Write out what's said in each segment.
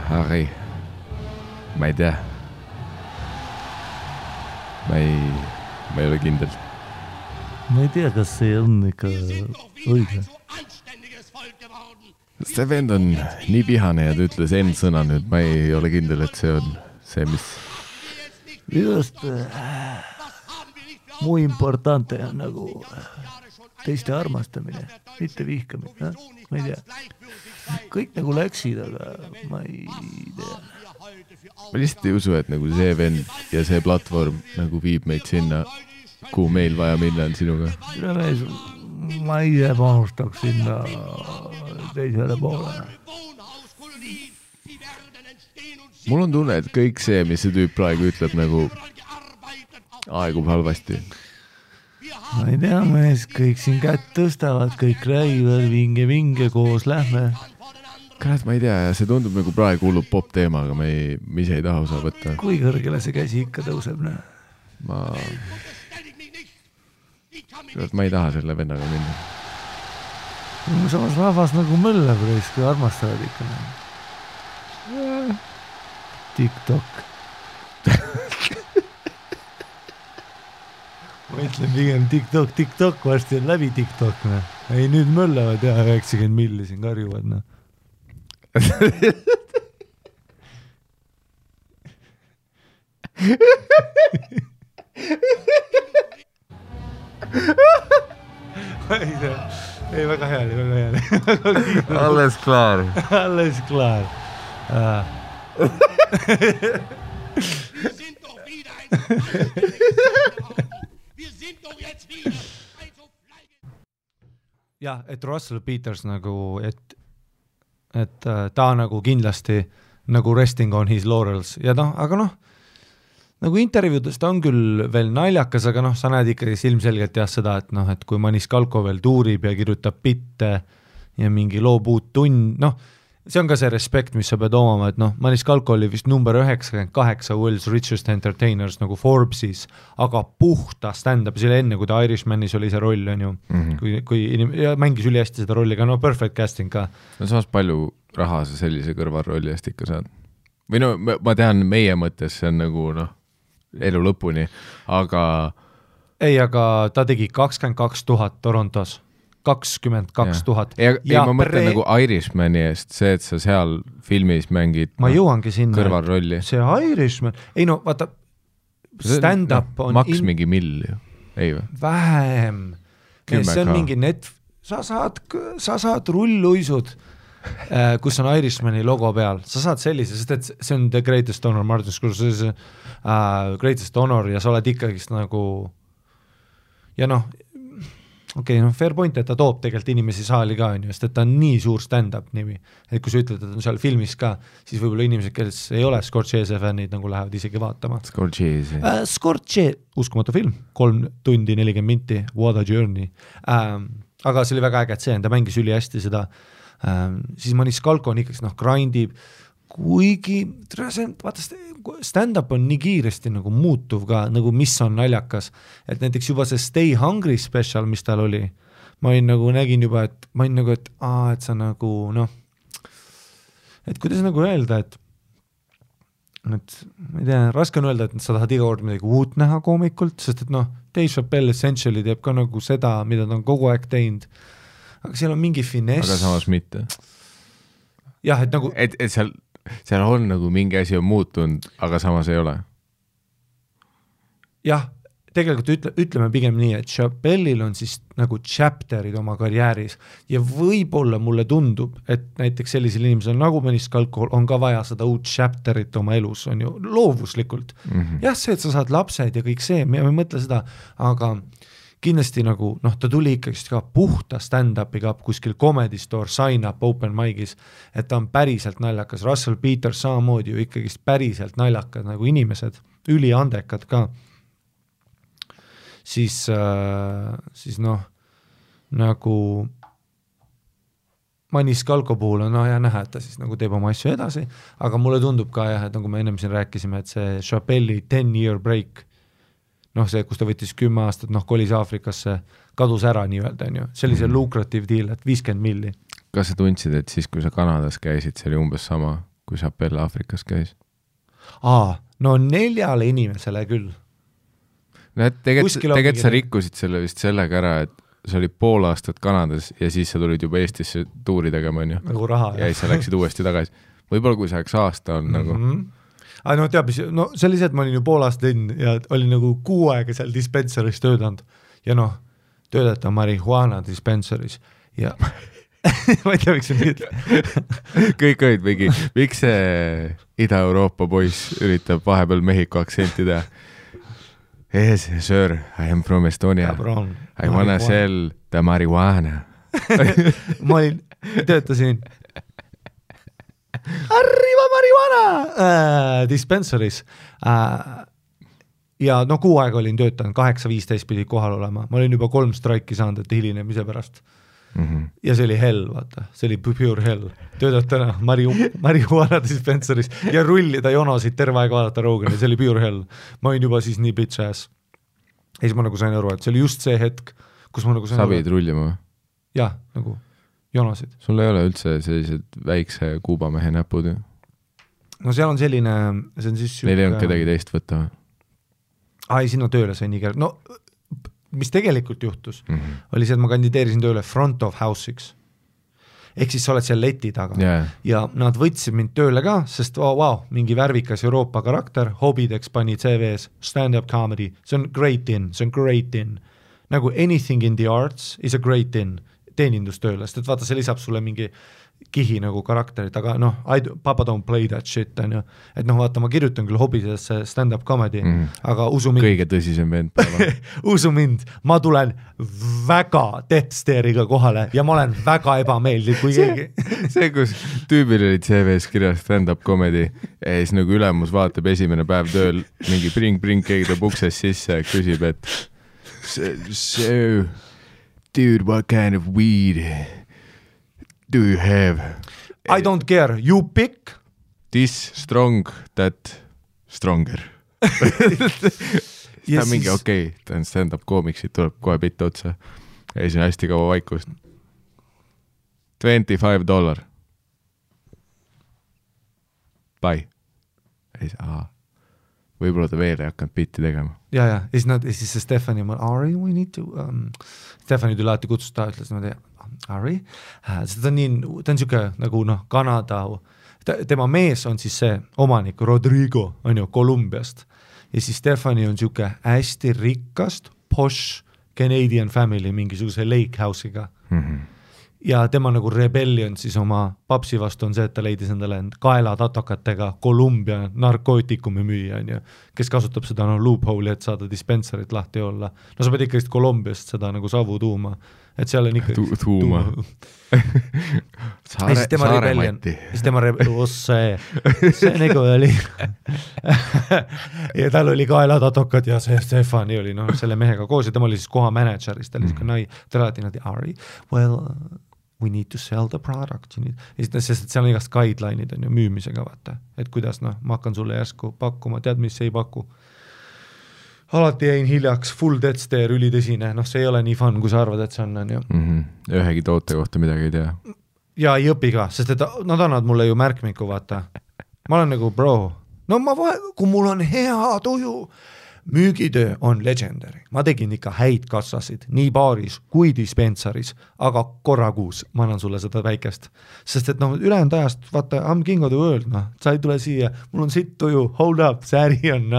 Harry. Ma ei tea. Ma ei ole kindel. Ma ei tea, kas see on ikka õige. See vend on nii vihane ja ta ütles sõna nüüd. Ma ei ole kindel, et see on see, mis... Just muy importante on nagu teiste armastamine, mitte vihkamine. Ma ei tea. Kõik nagu läksid, aga ma ei tea. Ma lihtsalt ei usu, et nagu see vend ja see platvorm nagu viib meid sinna, kuhu meil vaja minna on sinuga. Ma ise panustaks sinna teisele poole. Mul on tunne, et kõik see, mis see tüüp praegu ütleb, nagu aegub halvasti. Ma ei tea, mees, kõik siin kätt tõstavad, kõik räägivad, vinge koos lähme. Kurat, ma ei tea, ja see tundub nagu praegu hullub pop teema, aga me ise ei taha osa võtta. Kui kõrgele see käsi ikka tõuseb, ne? Kurat, ma ei taha selle vennaga minna. Samas rahvas nagu möllab reis, kui armastavad ikka. TikTok. Ma ütlen pigem TikTok, varsti on läbi TikTok. Ne? Ei, nüüd möllavad ja 90 milli siin karjuvad. Ne? Ei, väga hea. Alles klaar. Jah, et Russell Peters nagu, et ta nagu kindlasti nagu resting on his laurels ja aga nagu intervjuudes ta on küll veel naljakas, aga sa näed ikkagi ilmselgelt seda, et kui Maniscalco veel tuurib ja kirjutab bitte ja mingi loob uut tund, see on ka see respekt, mis sa pead omama, et Maniscalco oli vist number 98 World's Richest Entertainers nagu Forbesis, aga puhta stand-up, selle enne, kui ta Irishmanis oli see roll, on ju, kui ja mängis üli hästi seda rolli, aga perfect casting ka. Samas palju raha sa sellise kõrvalrolli eest ikka saad? Või ma tean, meie mõttes see on nagu elu lõpuni, aga... Ei, aga ta tegi 22 000 Torontos. 22 000. Ja ma mõtlen nagu Irishmani eest, see, et sa seal filmis mängid ma jõuangi sinna kõrvalrolli. See Irishman, ei vaata, stand-up on... Maks mingi mill ju, ei või? Vähem. See on mingi sa saad rulluisud, kus on Irishmani logo peal. Sa saad sellise, sest et see on The Greatest Honor, Martin Scorsese Greatest Honor ja sa oled ikkagist nagu ja fair point, et ta toob tegelikult inimesi saali ka, sest et ta on nii suur stand-up nimi, et kui sa ütled, et on seal filmis ka, siis võib-olla inimesed, kes ei ole Scorsese fännid, nagu lähevad isegi vaatama. Scorsese, uskumatu film, 3 tundi 40 minti, What a Journey. Aga see oli väga äge, et see on, ta mängis üli hästi seda, siis Maniscalco on ikkagi grindib, kuigi vaata, stand-up on nii kiiresti nagu muutuv ka, nagu mis on naljakas, et näiteks juba see Stay Hungry special, mis tal oli, ma nägin juba, et sa nagu, et kuidas nagu öelda, et ma ei tea, raske on öelda, et sa tahad iga kord midagi uut näha koomikult, sest et Dave Chappelle essentially teeb ka nagu seda, mida ta on kogu aeg teinud, aga seal on mingi finess. Aga samas mitte. Jah, et nagu... Et seal on nagu mingi asi on muutunud, aga samas ei ole. Jah, tegelikult ütleme pigem nii, et Chappelle'il on siis nagu chapterid oma karjääris ja võib-olla mulle tundub, et näiteks sellisel inimesel nagu Maniscalco on ka vaja seda uut chapterit oma elus, on ju, loovuslikult. Jah, see, et sa saad lapsed ja kõik see, me ei mõtle seda, aga kindlasti nagu, ta tuli ikkagi ka puhta stand-upiga kuskil Comedy Store, sign up, open mic'is, et ta on päriselt naljakas. Russell Peters samamoodi ju ikkagi päriselt naljakad nagu inimesed, üliandekad ka. Siis nagu Maniscalco puhul on ja näha, et ta siis nagu teeb oma asju edasi, aga mulle tundub ka et nagu me ennem siin rääkisime, et see Chappelle'i 10-year break, see, kus ta võttis 10 aastat, kolis Aafrikasse, kadus ära nii-öelda, on ju. See oli see lucrative deal, et 50 milli. Kas sa tundsid, et siis, kui sa Kanadas käisid, see oli umbes sama, kui Chappelle Aafrikas käis. No 4 inimesele küll. Tegelikult sa rikkusid selle vist sellega ära, et sa olid pool aastat Kanadas ja siis sa tulid juba Eestisse tuuri tegema, on ju. Nagu raha. Ja siis sa läksid uuesti tagasi. Võib-olla kui sa aasta on nagu... No teab, no see oli see, et ma olin ju pool aastat linn ja olin nagu 6 aega seal dispensaris töötanud ja noh, töötada marihuana dispensaris ja ma ei tea, miks see nüüd kõik olid mingi, miks see Ida-Euroopa poiss üritab vahepeal Mehhiko aktsenti teha? Yes, sir, I am from Estonia. I wanna sell the marijuana. ma töötasin Arriva marijuana dispensaris ja no 6 aega olin töötanud, 8:15 pidi kohal olema, ma olin juba 3 straiki saanud, et hilinemise pärast ja see oli hell, vaata, see oli pure hell, töötad täna marijuana dispensaris ja rullida jonosid terve aeg vaadata Rogani, see oli pure hell, ma olin juba siis nii bitch ass ja siis ma nagu sain aru, et see oli just see hetk, kus ma nagu sain sa pidid rullima või? Jah, nagu jonosid. Sul ei ole üldse sellised väikse kuubamehe näpud ju? No seal on selline, see on siis Neil ei olnud kedagi teist võtta või? Ai, sinna tööle sai nii no mis tegelikult juhtus, oli see, et ma kandideerisin tööle front of house'iks. Ehk siis sa oled seal leti taga ja nad võtsid mind tööle ka, sest mingi värvikas Euroopa karakter, hobideks pani CV-s stand-up comedy, see on great in. Nagu anything in the arts is a great in. Teenindustööle, sest et vaata, see lisab sulle mingi kihi nagu karakterit, aga noh, papa don't play that shit, on ju. Et noh, vaata, ma kirjutan küll hobidesse stand-up comedy, aga usu mind. Kõige tõsisem vend päeva. Usu mind, ma tulen väga Deathsteriga kohale ja ma olen väga ebameeldiv, kui keegi. See, kus tüübil oli CV-s kirjas stand-up comedy ja siis nagu ülemus vaatab esimene päev tööl, mingi bring, keegi tuleb ukses sisse ja küsib, et so dude, what kind of weed do you have? I don't care. You pick. This strong, that stronger. Ta mingi okei, ta on stand-up koomiksid, tuleb kohe pitta otsa. Ja siis on hästi kaua vaikust. $25. Bye. Ja siis, võib-olla ta veel ei hakanud bitti tegema. Ja siis see Stephanie, Ari, we need to... Stephanie tuli alati kutsusta, ütles niimoodi, Ari, ta on niisugune nagu Kanada, tema mees on siis see omanik, Rodrigo, on ju, Kolumbiast. Ja siis Stephanie on niisugune hästi rikkast, posh Canadian family mingisuguse lake house'iga. Ja tema nagu rebellion siis oma papsi vastu on see, et ta leidis endale kaelatatokatega Kolumbia narkootikumi müüa, kes kasutab seda loophole'i, et saada dispensarit lahti olla. No sa pead ikka Kolumbiast seda nagu savu tuuma, et seal on ikka tuuma. Ja siis tema rebellion, siis tema see nagu oli ja tal oli kaelatatokad ja see Stefani oli selle mehega koos ja tema oli siis koha manageris, ta oli ta alati Ari, well, we need to sell the product, sest seal on igast guideline'id on ju müümisega, vaata, et kuidas ma hakkan sulle järsku pakkuma, tead, mis ei paku. Alati jäin hiljaks, full death stare, ülitõsine, see ei ole nii fun, kui sa arvad, et see on ju. Ühegi toote kohta midagi ei tea. Ja ei õpi ka, sest et nad annavad mulle ju märkmiku, vaata. Ma olen nagu, bro, kui mul on hea tuju, müügitöö on legendary. Ma tegin ikka häid kassasid, nii baaris kui dispensaris, aga korra kuus ma annan sulle seda väikest. Sest et ülejäänud ajast, vaata, I'm king of the world, sa ei tule siia, mul on sitt tuju, hold up, sääri on,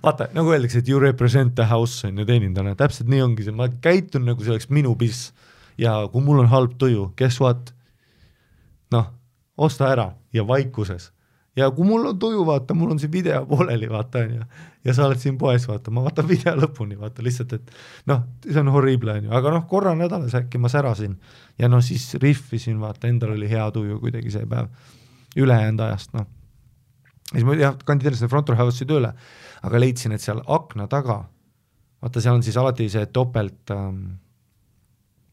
vaata, nagu öeldakse, et you represent the house on ju teenindana, täpselt nii ongi see, ma käitun nagu see oleks minu piss ja kui mul on halb tuju, guess what? Osta ära ja vaikuses. Ja kui mul on tuju, vaata, mul on see video pooleli, vaata, ja sa oled siin poes, vaata, ma vaatan video lõpuni, vaata, lihtsalt, et see on horrible, aga korra nädalas äkki ma särasin ja siis riffisin, vaata, endal oli hea tuju kuidagi see päev ülejäänud ajast, siis ma kandideerisin front of house'i tööle, aga leidsin, et seal akna taga, vaata, seal on siis alati see topelt,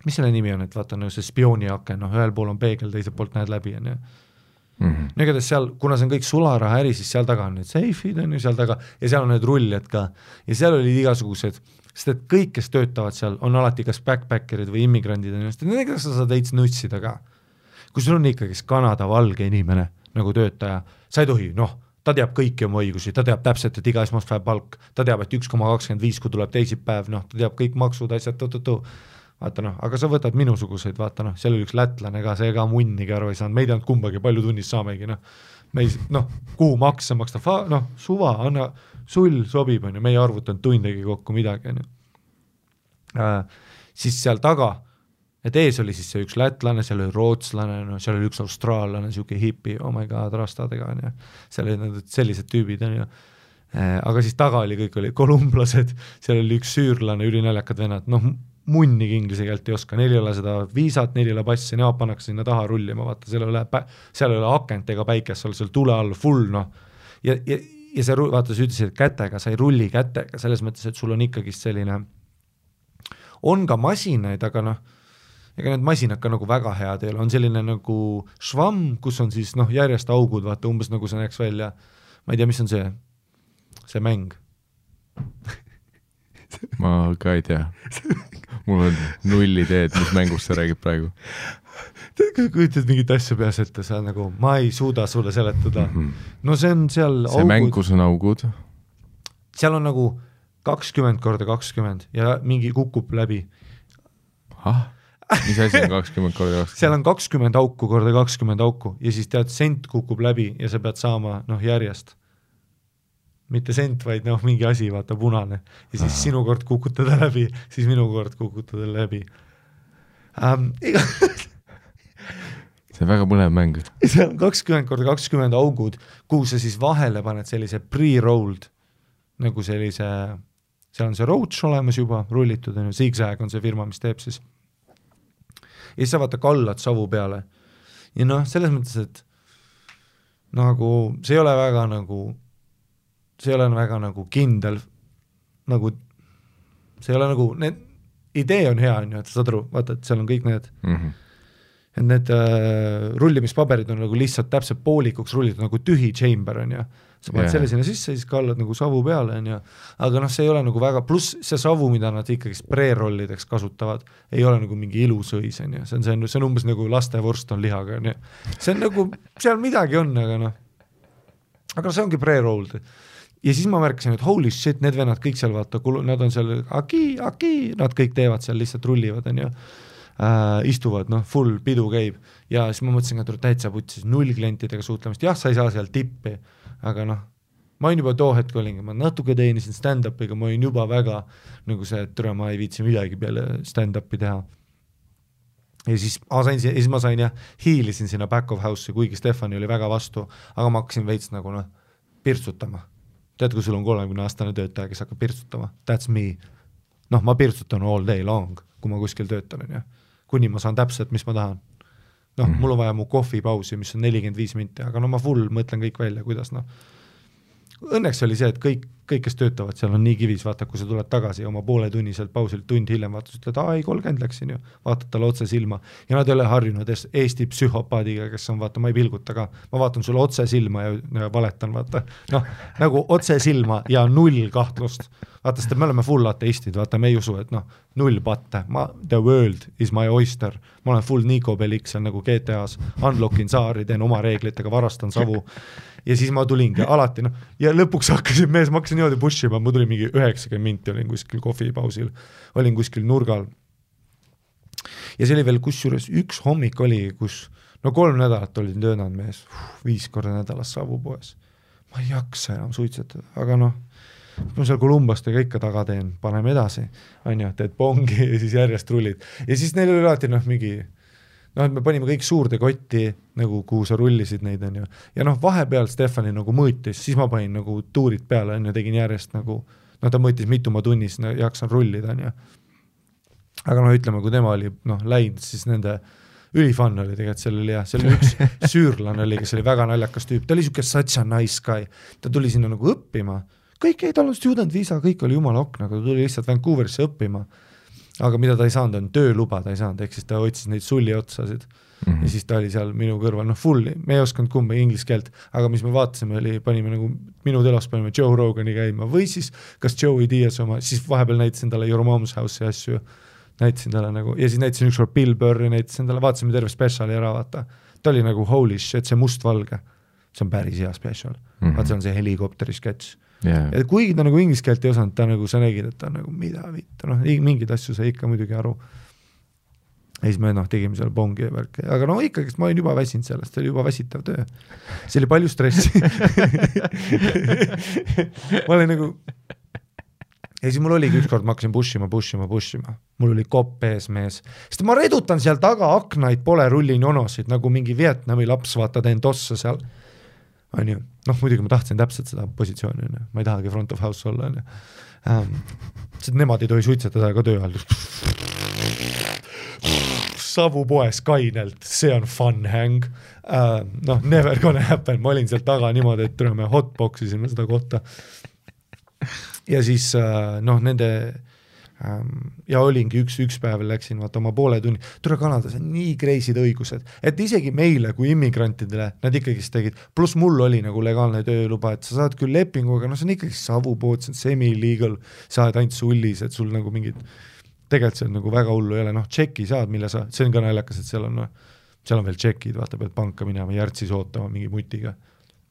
mis selle nimi on, et vaata, see spiooni aken, ühel pool on peegel, teisel poolt näed läbi, Negades seal, kuna see on kõik sularaha äri, siis seal taga on need seifid, on ju seal taga, ja seal on need rulljad ka, ja seal olid igasugused, sest et kõik, kes töötavad seal, on alati kas backpackerid või immigrandid, nendega sa saad veits nutsida ka. kui sul on ikkagi Kanada valge inimene nagu töötaja, sa ei tohi, ta teab kõiki oma õigusi, ta teab täpselt, et iga esmaspäev palk, ta teab, et 1,25, kui tuleb teisipäev, ta teab kõik maksud, asjad, vaata aga sa võtad minusuguseid, vaata seal oli üks lätlane ka, see ka munnigi aru ei saanud, me ei teanud kumbagi, palju tunnis saamegi, me ei, kuhu makse maksta, suva, anna, sul sobib, me ei arvutanud tundegi kokku midagi, siis seal taga, et ees oli siis see üks lätlane, seal oli rootslane, seal oli üks austraallane, siuke hipi, oh my god, rastadega, seal oli sellised tüübid, aga siis taga oli, kõik oli kolumblased, seal oli üks süürlane, ülinaljakad vennad, munnigi inglise keelt ei oska, neil ei ole seda viisat, neil ei ole passi, nemad pannakse sinna taha rullima, vaata, seal ei ole akent ega päikest, seal tule all full, ja see, vaata, sa ütlesid, et kätega, sa ei rulli kätega, selles mõttes, et sul on ikkagi selline, on ka masinaid, aga ega need masinad ka nagu väga head ei ole, on selline nagu švamm, kus on siis järjest augud, vaata umbes nagu see näeks välja, ma ei tea, mis on see mäng. Ma ka ei tea, mul on null ideed, mis mängust sa räägid praegu. Kujutad mingit asja peas ette, sa nagu, ma ei suuda sulle seletada. See on seal see augud. Mäng, kus on augud? Seal on nagu 20x20 ja mingi kukub läbi. Mis asi on 20x20? Seal on 20 auku korda 20 auku ja siis tead, sent kukub läbi ja sa pead saama järjest. Mitte sent, vaid mingi asi, vaata punane. Ja siis sinu kord kukutada läbi, siis minu kord kukutada läbi. See on väga põnev mäng. See on 20 korda 20 augud, kuhu sa siis vahele paned sellise pre-rolled, nagu sellise, seal on see roach olemas juba, rullitud, Zigzag on see firma, mis teeb siis. Ja siis sa vaata kallad savu peale. Ja selles mõttes, et nagu see ei ole väga nagu kindel, nagu see ei ole nagu, idee on hea, et saad aru, vaata, et seal on kõik need, et need rullimispaberid on nagu lihtsalt täpselt poolikuks rullitud, nagu tühi chamber on sa paned selle sinna sisse, siis kallad nagu savu peale aga see ei ole nagu väga, pluss see savu, mida nad ikkagi pre-rollideks kasutavad, ei ole nagu mingi ilusõis, see on umbes nagu lastevorst on lihaga, see on nagu, seal midagi on, aga see ongi pre-rolled. Ja siis ma märkasin, et holy shit, need vennad kõik seal vaata, nad on seal nad kõik teevad seal, lihtsalt rullivad, istuvad, full pidu käib ja siis ma mõtlesin, et täitsa putsis 0 klientidega suhtlemist, jah, sa ei saa seal tippi, aga ma olin juba too hetk olingi, ma natuke teenisin stand-upiga, ma olin juba väga nagu see, et ma ei viitsi midagi peale stand-upi teha. Ja siis ma sain ja hiilisin sinna back of house'i, kuigi Stefani oli väga vastu, aga ma hakkasin veits nagu pirtsutama. Tead, kui sul on 30-aastane töötaja, kes hakkab pirtsutama, that's me. Ma pirtsutan all day long, kui ma kuskil töötan, kuni ma saan täpselt, mis ma tahan. Mul on vaja mu kohvipausi, mis on 45 minti, aga ma full mõtlen kõik välja, kuidas Õnneks oli see, et kõik, kes töötavad, seal on nii kivis, vaata, kui sa tuled tagasi oma pooletunniselt pausilt tund hiljem, vaata, ütled, ei, 30 läksin ju, vaatad talle otse silma ja nad ei ole harjunud Eesti psühhopaadiga, kes on, vaata, ma ei pilguta ka, ma vaatan sulle otse silma ja valetan, vaata, nagu otse silma ja 0 kahtlust, vaata, sest me oleme full ateistid, vaata, me ei usu, et 0 patte, the world is my oyster, ma olen full Nico Bellic seal nagu GTA-s, unlockin saari, teen oma reeglitega, varastan savu ja siis ma tulingi alati, ja lõpuks hakkasin mees, ma hakkasin niimoodi pushima, ma tulin mingi 90 minti, olin kuskil kohvipausil, olin kuskil nurgal. Ja see oli veel kusjuures üks hommik oli, kus 3 nädalat olin töötanud mees, 5 korda nädalas savupoes. Ma ei jaksa enam suitsetada, aga ma seal Kolumbastega ikka taga teen, paneme edasi, teed pongi ja siis järjest rullid. Ja siis neil oli alati mingi et me panime kõik suurde kotti, nagu kuhu sa rullisid neid, ja vahepeal Stefani nagu mõõtis, siis ma panin nagu tuurid peale, tegin järjest nagu, ta mõõtis mitu ma tunnis, jaksan rullida, aga ütleme, kui tema oli läinud, siis nende ülifann oli tegelikult, seal oli üks süürlane oli, kes oli väga naljakas tüüp, ta oli siuke such a nice guy, ta tuli sinna nagu õppima, kõik ei tal on student visa, kõik oli jumala okna, aga ta tuli lihtsalt Vancouverisse õppima, aga mida ta ei saanud, on tööluba ta ei saanud, ehk siis ta otsis neid sulli otsasid ja siis ta oli seal minu kõrval, full, me ei osanud kumba inglise keelt, aga mis me vaatasime oli, panime nagu minu telos panime Joe Rogani käima või siis kas Joey Diaz oma, siis vahepeal näitasin talle Your Mom's House'i asju, näitasin talle nagu, ja siis näitasin ükskord Bill Burri, näitasin talle, vaatasime terve speciali ära, vaata, ta oli nagu holy shit, see mustvalge, see on päris hea special, vaat see on see helikopteri sketš. Ja kuigi ta nagu inglise keelt ei osanud, ta nagu, sa nägid, et ta nagu mida vittu, mingid asju sai ikka muidugi aru. Ja siis me tegime seal bongi ja värki, aga ikkagi ma olin juba väsinud sellest, see oli juba väsitav töö. See oli palju stressi. Ma olin nagu, ja siis mul oligi ükskord, ma hakkasin pushima. Mul oli kopp ees mees, sest ma redutan seal taga aknaid, pole rullin jonosid, nagu mingi Vietnami laps, vaata teen tossa seal. Muidugi ma tahtsin täpselt seda positsiooni, ma ei tahagi front of house olla. Sest nemad ei tohi suitsetada ka töö all. Savu poes kainelt, see on fun hang. Never gonna happen, ma olin seal taga niimoodi, et me hotboxisime seda kohta. Ja siis nende ja olingi üks päev läksin vaata oma poole tunni, tule Kanadas on nii kreisid õigused, et isegi meile kui immigrantidele nad ikkagi tegid, pluss mul oli nagu legaalne tööluba, et sa saad küll lepingu, aga see on ikkagi savupood, see on semi-illegal, sa oled ainult sullis, et sul nagu mingid tegelikult see on nagu väga hullu ei ole, tšeki saad, mille sa, see on ka naljakas, et seal on veel tšekid, vaata pead panka minema, järtsis ootama mingi mutiga.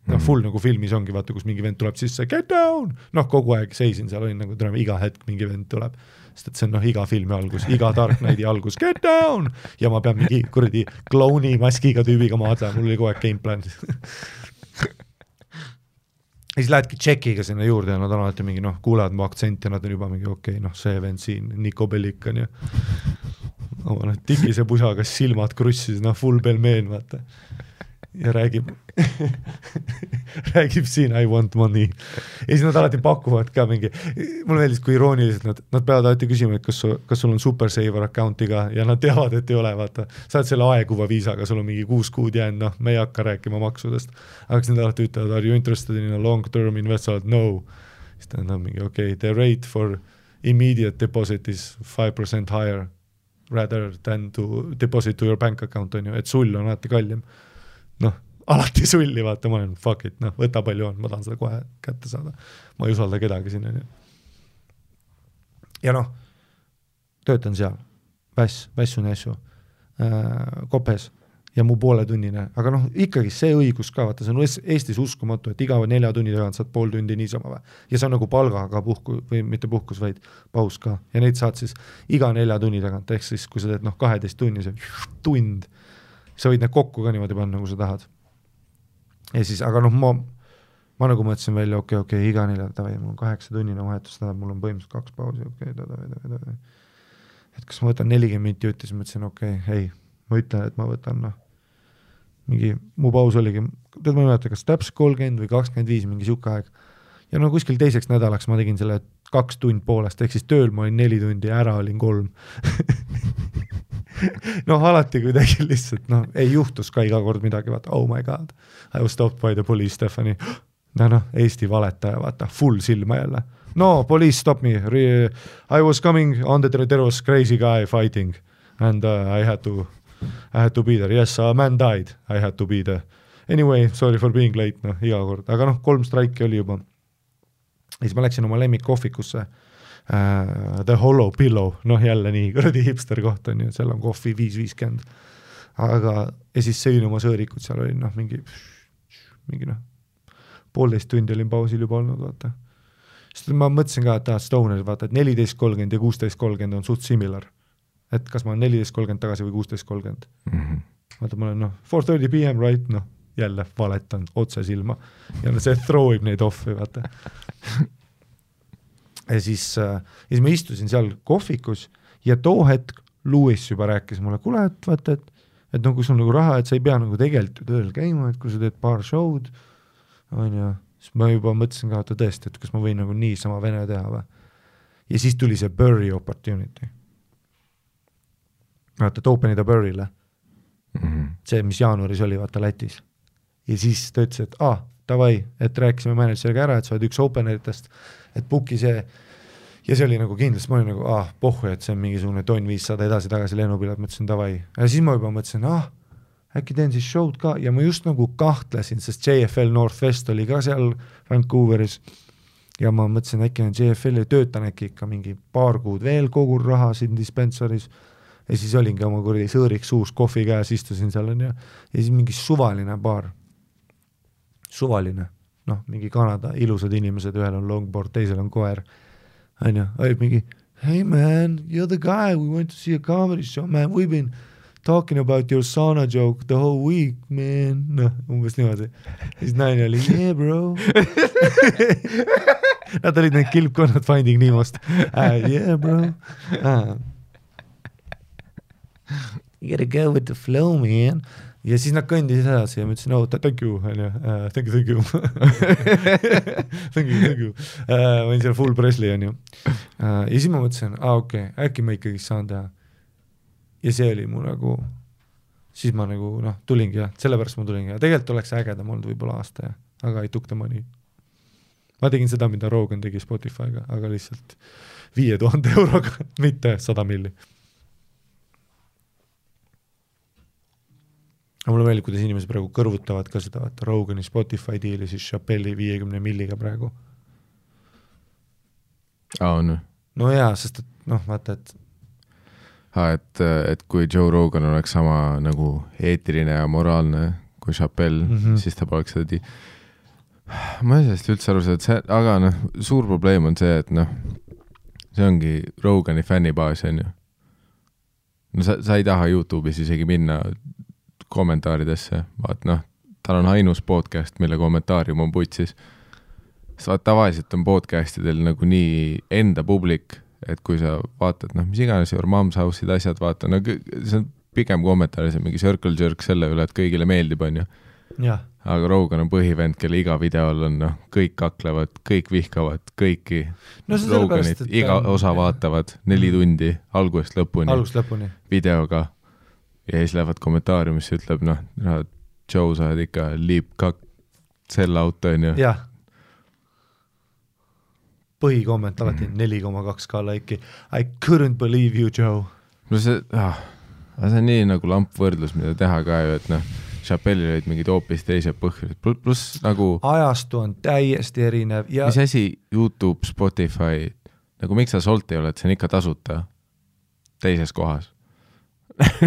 Full nagu filmis ongi, vaata, kus mingi vend tuleb sisse, get down! Kogu aeg seisin seal, olin nagu tulema iga hetk mingi vend tuleb, sest et see on iga filmi algus, iga Dark Knighti algus, get down! Ja ma pean mingi kuradi klouni maskiga tüübiga maadlema, mul oli kogu aeg gameplan. Ja siis lähedki tšekiga sinna juurde ja nad on alati mingi, kuulevad mu aktsent ja nad on juba mingi, okei, see vend siin, Niko Bellikan ja tikise pusaga silmad krussis, full pelmeen, vaata. Ja räägib siin I want money. Ja siis nad alati pakuvad ka mingi, mul meeldis, kui irooniliselt nad peavad alati küsima, et kas sul on Super Saver account'iga ja nad teavad, et ei ole, vaata. Sa oled selle aeguva viisaga, sul on mingi 6 kuud jäänud, me ei hakka rääkima maksudest. Aga kas nad alati ütlevad, are you interested in a long-term investment? No. Siis ta on mingi, okay, the rate for immediate deposit is 5% higher rather than to deposit to your bank account, on ju, et sull on alati kallim. Alati sulli, vaata, ma olen fuck it, võta palju on, ma tahan seda kohe kätte saada. Ma ei usalda kedagi sinna. Ja töötan seal, vässun äsju, kopes ja mu pooletunnine, aga ikkagi see õigus ka, vaata, see on Eestis uskumatu, et iga 4 tunni tagant saad pool tundi niisama või. Ja see on nagu palgaga või mitte puhkus, vaid paus ka. Ja neid saad siis iga 4 tunni tagant, ehk siis kui sa teed 12 tunni, see tund, sa võid need kokku ka niimoodi panna, nagu sa tahad. Ja siis, aga ma nagu mõtlesin välja, okei, iga 4, mul on 8 tunnine vahetus, mul on põhimõtteliselt 2 pausi, et kas ma võtan 40 minti jutti, siis mõtlesin, hei, ma ütlen, et ma võtan, mingi, mu paus oligi, ma ei mäleta, kas täpselt 30 või 25, mingi siuke aeg. Ja kuskil teiseks nädalaks ma tegin selle 2 tund poolest, ehk siis tööl ma olin 4 tundi ja ära olin 3. Alati kuidagi lihtsalt, ei juhtus ka iga kord midagi, vaata, oh my god, I was stopped by the police, Stephanie. Eesti valetaja, vaata, full silma jälle. No, police stop me, I was coming on there was crazy guy fighting and I had to be there, yes, a man died, I had to be there. Anyway, sorry for being late, iga kord, aga 3 straiki oli juba. Ja siis ma läksin oma lemmikkohvikusse, The Hollow Pillow, jälle nii kuradi hipster koht on ju, seal on kohvi 5.50, aga ja siis sõin oma sõõrikud, seal oli mingi 1,5 tundi olin pausil juba olnud, vaata. Sest ma mõtlesin ka, et Stoner, vaata, et 14.30 ja 16.30 on suht similar, et kas ma olen 14.30 tagasi või 16.30. Vaata, ma olen 4:30 PM, right, jälle valetan otse silma ja see throwib neid offi, vaata. Ja siis ma istusin seal kohvikus ja too hetk Louis juba rääkis mulle, kuule, et vaata, et kui sul nagu raha, et sa ei pea nagu tegelikult tööl käima, et kui sa teed paar show'd, on ju, siis ma juba mõtlesin ka, et tõesti, et kas ma võin nagu nii sama vene teha või. Ja siis tuli see Burry opportunity. Vaata, et openida Burry'le. See, mis jaanuaris oli, vaata, Lätis. Ja siis ta ütles, et davai, et rääkisime manager'iga ära, et sa oled üks openeritest, et booki see, ja see oli nagu kindlasti, ma olin nagu, pohhu, et see on mingisugune tonn 500 edasi-tagasi lennupilet, mõtlesin davai. Ja siis ma juba mõtlesin, äkki teen siis show'd ka, ja ma just nagu kahtlesin, sest JFL Northwest oli ka seal Vancouveris, ja ma mõtlesin, äkki on JFL ja töötan äkki ikka mingi paar kuud veel kogur raha siin dispensaris, ja siis olingi oma kuradi sõõriks suus, kohvi käes, istusin seal on ja siis mingi suvaline baar, suvaline, noh, mingi Kanada ilusad inimesed, ühel on longboard, teisel on koer, on ju, olid mingi, hey man, you're the guy, we went to see a comedy show, man, we've been talking about your sauna joke the whole week, man, noh, umbes niimoodi. Siis naine oli, yeah bro. Nad olid need kilpkonnad Finding Nemost. Yeah bro. You gotta go with the flow, man. Ja siis nad kõndis edasi ja ma ütlesin, oh, thank you, thank you. thank you. Ma olin seal full Presley, on ju. Ja siis ma mõtlesin, okei, äkki ma ikkagi saan teha. Ja see oli mu nagu, siis ma nagu, noh, tulingi ja sellepärast ma tulingi ja tegelikult oleks ägedam olnud võib-olla aasta, aga I took the money. Ma tegin seda, mida Rogan tegi Spotify'ga, aga lihtsalt 5000 euroga, mitte 100 milli. Aga mulle meeldib, kuidas inimesed praegu kõrvutavad ka seda, et Rogani Spotify diili siis Chappelli 50 milliga praegu. On. No jaa, sest et, noh, vaata, et kui Joe Rogan oleks sama nagu eetiline ja moraalne kui Chappelle, siis ta poleks seda ma ei sellest üldse aru seda, aga noh, suur probleem on see, et noh, see ongi Rogani fännibaas, on ju. No sa ei taha YouTube'is isegi minna kommentaaridesse, vaat noh, tal on ainus podcast, mille kommentaarium on putsis. Tavaliselt on podcastidel nagu nii enda publik, et kui sa vaatad, noh, mis iganes Your Mom's House'id asjad vaata, no see on pigem kommentaaris, mingi circle jerk selle üle, et kõigile meeldib, on ju. Ja. Aga Rogan on põhivend, kelle iga videol on, noh, kõik kaklevad, kõik vihkavad, kõiki Roganit, iga osa vaatavad 4 tundi algusest lõpuni videoga ja siis lähevad kommentaariumisse, ütleb, noh, Joe, sa oled ikka liip kak sell out, on ju. Jah. Põhikomment alati 4,2k laiki. I couldn't believe you, Joe. No see on nii nagu lampvõrdlus, mida teha ka ju, et noh, Chappellil olid mingid hoopis teised põhjused, pluss nagu ajastu on täiesti erinev ja mis asi YouTube, Spotify, nagu miks sa Solt ei ole, et see on ikka tasuta teises kohas.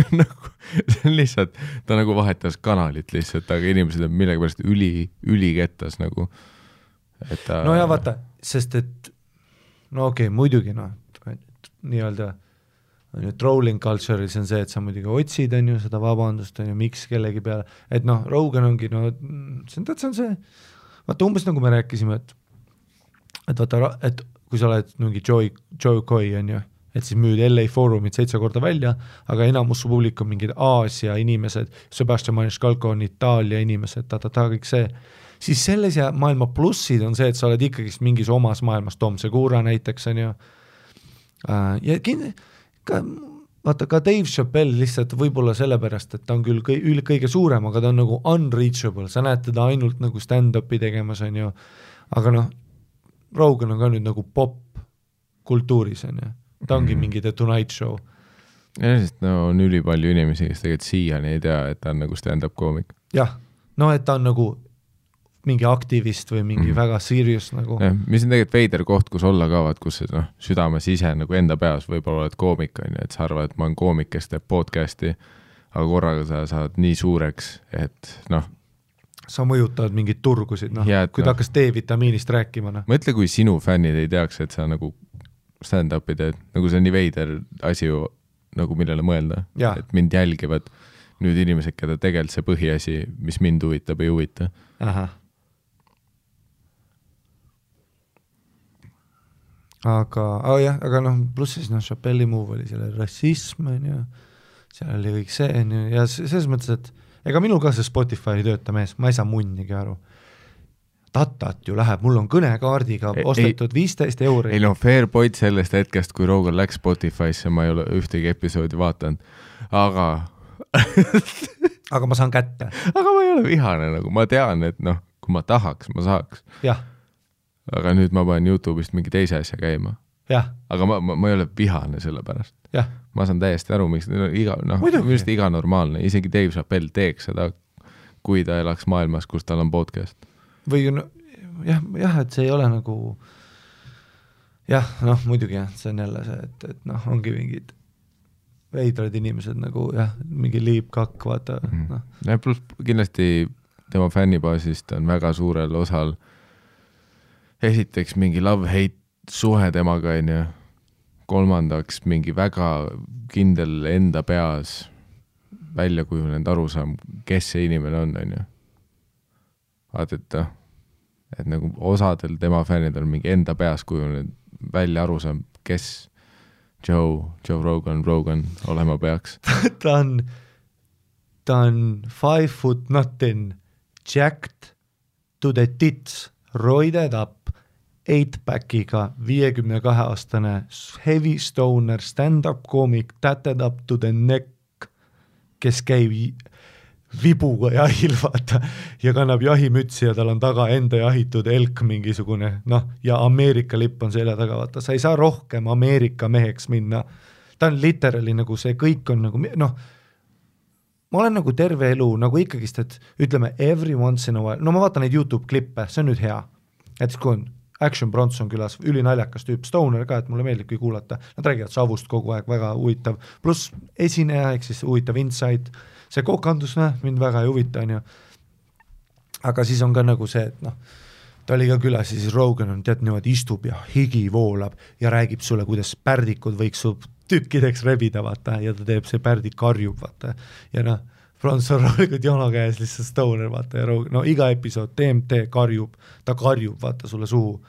Nagu, see on lihtsalt, ta nagu vahetas kanalit lihtsalt, aga inimesed on millegipärast ülikettas nagu. No ja vaata, sest et no okei, muidugi noh, nii-öelda trolling culture'is on see, et sa muidugi otsid, on ju, seda vabandust, on ju, miks kellegi peale, et noh, Rogan ongi, no see on see, vaata umbes nagu me rääkisime, et vaata, et kui sa oled mingi Joe Coy, on ju, et siis müüd LA Forumit 7 korda välja, aga enamus su publik on mingid Aasia inimesed, Sebastian Maniscalco on Itaalia inimesed, kõik see, siis selles ja maailma plussid on see, et sa oled ikkagi mingis omas maailmas, Tom Segura näiteks, on ju, ja vaata ka Dave Chappelle lihtsalt võib-olla sellepärast, et ta on küll kõige suurem, aga ta on nagu unreachable, sa näed teda ainult nagu stand-upi tegemas, on ju, aga noh, Rogan on ka nüüd nagu pop-kultuuris, on ju, ta ongi mingi The Tonight Show. Ja sest no on ülipalju inimesi, kes tegelikult siiani ei tea, et ta on nagu stand-up koomik. Jah, no et ta on nagu mingi aktivist või mingi väga serious nagu. Ja, mis on tegelikult veider koht, kus olla kaavad, kus no, südames ise nagu enda peas võib-olla oled koomik, on ju, et sa arvad, et ma olen koomik, kes teeb podcasti, aga korraga sa saad nii suureks, et noh. Sa mõjutavad mingid turgusid, noh, kui ta hakkas D-vitamiinist rääkima. No. Mõtle, kui sinu fännid ei teaks, et sa nagu stand-upi teed, nagu see on nii veider asi ju, nagu millele mõelda, et mind jälgivad nüüd inimesed, keda tegelikult see põhiasi, mis mind huvitab, ei huvita. Aha. Aga noh, pluss siis noh, Chappelli move oli selle rassism, ja seal oli kõik see, ja selles mõttes, et ega minul ka see Spotify ei tööta mees, ma ei saa munnigi aru. Tatat ju läheb, mul on kõnekaardiga ostetud 15 €. Ei no fair point sellest hetkest, kui Rogan läks Spotify'sse, ma ei ole ühtegi episoodi vaatanud, aga aga ma saan kätte. Aga ma ei ole vihane, nagu ma tean, et noh, kui ma tahaks, ma saaks. Jah. Aga nüüd ma panen YouTube'ist mingi teise asja käima. Jah. Aga ma ei ole vihane selle pärast. Jah. Ma saan täiesti aru, miks iga normaalne, isegi Dave Chappelle teeks seda, kui ta elaks maailmas, kus tal on podcast. Või no, jah, et see ei ole nagu jah, noh, muidugi jah, see on jälle see, et noh, ongi mingid veidrad inimesed nagu jah, mingi liipkakk, vaata no. Ja pluss kindlasti tema fännibaasist on väga suurel osal esiteks mingi love-hate suhe temaga, on ju. Kolmandaks mingi väga kindel enda peas välja kujunenud arusaam, kes see inimene on ju. Vaata, et nagu osadel tema fännidel on mingi enda peas kujunenud välja arusaam, kes Joe Rogan olema peaks. ta on 5 foot nothing, jacked to the tits, roided up, 8-packiga, 52-aastane, heavy stoner, stand-up koomik, tatted up to the neck, kes käib vibuga jahil, vaata, ja kannab jahimütsi ja tal on taga enda jahitud elk mingisugune, noh, ja Ameerika lipp on selja taga, vaata, sa ei saa rohkem Ameerika meheks minna. Ta on literally nagu see kõik on nagu, noh, ma olen nagu terve elu, nagu ikkagist, et ütleme every once in a while, no ma vaatan neid YouTube klippe, see on nüüd hea, et kui on Action Bronson külas, ülinaljakas tüüp, stoner ka, et mulle meeldib kui kuulata, nad räägivad savust kogu aeg, väga huvitav, pluss esineja, ehk siis huvitav insight, see kokandus, mind väga ei huvita, on ju. Aga siis on ka nagu see, et noh, ta oli ka külas, siis Rogan on tead niimoodi istub ja higi voolab ja räägib sulle, kuidas pärdikud võiks su tükkideks rebida, vaata, ja ta teeb see pärdik karjub, vaata, ja noh, Bronson roolikud jono käes lihtsalt stoner, vaata, ja Rogan, no iga episood TMT karjub, ta karjub, vaata, sulle suhu,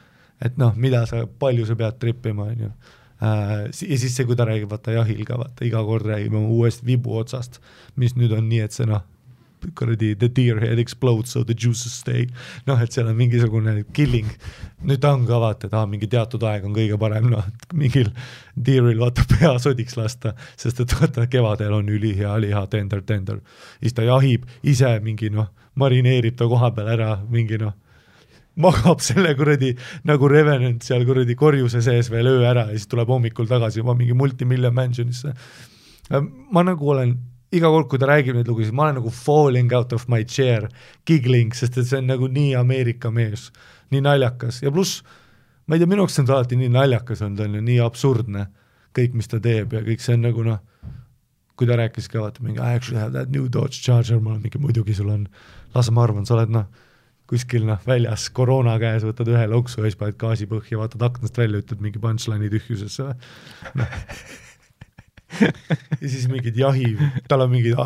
et noh, mida sa, palju sa pead trippima, on ju. Ja siis see, kui ta räägib, vaata, jahil ka, vaata, iga kord räägime uuest vibu otsast, mis nüüd on nii, et see noh, kuradi the deer head explodes so the juices stay, noh, et seal on mingisugune killing, nüüd ta on ka vaata, et mingi teatud aeg on kõige parem, noh, mingil deeril vaata pea sodiks lasta, sest et vaata kevadel on ülihea liha tender, siis ta jahib ise mingi noh, marineerib ta koha peal ära, mingi noh, magab selle kuradi nagu Revenant seal kuradi korjuse sees veel öö ära ja siis tuleb hommikul tagasi juba mingi multimillion mansionisse. Ma nagu olen iga kord, kui ta räägib neid lugusid, ma olen nagu falling out of my chair, giggling, sest et see on nagu nii Ameerika mees, nii naljakas ja pluss, ma ei tea, minuks on ta alati nii naljakas on, ta on ju nii absurdne, kõik, mis ta teeb ja kõik see on nagu noh, kui ta rääkis ka, vaata mingi, I actually have that new Dodge Charger, ma olen mingi, muidugi sul on, las ma arvan, sa oled noh, kuskil noh, väljas koroona käes, võtad ühe loksu ja siis paned gaasi põhja, vaatad aknast välja, ütled mingi punchline'i tühjusesse no. Ja siis mingid jahi, tal on mingid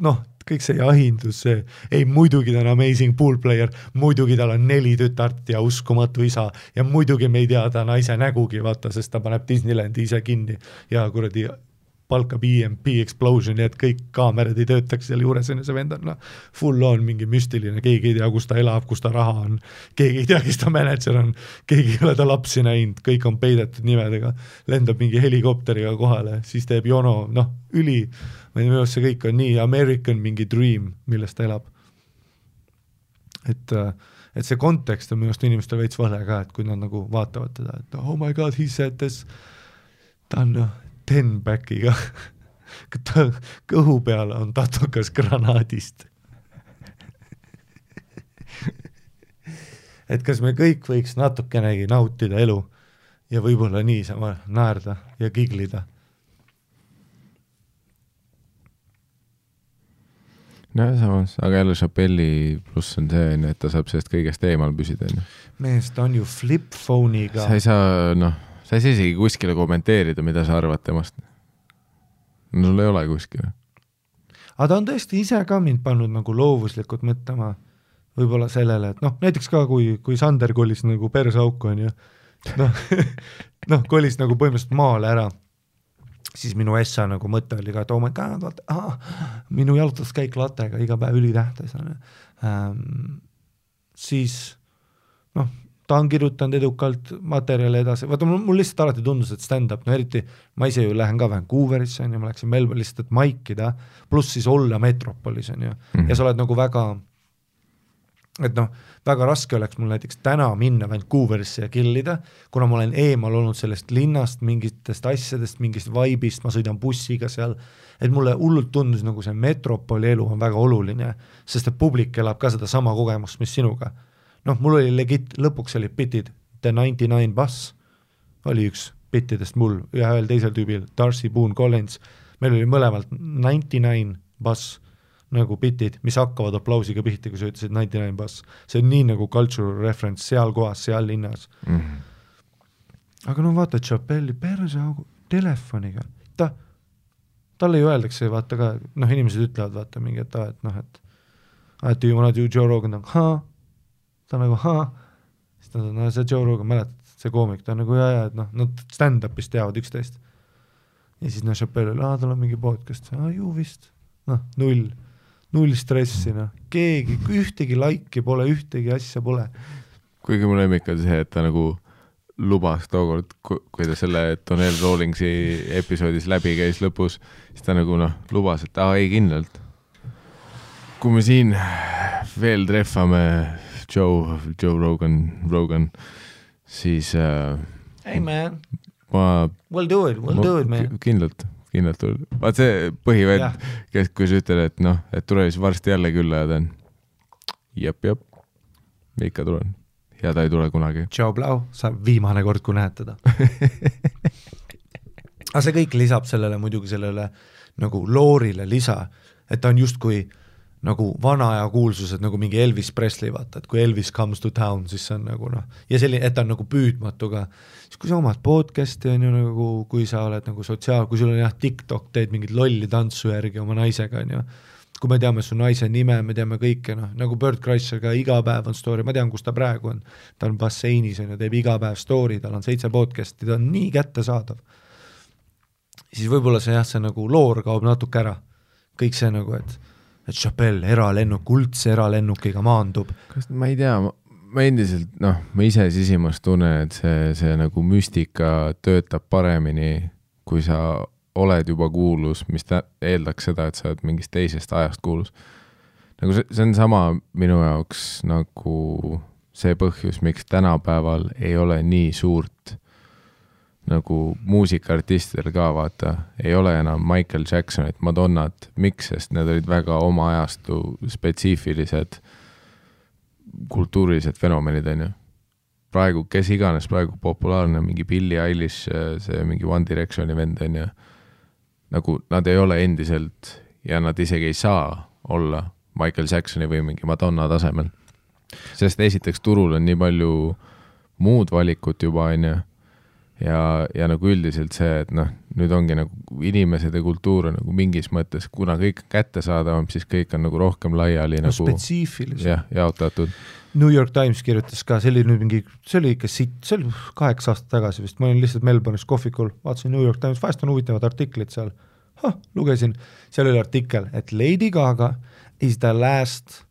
noh, kõik see jahindus, see, ei muidugi ta on amazing pool player, muidugi tal on 4 tütart ja uskumatu isa ja muidugi me ei tea ta naise nägugi, vaata, sest ta paneb Disneylandi ise kinni ja kuradi palkab EMP Explosion ja et kõik kaamerad ei töötaks seal juures, on see vend on no, full on mingi müstiline, keegi ei tea, kus ta elab, kus ta raha on, keegi ei tea, kes ta manager on, keegi ei ole ta lapsi näinud, kõik on peidetud nimedega, lendab mingi helikopteriga kohale, siis teeb jono, noh, ma ei tea, minu see kõik on nii American mingi dream, millest ta elab. Et see kontekst on minu arust inimestel veits vale ka, et kui nad nagu vaatavad teda, et oh my god, he said this, ta on 10-packiga, kõhu peal on tatukas granaadist. Et kas me kõik võiks natukenegi nautida elu ja võib-olla niisama naerda ja giglida? No samas, aga jälle Chappelli pluss on see, et ta saab sellest kõigest eemal püsida. Mees, ta on ju flip-phone'iga. Sa ei saa, noh, sa ei saa isegi kuskile kommenteerida, mida sa arvad temast. No sul ei ole kuskile. Aga ta on tõesti ise ka mind pannud nagu loovuslikult mõtlema võib-olla sellele, et noh, näiteks ka kui Sander kolis nagu persauku on ju, noh, kolis nagu põhimõtteliselt maale ära, siis minu essa nagu mõte oli ka, et oh my god, vaata, minu jalutuskäik latega iga päev ülitähtis on. Siis noh, ta on kirjutanud edukalt materjali edasi, vaata mul lihtsalt alati tundus, et stand-up, no eriti ma ise ju lähen ka Vancouverisse on ju, ma läksin Melbourne lihtsalt, et maikida, pluss siis olla metropolis on ju, ja sa oled nagu väga, et noh, väga raske oleks mul näiteks täna minna Vancouverisse ja killida, kuna ma olen eemal olnud sellest linnast, mingitest asjadest, mingist vaibist, ma sõidan bussiga seal, et mulle hullult tundus nagu see metropoli elu on väga oluline, sest et publik elab ka seda sama kogemust, mis sinuga. Noh, mul oli legit, lõpuks olid bitid, The 99 Bus oli üks bittidest mul, ühel teisel tüübil, Darcy Boone Collins, meil oli mõlemalt 99 bass nagu bitid, mis hakkavad aplausiga pihti, kui sa ütlesid 99 bass. See on nii nagu cultural reference seal kohas, seal linnas. Aga no vaata Chappelli perse telefoniga, talle ju öeldakse, vaata ka, noh, inimesed ütlevad, vaata mingi, et do you wanna do Joe Rogan, ta nagu, siis ta on, see Joe Rogan, mäletad, see koomik, ta on nagu, et noh, nad stand-upis teavad 11. Ja siis Chappelle, tal on mingi podcast, ju vist, null stressi, keegi, ühtegi laiki pole, ühtegi asja pole. Kuigi mu lemmik on see, et ta nagu lubas tookord, kui ta selle Donnell Rawlingsi episoodis läbi käis lõpus, siis ta nagu lubas, et ei kindlalt. Kui me siin veel treffame Joe Rogan, siis hey man, we'll do it man. Kindlalt. Vaat see põhivend, kui sa ütled, et tule siis varsti jälle külla ja ta on jep, ikka tulen ja ta ei tule kunagi. Ciao Blau, sa viimane kord, kui näed teda. Aga see kõik lisab sellele muidugi sellele nagu loorile lisa, et ta on justkui nagu vana aja kuulsused, nagu mingi Elvis Presley, vaata, et kui Elvis comes to town, siis see on nagu ja selline, et ta on nagu püüdmatu ka. Siis kui sa omad podcasti on ju nagu, kui sa oled nagu kui sul on TikTok, teed mingit lolli tantsu järgi oma naisega, on ju. Kui me teame su naise nime, me teame kõike, nagu Bert Kreischer ka iga päev on story, ma tean, kus ta praegu on. Ta on basseinis, on ju, teeb iga päev story, tal on 7 podcasti, ta on nii kättesaadav. Siis võib-olla see nagu loor kaob natuke ära. Kõik see nagu, et Chappelle eralennuk, kuldse eralennukiga maandub. Ma ei tea, ma endiselt, ma ise sisimas tunnen, et see nagu müstika töötab paremini, kui sa oled juba kuulus, mis eeldaks seda, et sa oled mingist teisest ajast kuulus. Nagu see on sama minu jaoks nagu see põhjus, miks tänapäeval ei ole nii suurt nagu muusikaartistidel ka, vaata, ei ole enam Michael Jacksonit, Madonnat, miks, sest need olid väga oma ajastu spetsiifilised kultuurilised fenomenid, on ju. Praegu, kes iganes praegu populaarne, mingi Billie Eilish, see mingi One Directioni vend, on ju, nagu nad ei ole endiselt ja nad isegi ei saa olla Michael Jacksoni või mingi Madonna tasemel. Sest esiteks turul on nii palju muud valikut juba, on ju, ja nagu üldiselt see, et nüüd ongi nagu inimesed ja kultuur on nagu mingis mõttes, kuna kõik kätte saadavam, siis kõik on nagu rohkem laiali nagu spetsiifilisem. Jaotatud. New York Times kirjutas ka, see oli ikka see oli 8 aastat tagasi vist, ma olin lihtsalt Melbourne'is kohvikul, vaatasin New York Times, vahest on huvitavad artiklid seal, lugesin, seal oli artikkel, et Lady Gaga is the last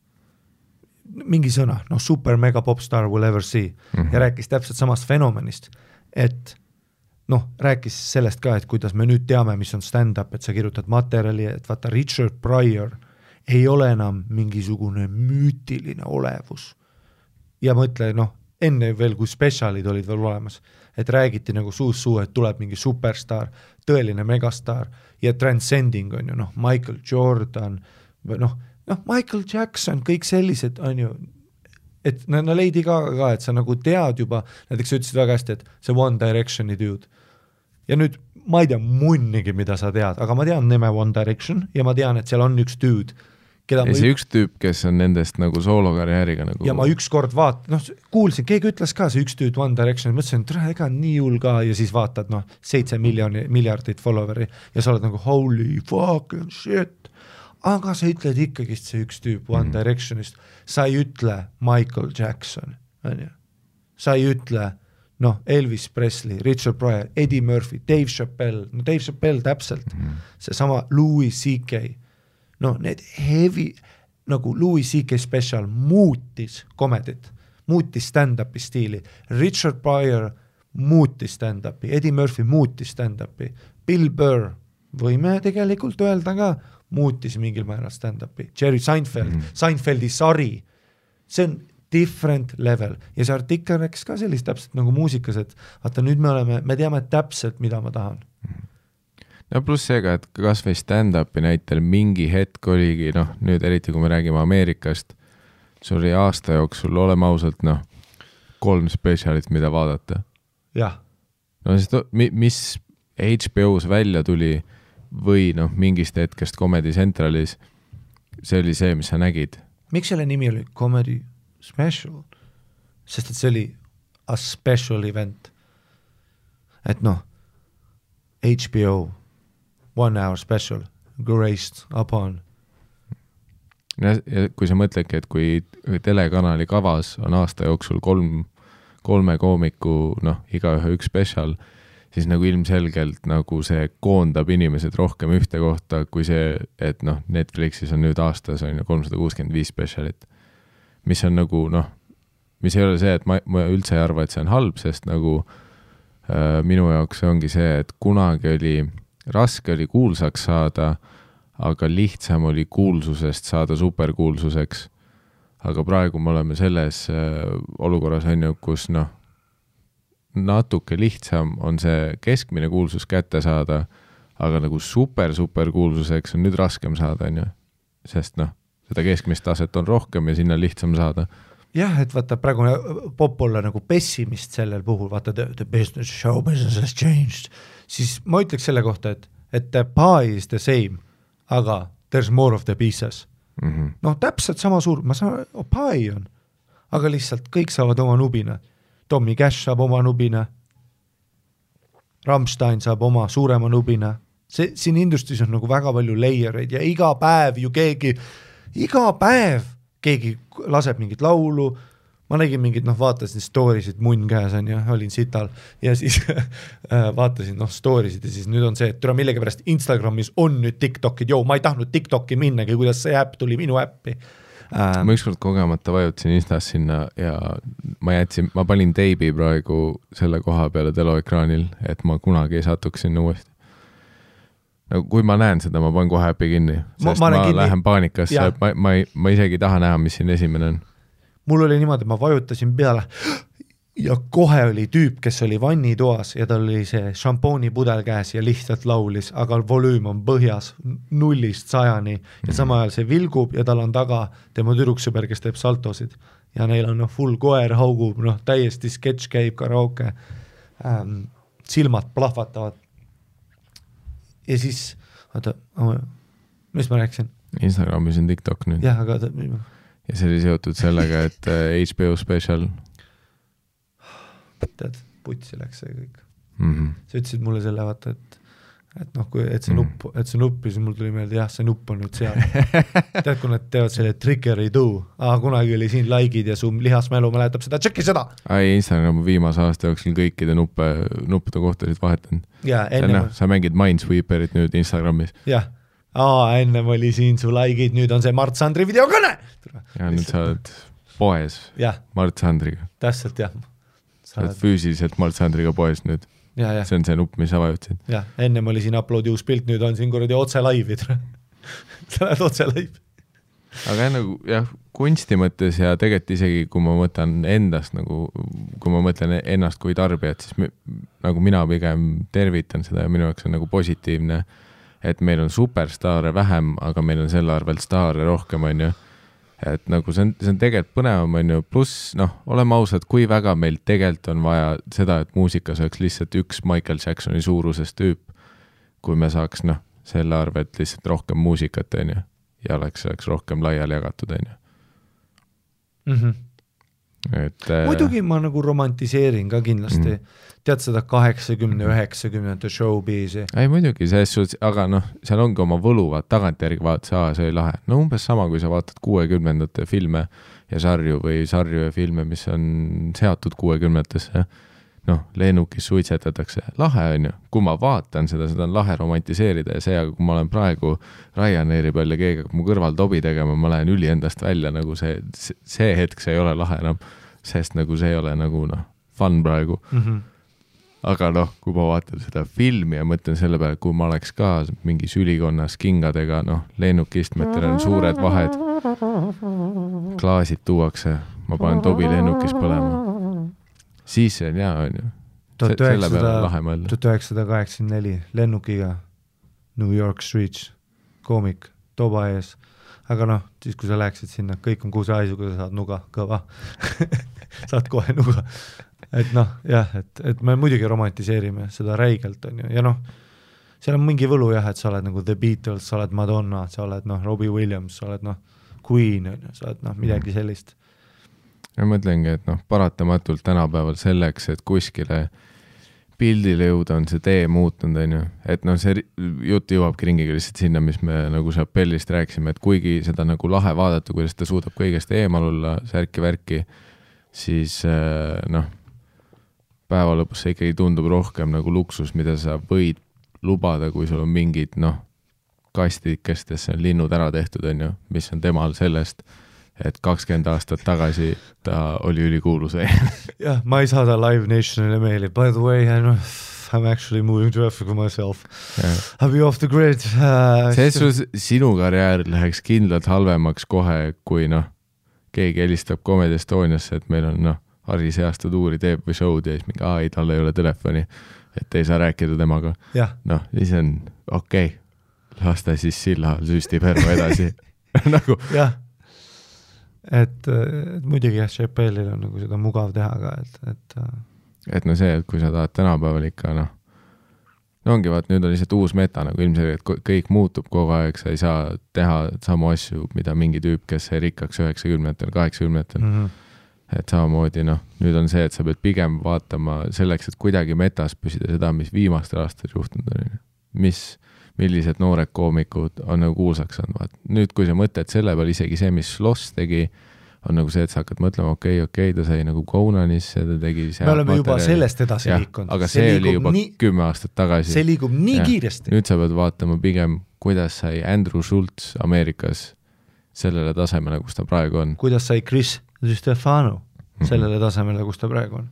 mingi sõna, super mega popstar will ever see, ja rääkis täpselt samast fenomenist, et rääkis sellest ka, et kuidas me nüüd teame, mis on stand-up, et sa kirjutad materjali, et vaata Richard Pryor ei ole enam mingisugune müütiline olevus. Ja mõtle, enne veel, kui spetsialid olid veel olemas, et räägiti nagu suus, et tuleb mingi superstar, tõeline megastar ja transcending on ju, Michael Jordan, Michael Jackson, kõik sellised on ju, et Lady Gaga ka, et sa nagu tead juba, näiteks sa ütlesid väga hästi, et see One Directioni dude. Ja nüüd ma ei tea munnigi, mida sa tead, aga ma tean nime One Direction ja ma tean, et seal on üks dude, keda ja see üks tüüp, kes on nendest nagu soolokarjääriga nagu... Ja ma ükskord kuulsin, keegi ütles ka see üks dude One Direction, mõtlesin, et ega nii hull ka ja siis vaatad 7 miljardit followeri ja sa oled nagu holy fucking shit. Aga sa ütled ikkagi see üks tüüp One Directionist, sa ei ütle Michael Jackson, on ju. Sa ei ütle Elvis Presley, Richard Pryor, Eddie Murphy, Dave Chappelle, Dave Chappelle täpselt, see sama Louis C.K. Need heavy, nagu Louis C.K. special muutis komedit, muutis stand-upi stiili, Richard Pryor muutis stand-upi, Eddie Murphy muutis stand-upi, Bill Burr, võime tegelikult öelda ka, muutis mingil määral stand-upi, Jerry Seinfeld, Seinfeldi sari, see on different level ja see artikkel rääkis ka sellist täpselt nagu muusikas, et vaata nüüd me teame täpselt, mida ma tahan. Ja pluss seega, et kas või stand-upi näitel mingi hetk oligi, nüüd eriti kui me räägime Ameerikast, see oli aasta jooksul, oleme ausalt, 3 spetsialit, mida vaadata. Jah. Mis HBO-s välja tuli, või noh, mingist hetkest Comedy Centralis, see oli see, mis sa nägid. Miks selle nimi oli Comedy Special? Sest et see oli a special event. Et noh, HBO 1 hour special graced upon. Ja kui sa mõtledki, et kui telekanali kavas on aasta jooksul kolme koomiku, noh, igaühe üks special, siis nagu ilmselgelt nagu see koondab inimesed rohkem ühte kohta, kui see, et noh, Netflixis on nüüd aastas on ju 365 specialit, mis on nagu noh, mis ei ole see, et ma üldse ei arva, et see on halb, sest nagu minu jaoks ongi see, et kunagi oli raske oli kuulsaks saada, aga lihtsam oli kuulsusest saada superkuulsuseks. Aga praegu me oleme selles olukorras on ju, kus noh, natuke lihtsam on see keskmine kuulsus kätte saada, aga nagu super kuulsuseks on nüüd raskem saada, on ju. Sest noh, seda keskmist taset on rohkem ja sinna lihtsam saada. Jah, et vaata praegu pop olla nagu pessimist sellel puhul, vaata the business, show business has changed, siis ma ütleks selle kohta, et the pie is the same, aga there's more of the pieces. Noh, täpselt sama suur, ma saan, pie on, aga lihtsalt kõik saavad oma nubina. Tommy Cash saab oma nubina, Rammstein saab oma suurema nubina. Siin industris on nagu väga palju layereid ja iga päev keegi laseb mingit laulu, ma nägin mingid, noh, vaatasin storisid munn käes on ja olin sital ja siis vaatasin, noh, storisid ja siis nüüd on see, et türa millegi pärast Instagramis on nüüd TikTokid, ma ei tahtnud TikToki minnagi, kuidas see äpp tuli minu äppi. Ma ükskord kogemata vajutasin Instas sinna ja ma panin teibi praegu selle koha peale teloekraanil, et ma kunagi ei satuks sinna uuesti. Nagu, kui ma näen seda, ma panen kohe äppi kinni, sest ma lähen paanikasse, ma isegi taha näha, mis siin esimene on. Mul oli niimoodi, ma vajutasin peale ja kohe oli tüüp, kes oli vannitoas ja tal oli see šampoonipudel käes ja lihtsalt laulis, aga volüüm on põhjas 0-100 ja sama ajal see vilgub ja tal on taga tema tüdruksõber, kes teeb saltosid ja neil on full koer haugub, noh, täiesti sketš käib karaoke, silmad plahvatavad. Ja siis, vaata, mis ma rääksin? Instagramis on TikTok nüüd. Jah, aga... Ja see oli seotud sellega, et HBO special. Tead, putsi läks see kõik. Sa ütlesid mulle selle, vaata, et noh, et see nupp, siis mul tuli meelde, jah, see nupp on nüüd seal. Tead, kui nad teevad selle trigger ei tuu, kunagi oli siin likeid ja su lihasmälu mäletab seda, tšekki seda! Instagram viimase aasta jooksul kõikide nuppude kohtasid vahetanud. Sa mängid Minesweeperit nüüd Instagramis. Jah, ennem oli siin su likeid, nüüd on see Mart Sandri videokõne! Ja nüüd sa oled poes Mart Sandriga. Täpselt, jah. Sa oled füüsiliselt Mart Sandriga poes nüüd. See on see nupp, mis sa vajutasid. Jah, ennem oli siin uploadi uus pilt, nüüd on siin kuradi otse laivid. Sa lähed otse laiv. Aga nagu, jah, kunsti mõttes ja tegelikult isegi, kui ma mõtlen endast, nagu, kui ma mõtlen ennast kui tarbijat, siis nagu mina pigem tervitan seda ja minu jaoks on nagu positiivne, et meil on superstaare vähem, aga meil on selle arvelt staare rohkem, on ju. Et nagu see on tegelikult põnevam, on ju, pluss, noh, oleme ausad, kui väga meil tegelikult on vaja seda, et muusikas oleks lihtsalt üks Michael Jacksoni suuruses tüüp, kui me saaks, noh, selle arvelt lihtsalt rohkem muusikat, on ju, ja oleks rohkem laiali jagatud, on ju. Muidugi ma nagu romantiseerin ka kindlasti, tead seda 80-90 showbizi. Ei muidugi, aga noh, seal ongi oma võluvad tagantjärgi vaata, see oli lahe. No umbes sama, kui sa vaatad 60-ndate filme ja sarju ja filme, mis on seatud 60-ndesse. Noh, lennukis suitsetatakse. Lahe on ju. Kui ma vaatan seda on lahe romantiseerida ja see, aga kui ma olen praegu Ryanairi peal ja keegi mu kõrval tobi tegema, ma lähen üli endast välja, nagu see hetk see ei ole lahe enam, sest nagu see ei ole nagu noh, fun praegu. Aga noh, kui ma vaatan seda filmi ja mõtlen selle peale, kui ma oleks ka mingis ülikonnas kingadega, noh, lennukistmetel on suured vahed, klaasid tuuakse, ma panen tobi lennukis põlema. Siis see on hea, on ju. Selle peale lahe mõelda. 1984 lennukiga New York Streets, koomik, toba ees. Aga noh, siis kui sa läheksid sinna, kõik on kuusehaisuga, sa saad nuga, kõva. Saad kohe nuga. Et noh, jah, et me muidugi romantiseerime seda räigelt, on ju. Ja noh, seal on mingi võlu jah, et sa oled nagu The Beatles, sa oled Madonna, sa oled Robbie Williams, sa oled Queen, sa oled midagi sellist. Ja mõtlengi, et paratamatult tänapäeval selleks, et kuskile pildile jõuda on see tee muutunud, on ju. Et see jutt jõuabki ringiga lihtsalt sinna, mis me nagu Chappellist rääkisime, et kuigi seda nagu lahe vaadata, kuidas ta suudab kõigest eemal olla, särki-värki, siis päeva lõpus see ikkagi tundub rohkem nagu luksus, mida sa võid lubada, kui sul on mingid kastidikestes on linnud ära tehtud, on ju, mis on temal sellest, et 20 aastat tagasi ta oli ülikuulus. Jah, ma ei saada Live Nationile meili. By the way, I'm actually moving to Africa myself. I'll be off the grid. Sinu karjäär läheks kindlalt halvemaks kohe, kui keegi helistab Comedy Estoniasse, et meil on Harri seasta tuuri teeb või show'd ja siis mingi, ei, tal ei ole telefoni, et ei saa rääkida temaga. Siis on okei. Las ta siis silla süstib herma edasi. Nagu. Jah. Et muidugi Chappellil on nagu seda mugav teha ka, et see, et kui sa tahad tänapäeval ikka, ongi vaat, nüüd on lihtsalt uus meta, nagu ilmselt, et kõik muutub kogu aeg, sa ei saa teha samu asju, mida mingi tüüp, kes sai rikkaks 90-tel, 80-tel. Et samamoodi, nüüd on see, et sa pead pigem vaatama selleks, et kuidagi metas püsida seda, mis viimastel aastatel juhtunud on. Millised noored koomikud on nagu kuulsaks saanud. Nüüd, kui sa mõtled selle peal, isegi see, mis Sloss tegi, on nagu see, et sa hakkad mõtlema, okei, ta sai nagu Conanisse, ta tegi me oleme juba sellest edasi liikunud. Aga see oli juba 10 aastat tagasi. See liigub nii kiiresti. Nüüd sa pead vaatama pigem, kuidas sai Andrew Schultz Ameerikas sellele tasemele, kus ta praegu on. Kuidas sai Chris Stefano sellele tasemele, kus ta praegu on.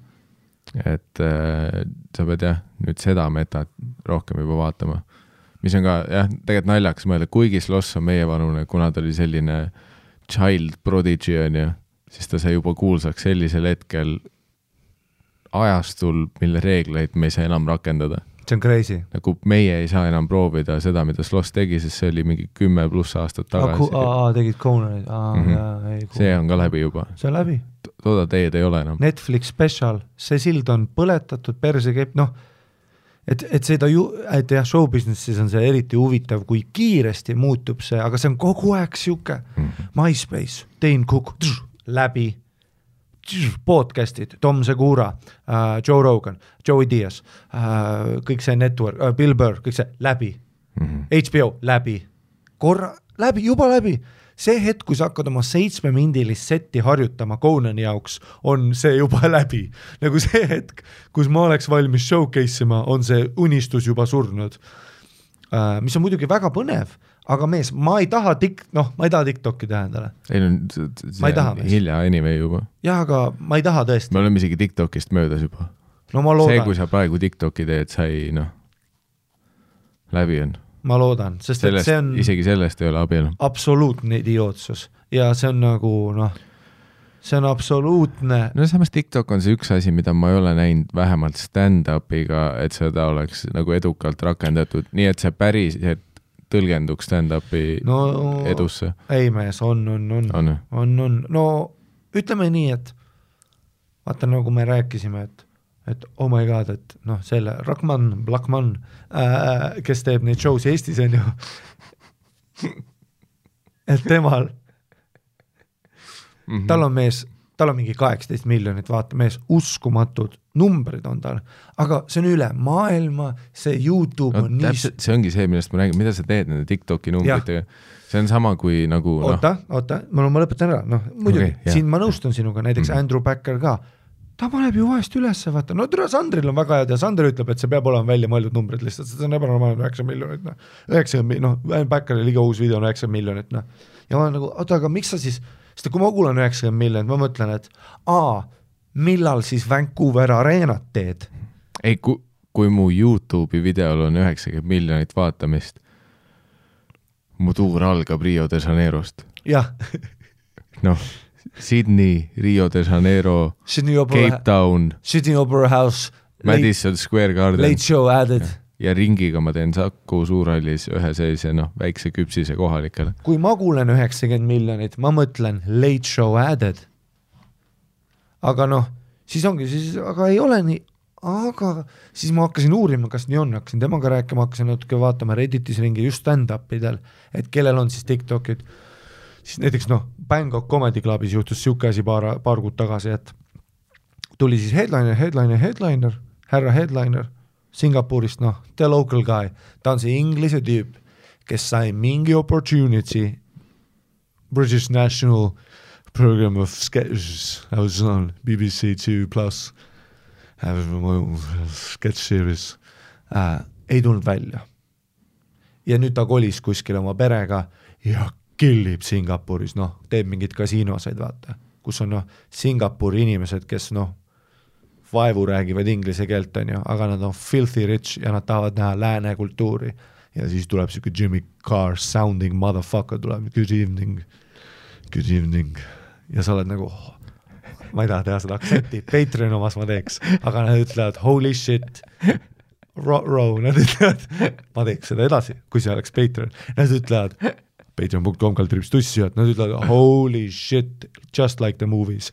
Et sa pead nüüd seda metat rohkem juba vaatama. Mis on ka, tegelikult naljakas mõelda, kuigi Sloss on meie vanune, kuna ta oli selline child prodigy on ju, siis ta sai juba kuulsaks sellisel hetkel ajastul, mille reegleid me ei saa enam rakendada. See on crazy. Nagu meie ei saa enam proovida seda, mida Sloss tegi, sest see oli mingi 10+ aastat tagasi. Tegid Conanid. See on ka läbi juba. See on läbi. Tooda teed ei ole enam. Netflix special, see sild on põletatud, perse keep, et seda et show businessis on see eriti huvitav, kui kiiresti muutub see, aga see on kogu aeg siuke MySpace, Dane Cook, läbi, podcastid, Tom Segura, Joe Rogan, Joey Diaz, kõik see network, Bill Burr, kõik see läbi, HBO läbi, korra läbi, juba läbi. See hetk, kui sa hakkad oma 7-mindilist setti harjutama Conani jaoks, on see juba läbi. Nagu see hetk, kus ma oleks valmis showcase'ima, on see unistus juba surnud. Mis on muidugi väga põnev, aga mees, ma ei taha TikToki teha endale. Ei, see on hilja anyway juba. Jah, aga ma ei taha tõesti. Me oleme isegi TikTokist möödas juba. No ma loodan. See, kui sa praegu TikToki teed, sai läbi on. Ma loodan, sest sellest, see on isegi sellest ei ole abielu. Absoluutne idiootsus ja see on nagu see on absoluutne. Samas TikTok on see üks asi, mida ma ei ole näinud vähemalt stand-upiga, et seda oleks nagu edukalt rakendatud, nii et see päris tõlgenduks stand-upi edusse. Ei mees, on. No ütleme nii, et vaata nagu me rääkisime, et oh my god, et selle Blackman, kes teeb neid shows Eestis on ju, et temal tal on mingi 18 miljonit, vaata mees, uskumatud numbrid on tal, aga see on üle maailma, see YouTube on nii... See ongi see, millest ma räägin, mida sa teed nende TikToki numbritega, see on sama kui nagu... Oota, ma lõpetan ära, muidugi, siin ma nõustun sinuga, näiteks Andrew Backer ka, ta paneb ju vahest üles, vaata, Sandril on väga head ja Sander ütleb, et see peab olema välja mõeldud numbrid lihtsalt, see on ebanormaalne 9 miljonit, 90, Backeril liga uus video on 9 miljonit, ja ma olen nagu, oota, aga miks sa siis, sest kui ma kuulan 90 miljonit, ma mõtlen, et millal siis Vancouver Arenat teed? Ei, kui mu YouTube'i videol on 90 miljonit vaatamist, mu tuur algab Rio de Janeirost. Jah. Sydney, Rio de Janeiro, Cape Town, Sydney Opera House, Madison Square Garden. Late Show added. Ja ringiga ma teen Saku Suurhallis ühe sellise väikse küpsise kohalikele. Kui ma kuulen 90 miljonit, ma mõtlen Late Show added. Aga siis ongi, aga ei ole nii, aga siis ma hakkasin uurima, kas nii on, hakkasin temaga rääkima, hakkasin natuke vaatama Redditis ringi just stand-upidel, et kellel on siis TikTokid, siis näiteks Bangkok Comedy Clubis juhtus siuke asi paar kuud tagasi, et tuli siis headliner, härra headliner Singapurist, the local guy, ta on see inglise tüüp, kes sai mingi opportunity British National Program of Sketches, I was on BBC 2+, sketch series, ei tulnud välja. Ja nüüd ta kolis kuskil oma perega ja killib Singapuris, teeb mingid kasiinosaid, vaata, kus on Singapuri inimesed, kes vaevu räägivad inglise keelt, aga nad on filthy rich ja nad tahavad näha lääne kultuuri. Ja siis tuleb siuke Jimmy Carr sounding motherfucker, tuleb good evening. Ja sa oled nagu, ma ei taha teha seda aktsenti, Patreon omas ma teeks, aga nad ütlevad holy shit, nad ütlevad, ma teeks seda edasi, kui see oleks Patreon, nad ütlevad patreon.com/tussi, nad ütlevad holy shit, just like the movies.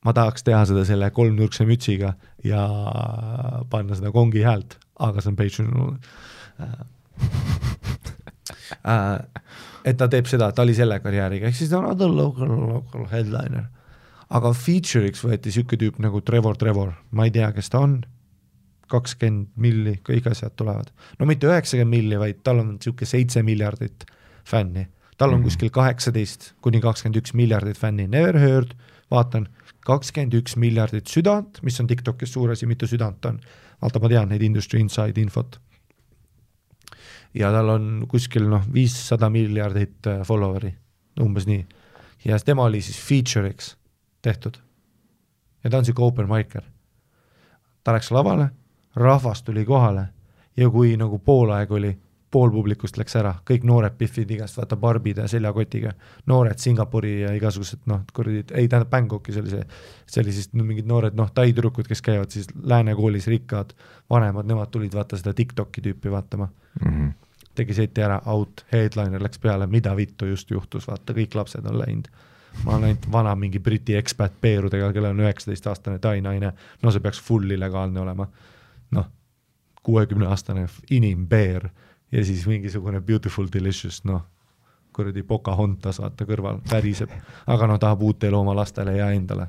Ma tahaks teha seda selle kolmnurkse mütsiga ja panna seda kongi häält, aga see on Patreon. Et ta teeb seda, ta oli selle karjääriga, ehk siis ta on other local headliner. Aga feature'iks võeti siuke tüüp nagu Trevor, ma ei tea, kes ta on, 20 milli, kõik asjad tulevad. No mitte 90 milli, vaid tal on siuke 7 miljardit fänni. Tal on kuskil 18-21 miljardit fänni, never heard, vaatan, 21 miljardit südant, mis on TikTokis suur asi, mitu südant on. Vaata, ma tean neid industry inside infot. Ja tal on kuskil 500 miljardit followeri, umbes nii. Ja tema oli siis feature'iks tehtud. Ja ta on siuke open micer. Ta läks lavale, rahvas tuli kohale ja kui nagu pool aeg oli, pool publikust läks ära, kõik noored piffid igast, vaata barbide ja seljakotiga, noored Singapuri ja igasugused, ei tähendab Bangkoki, see oli siis mingid noored, taitürukud, kes käivad siis läänekoolis rikkad, vanemad, nemad tulid vaata seda TikToki tüüpi vaatama. Tegi seti ära, out, headliner läks peale, mida vittu just juhtus, vaata, kõik lapsed on läinud. Ma olen ainult vana mingi Briti expat peerudega, kelle on 19-aastane tainaine, see peaks full illegaalne olema. 60-aastane inimbeer ja siis mingisugune beautiful delicious, kuradi Pocahontas vaata kõrval, väriseb, aga tahab uut elu oma lastele ja endale.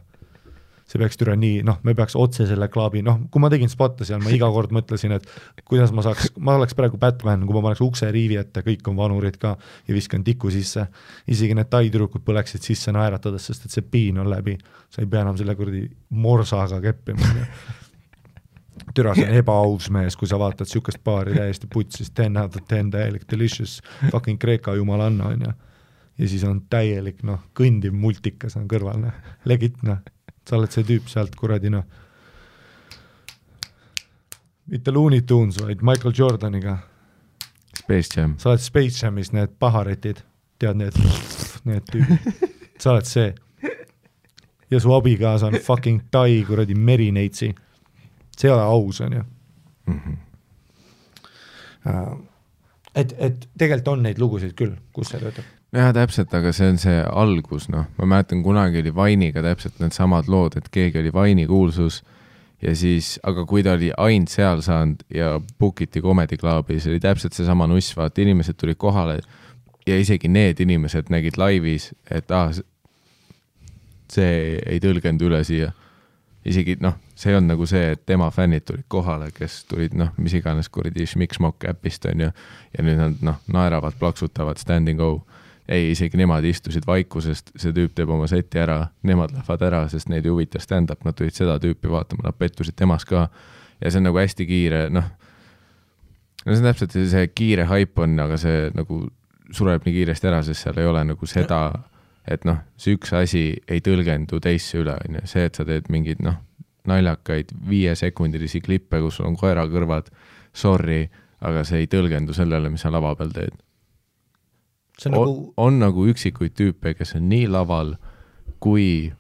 See peaks türa nii, me peaks otse selle klaabi, kui ma tegin spotta seal, ma iga kord mõtlesin, et kuidas ma oleks praegu Batman, kui ma paneks ukse riivi ette, kõik on vanurid ka ja viskan tiku sisse, isegi need taitürukud põleksid sisse naeratades, sest et see piin on läbi, sa ei pea enam selle kuradi morsaga keppima. Türa, see on ebaaus mees, kui sa vaatad siukest paari täiesti putsis, 10 out of 10 täielik delicious, fucking Kreeka jumalanna on ja siis on täielik, kõndiv multikas on kõrval, legit, sa oled see tüüp sealt kuradi, mitte Looney Tunes, vaid Michael Jordaniga. Space Jam. Sa oled Space Jamis, need paharetid, tead need tüübid, sa oled see. Ja su abikaasa on fucking tai kuradi merineitsi. See ei ole aus, on ju. Et tegelikult on neid lugusid küll, kus see töötab. Jah, täpselt, aga see on see algus, ma mäletan, kunagi oli Vainiga täpselt need samad lood, et keegi oli Vaini kuulsus ja siis, aga kui ta oli ainult seal saanud ja bookiti Comedy Clubis, oli täpselt see sama nuss, vaata, inimesed tulid kohale ja isegi need inimesed nägid laivis, et see ei tõlgendu üle siia. Isegi, see on nagu see, et tema fännid tulid kohale, kes tulid, mis iganes kuradi Schmiksmok äpist on ja nüüd nad naeravad, plaksutavad, stand and go. Ei, isegi nemad istusid vaikusest, see tüüp teeb oma seti ära, nemad lähevad ära, sest neid ei huvita stand-up, nad tulid seda tüüpi vaatama, nad pettusid temas ka ja see on nagu hästi kiire, see on täpselt see kiire hype on, aga see nagu sureb nii kiiresti ära, sest seal ei ole nagu seda, et see üks asi ei tõlgendu teisse üle, see, et sa teed mingid naljakaid 5-sekundilisi klippe, kus sul on koera kõrvad, sorry, aga see ei tõlgendu sellele, mis sa lava peal teed. On nagu üksikuid tüüpe, kes on nii laval kui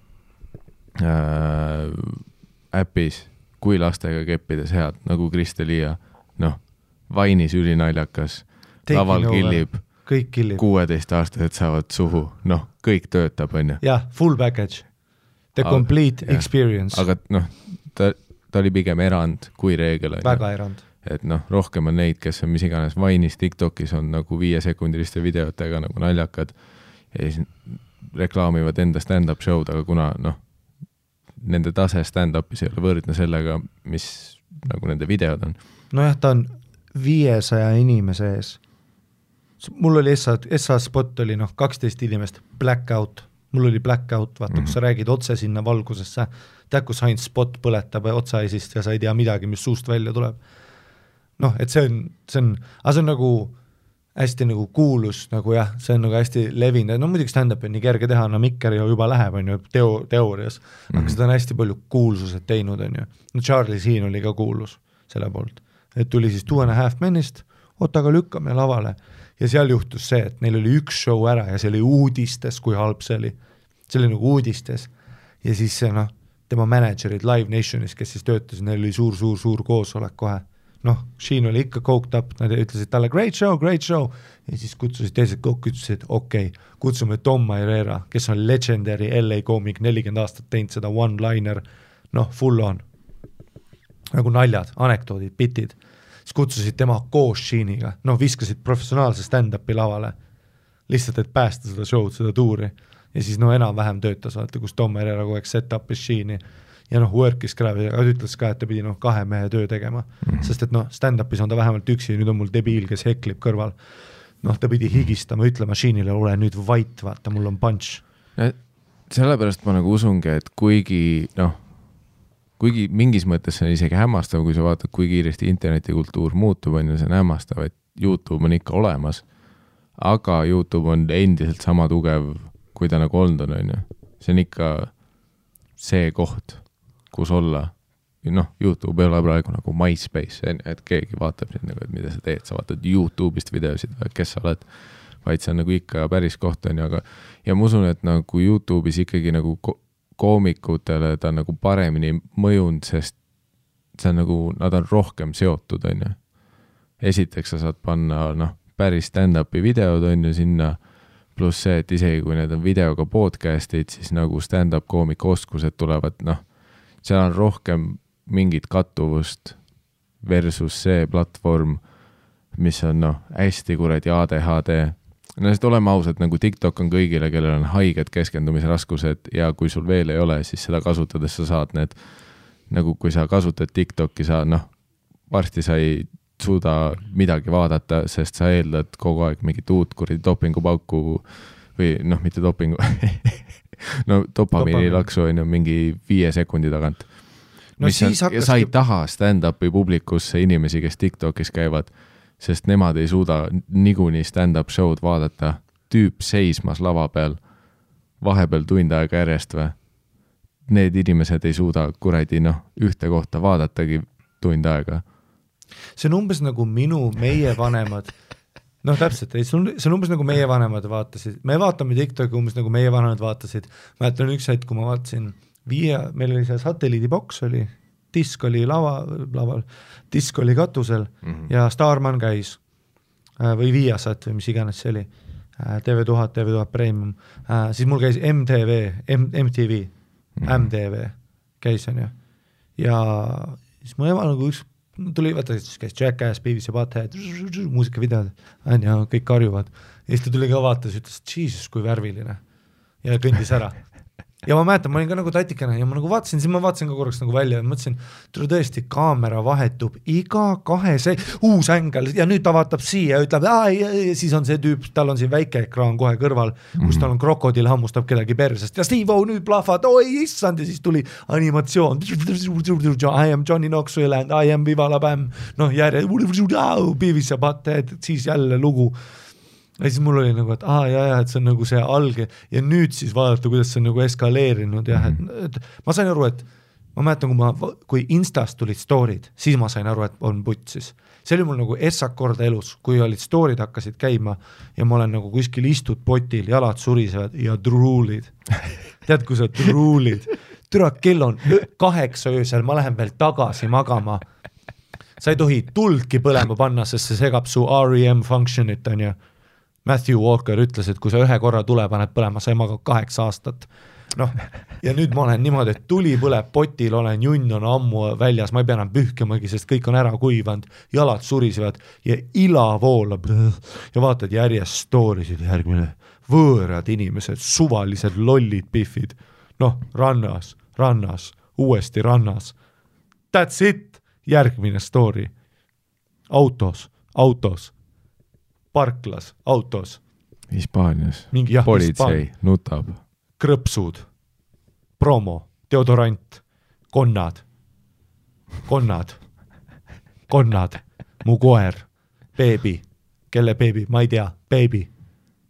äpis, kui lastega keppides head, nagu Kristelia, Vainis ülinaljakas, laval killib, 16-aastased saavad suhu, kõik töötab, on ju. Jah, full package, the complete experience. Aga ta ta oli pigem erand kui reegel. Väga erand. Et rohkem on neid, kes on mis iganes Vine'is, TikTokis on nagu 5-sekundiliste videotega nagu naljakad ja siis reklaamivad enda stand-up show'd, aga kuna nende tase stand-upis ei ole võrdne sellega, mis nagu nende videod on. Nojah, ta on 500 inimese ees. Mul oli SA spot oli 12 inimest, blackout, mul oli blackout, vaata, kus sa räägid otse sinna valgusesse, tead, kus ainult spot põletab otsaisist ja sa ei tea midagi, mis suust välja tuleb. Et see on, aga see on nagu hästi nagu kuulus, nagu jah, see on nagu hästi levinud, muidugi stand-up on nii kerge teha, Mikker juba läheb, on ju, teoorias, aga seda on hästi palju kuulsused teinud, on ju. Charlie Sheen oli ka kuulus selle poolt, et tuli siis 2.5 Menist, aga lükkame lavale ja seal juhtus see, et neil oli üks show ära ja see oli uudistes, kui halb see oli nagu uudistes ja siis see tema managerid Live Nationis, kes siis töötasid, neil oli suur koosolek kohe. Sheen oli ikka coked up, nad ütlesid talle great show ja siis kutsusid teised kokku, ütlesid okei, kutsume Tom Herrera, kes on legendary LA koomik, 40 aastat teinud seda one-liner, full on nagu naljad, anekdoodid, bitid, siis kutsusid tema koos Sheeniga, viskasid professionaalse stand-upi lavale lihtsalt, et päästa seda show'd, seda tuuri ja siis enam-vähem töötas, vaata, kus Tom Herrera kogu aeg set-upis Sheeni ja work'is kraavi, aga ütles ka, et ta pidi 2 mehe töö tegema, sest et stand-upis on ta vähemalt üksi, nüüd on mul debiil, kes heklib kõrval. Ta pidi higistama, ütlema Sheenile, ole nüüd vait, vaata, mul on punch. Sellepärast ma nagu usungi, et kuigi mingis mõttes see on isegi hämmastav, kui sa vaatad, kui kiiresti internetikultuur muutub, on ju, see on hämmastav, et YouTube on ikka olemas, aga YouTube on endiselt sama tugev, kui ta nagu olnud on ju. See on ikka see koht, kus olla. YouTube ei ole praegu nagu MySpace, et keegi vaatab nüüd nagu, et mida sa teed, sa vaatad YouTube'ist videosid või kes sa oled, vaid see on nagu ikka päris koht on ju, aga ja ma usun, et nagu YouTube'is ikkagi nagu koomikutele ta on nagu paremini mõjunud, sest see on nagu, nad on rohkem seotud on ju. Esiteks sa saad panna päris stand-upi videod on ju sinna, pluss see, et isegi kui need on videoga podcast'id, siis nagu stand-up koomika oskused tulevad, seal on rohkem mingit kattuvust versus see platvorm, mis on hästi kuradi ADHD. Sest oleme ausad, nagu TikTok on kõigile, kellel on haiged keskendumisraskused ja kui sul veel ei ole, siis seda kasutades sa saad need, nagu kui sa kasutad TikToki, sa varsti sa ei suuda midagi vaadata, sest sa eeldad kogu aeg mingit uut kuradi dopingupauku või mitte dopingu dopamiini laksu on ju mingi 5 sekundi tagant. Sa ei taha stand-upi publikusse inimesi, kes TikTokis käivad, sest nemad ei suuda niikuinii stand-up show'd vaadata, tüüp seismas lava peal, vahepeal tund aega järjest või. Need inimesed ei suuda kuradi ühte kohta vaadatagi tund aega. See on umbes nagu meie vanemad, täpselt, see on umbes nagu meie vanemad vaatasid, me vaatame TikToki umbes nagu meie vanemad vaatasid, ma jätan üks hetk, kui ma vaatasin meil oli see satelliidiboks oli, disk oli laval, disk oli katusel ja Starman käis või Viasat või mis iganes see oli, TV1000 Premium, siis mul käis MTV käis on ju ja siis mu ema nagu üks tuli, vaata, siis käis Jackass, Beavis ja Butthead, muusikavideod, ja kõik karjuvad. Ja siis ta tuli ka vaatas, ütles, Jesus, kui värviline. Ja kõndis ära. Ja ma mäletan, ma olin ka nagu tatikana ja ma nagu vaatasin, siis ma vaatasin ka korraks nagu välja ja mõtlesin, tule tõesti, kaamera vahetub iga 2 uus ängel ja nüüd ta vaatab siia ja ütleb, ja siis on see tüüp, tal on siin väike ekraan kohe kõrval, kus tal on krokodil hammustab kedagi persest ja Steve-O nüüd plahvad, oi issand ja siis tuli animatsioon, I am Johnny Knoxville and I am Viva la Bam, järje, Beavis ja Butthead, siis jälle lugu. Ja siis mul oli nagu, et et see on nagu see alge ja nüüd siis vaadata, kuidas see on nagu eskaleerinud ja et ma sain aru, et ma mäletan, kui Instast tulid story'd, siis ma sain aru, et on putsis. See oli mul nagu essak korda elus, kui olid story'd hakkasid käima ja ma olen nagu kuskil istud potil, jalad surisevad ja druulid. Tead, kui sa druulid? Türa, kell on 8 öösel, ma lähen veel tagasi magama. Sa ei tohi tuldki põlema panna, sest see segab su REM functionit, on ju. Matthew Walker ütles, et kui sa 1 korra tule paned põlema, sa ei maga 8 aastat. noh, ja nüüd ma olen niimoodi, et tuli põleb potil, olen junn on ammu väljas, ma ei pea enam pühkimagi, sest kõik on ära kuivanud, jalad surisevad ja ila voolab ja vaatad järjest storysid, järgmine võõrad inimesed, suvalised lollid pihvid, noh, rannas, uuesti rannas, that's it, järgmine story, autos, parklas, autos. Hispaanias, politsei nutab. Krõpsud, promo, deodorant, konnad, mu koer, beebi, kelle beebi, ma ei tea, beebi,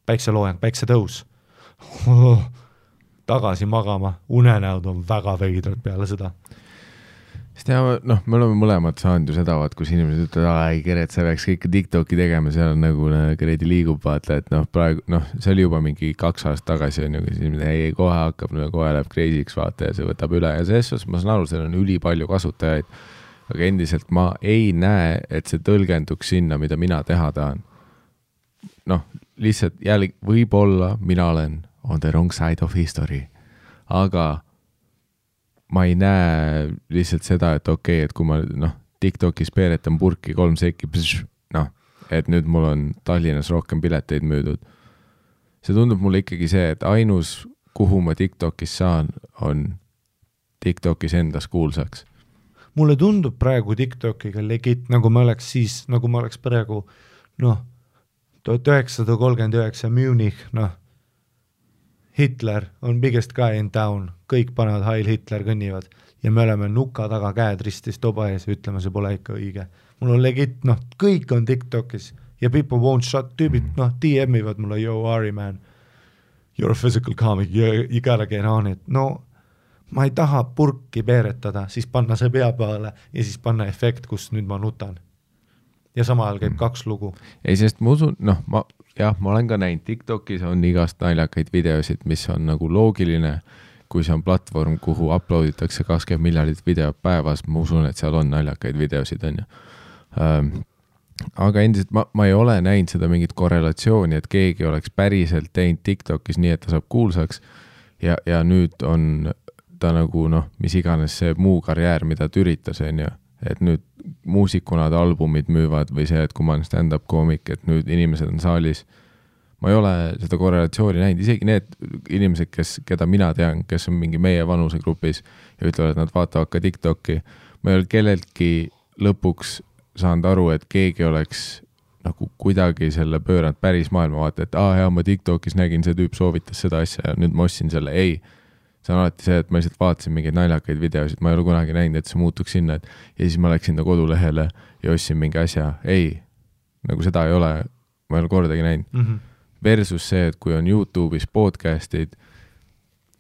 päikseloojang, päiksetõus, tagasi magama, unenäod on väga veidrad peale seda. Sest ja, noh, me oleme mõlemad saanud ju seda, kus inimesed ütlevad, ei Geret, sa peaks kõike TikToki tegema, seal on nagu Geredi liigub, vaata, et noh, praegu, noh, see oli juba mingi 2 aastat tagasi, on ju, kus inimesed, ei, kohe hakkab, kohe läheb crazy'ks, vaata, ja see võtab üle ja selles ma saan aru, seal on ülipalju kasutajaid, aga endiselt ma ei näe, et see tõlgenduks sinna, mida mina teha tahan. Noh, lihtsalt jälle võib-olla mina olen on the wrong side of history, aga ma ei näe lihtsalt seda, et okei, et kui ma TikTokis peeretan purki 3 sekki, et nüüd mul on Tallinnas rohkem pileteid müüdud. See tundub mulle ikkagi see, et ainus, kuhu ma TikTokis saan, on TikTokis endas kuulsaks. Mulle tundub praegu TikTokiga legit, nagu ma oleks praegu 1939 Munich, Hitler on biggest guy in town, kõik panevad Heil Hitler kõnnivad ja me oleme nuka taga käed ristis toba ees ja ütleme, see pole ikka õige. Mul on legit, kõik on TikTokis ja people won't shut, tüübid, DM-ivad mulle, yo, Ari man, you're a physical comic, you gotta get on it. No, ma ei taha purki peeretada, siis panna see pea peale ja siis panna efekt, kus nüüd ma nutan. Ja sama ajal käib 2 lugu. Ei, sest ma usun, ma olen ka näinud, TikTokis on igast naljakaid videosid, mis on nagu loogiline, kui see on platvorm, kuhu uploaditakse 20 miljardit videot päevas, ma usun, et seal on naljakaid videosid, on ju. Aga endiselt ma ei ole näinud seda mingit korrelatsiooni, et keegi oleks päriselt teinud TikTokis nii, et ta saab kuulsaks ja nüüd on ta nagu, mis iganes see muu karjäär, mida ta üritas, on ju. Et nüüd muusikuna albumid müüvad või see, et kui ma olen stand-up koomik, et nüüd inimesed on saalis. Ma ei ole seda korrelatsiooni näinud, isegi need inimesed, keda mina tean, kes on mingi meie vanusegrupis ja ütlevad, et nad vaatavad ka TikToki. Ma ei ole kelleltki lõpuks saanud aru, et keegi oleks nagu kuidagi selle pööranud päris maailma vaata, et ma TikTokis nägin, see tüüp soovitas seda asja ja nüüd ma ostsin selle, ei. See on alati see, et ma lihtsalt vaatasin mingeid naljakaid videosid, ma ei ole kunagi näinud, et see muutuks sinna, ja siis ma läksin ta kodulehele ja ostsin mingi asja. Ei, nagu seda ei ole, ma ei ole kordagi näinud. Versus see, et kui on YouTube'is podcastid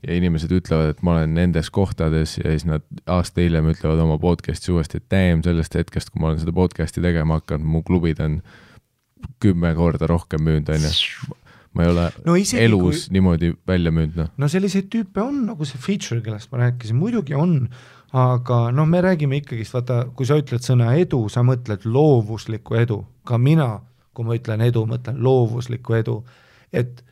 ja inimesed ütlevad, et ma olen nendes kohtades ja siis nad aasta hiljem ütlevad oma podcasti uuesti, et sellest hetkest, kui ma olen seda podcasti tegema hakanud, mu klubid on 10 korda rohkem müünud, on ju. Ma ei ole elus niimoodi välja müünud. No selliseid tüüpe on, nagu see feature, kellest ma rääkisin, muidugi on, aga me räägime ikkagist, vaata, kui sa ütled sõna edu, sa mõtled loovuslikku edu. Ka mina, kui ma ütlen edu, mõtlen loovuslikku edu. Et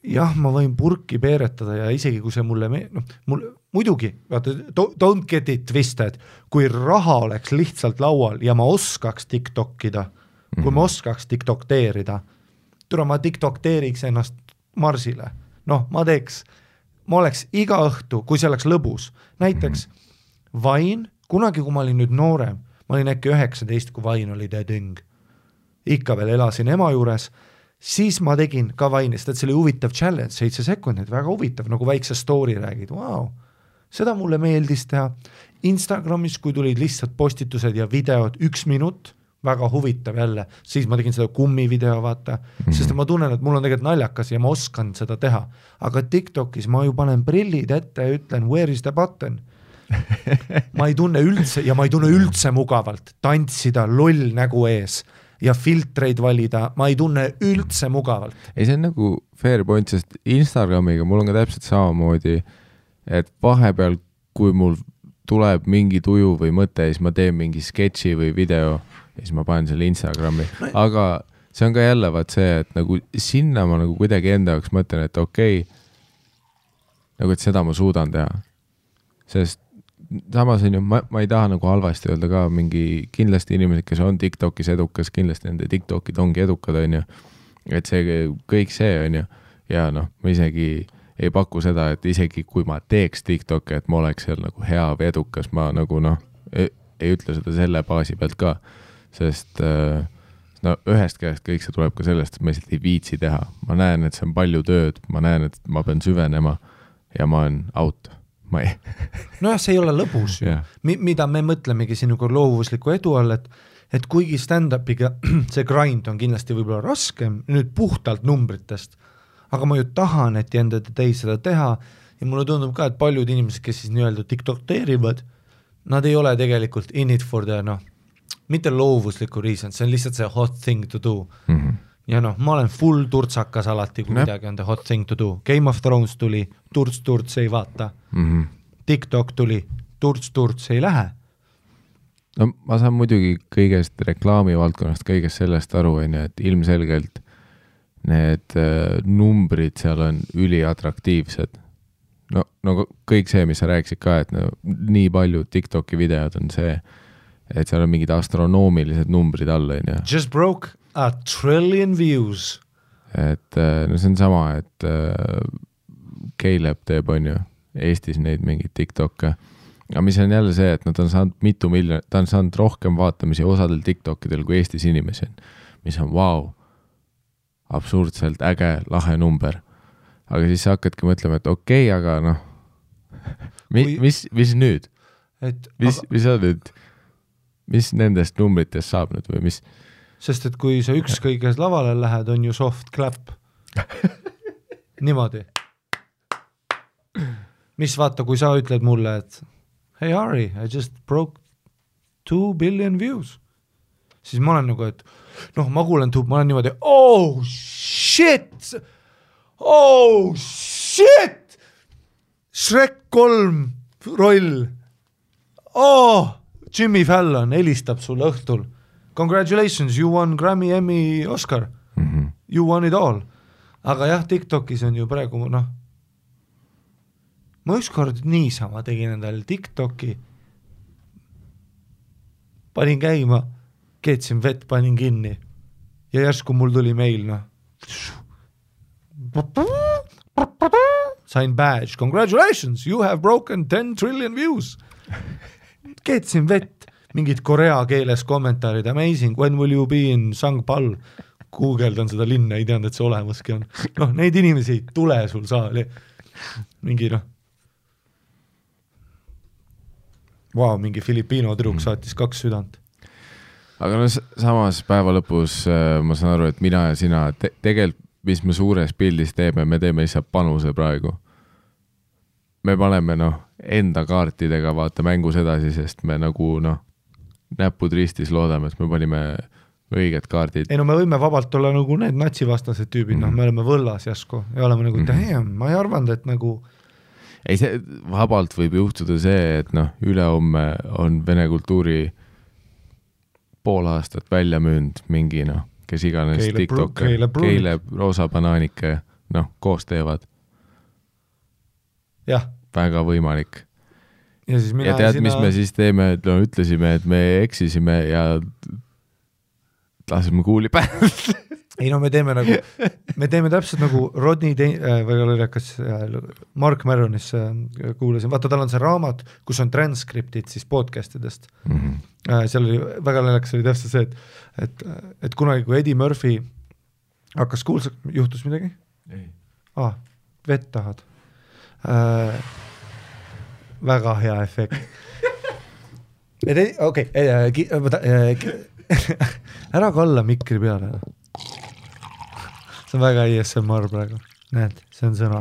jah, ma võin purki peeretada ja isegi kui see mulle muidugi, vaata, don't get it twisted, kui raha oleks lihtsalt laual ja ma oskaks TikTokida, kui ma oskaks TikTokteerida, ma TikTokteeriks ennast Marsile. Ma oleks iga õhtu, kui see oleks lõbus. Näiteks Vain, kunagi kui ma olin nüüd noorem, ma olin äkki 19, kui Vain oli täding. Ikka veel elasin ema juures, siis ma tegin ka Vainist, et see oli huvitav challenge, 7 sekundit, väga huvitav, nagu väikse story räägid. Wow. Seda mulle meeldis teha. Instagramis, kui tulid lihtsalt postitused ja videod 1 minut, väga huvitav jälle, siis ma tegin seda kummivideo, vaata, sest ma tunnen, et mul on tegelikult naljakas ja ma oskan seda teha. Aga TikTokis ma ju panen prillid ette ja ütlen, where is the button? Ma ei tunne üldse mugavalt tantsida loll nägu ees ja filtreid valida, ma ei tunne üldse mugavalt. Ei, see on nagu fair point, sest Instagramiga mul on ka täpselt samamoodi, et vahepeal, kui mul tuleb mingi tuju või mõte, siis ma teen mingi sketši või video ja siis ma panen selle Instagrami, aga see on ka jälle vaat see, et nagu sinna ma nagu kuidagi enda jaoks mõtlen, et okei, nagu et seda ma suudan teha. Sest samas on ju, ma ei taha nagu halvasti öelda ka mingi kindlasti inimesed, kes on TikTokis edukas, kindlasti nende TikTokid ongi edukad, on ju. Et see kõik see on ju. Ja noh, ma isegi ei paku seda, et isegi kui ma teeks TikToki, et ma oleks seal nagu hea või edukas, ma nagu noh, ei ütle seda selle baasi pealt ka. Sest no ühest käest kõik see tuleb ka sellest, et ma lihtsalt ei viitsi teha. Ma näen, et see on palju tööd, ma näen, et ma pean süvenema ja ma olen out. Nojah, see ei ole lõbus ju. Mida me mõtlemegi sinuga loovusliku edu all, et kuigi stand-upiga see grind on kindlasti võib-olla raskem, nüüd puhtalt numbritest, aga ma ju tahan, et jendad teis seda teha ja mulle tundub ka, et paljud inimesed, kes siis nii-öelda TikTok-teerivad, nad ei ole tegelikult in it for the, noh, mitte loovusliku reason, see on lihtsalt see hot thing to do. Ja noh, ma olen full turtsakas alati, kui midagi on the hot thing to do. Game of Thrones tuli, turts ei vaata. TikTok tuli, turts ei lähe. No ma saan muidugi kõigest reklaami valdkonnast, kõigest sellest aru, et ilmselgelt need numbrid seal on üliatraktiivsed. No kõik see, mis sa rääkisid ka, et no, nii palju TikToki videod on see, et seal on mingid astronoomilised numbrid all. Just broke a trillion views. Et no see on sama, et Caleb teeb on ju Eestis neid mingid TikTokke. Aga mis on jälle see, et nad on saanud mitu miljonit, ta on saanud rohkem vaatamisi osadel TikTokidel kui Eestis inimesi on, mis on wow, absurdselt äge, lahe number. Aga siis sa hakkadki mõtlema, et okei, aga noh, mis nüüd? Mis on nüüd? Mis nendest numbritest saab nüüd või mis? Sest et kui sa ükskõiges lavale lähed, on ju soft clap. Niimoodi. Mis vaata, kui sa ütled mulle, et hey Ari, I just broke 2 billion views. Siis ma olen nagu, et noh, ma kuulen ma olen niimoodi, oh shit! Shrek 3 roll. Jimmy Fallon helistab sulle õhtul. Congratulations, you won Grammy, Emmy, Oscar. You won it all. Aga jah, TikTokis on ju praegu, noh, ma ükskord niisama tegin endale TikToki, panin käima, keetsin vett, panin kinni ja järsku mul tuli meil, noh, sain badge, congratulations, you have broken 10 trillion views. Keetsin vett, mingid korea keeles kommentaarid, amazing, when will you be in Sangpal? Googledan seda linna, ei teanud, et see olemaski on. Noh, neid inimesi ei tule sul saali. Mingi, noh, wow, mingi Filipiino tüdruk saatis 2 südant. Aga no samas päeva lõpus ma saan aru, et mina ja sina tegelikult, mis me suures pildis teeme, me teeme lihtsalt panuse praegu. Me paneme noh, enda kaartidega vaata mängus edasi, sest me nagu noh, näpud ristis loodame, et me panime õiged kaardid. Ei no me võime vabalt olla nagu need natsivastased tüübid, noh, me oleme võllas jäsku ja oleme nagu, damn, ma ei arvanud, et nagu ei, see vabalt võib juhtuda see, et noh, ülehomme on vene kultuuri pool aastat välja müünd mingi noh, kes iganes TikTok, Caleb, Roosa Banaanike, noh, koos teevad. Jah. Väga võimalik. Ja, siis ja tead, mis me siis teeme, et no, ütlesime, et me eksisime ja lasime kuuli päev. Ei no me teeme täpselt nagu Rodney Mark Maronis kuulasin, vaata tal on see raamat, kus on transkriptid siis podcastidest. Seal oli väga naljakas, oli täpselt see, et kunagi kui Eddie Murphy hakkas kuulsaks, juhtus midagi? Ei. Vett tahad. Väga hea efekt. Okei, ära kalla mikri peale. See on väga ASMR praegu. Näed, see on sõna.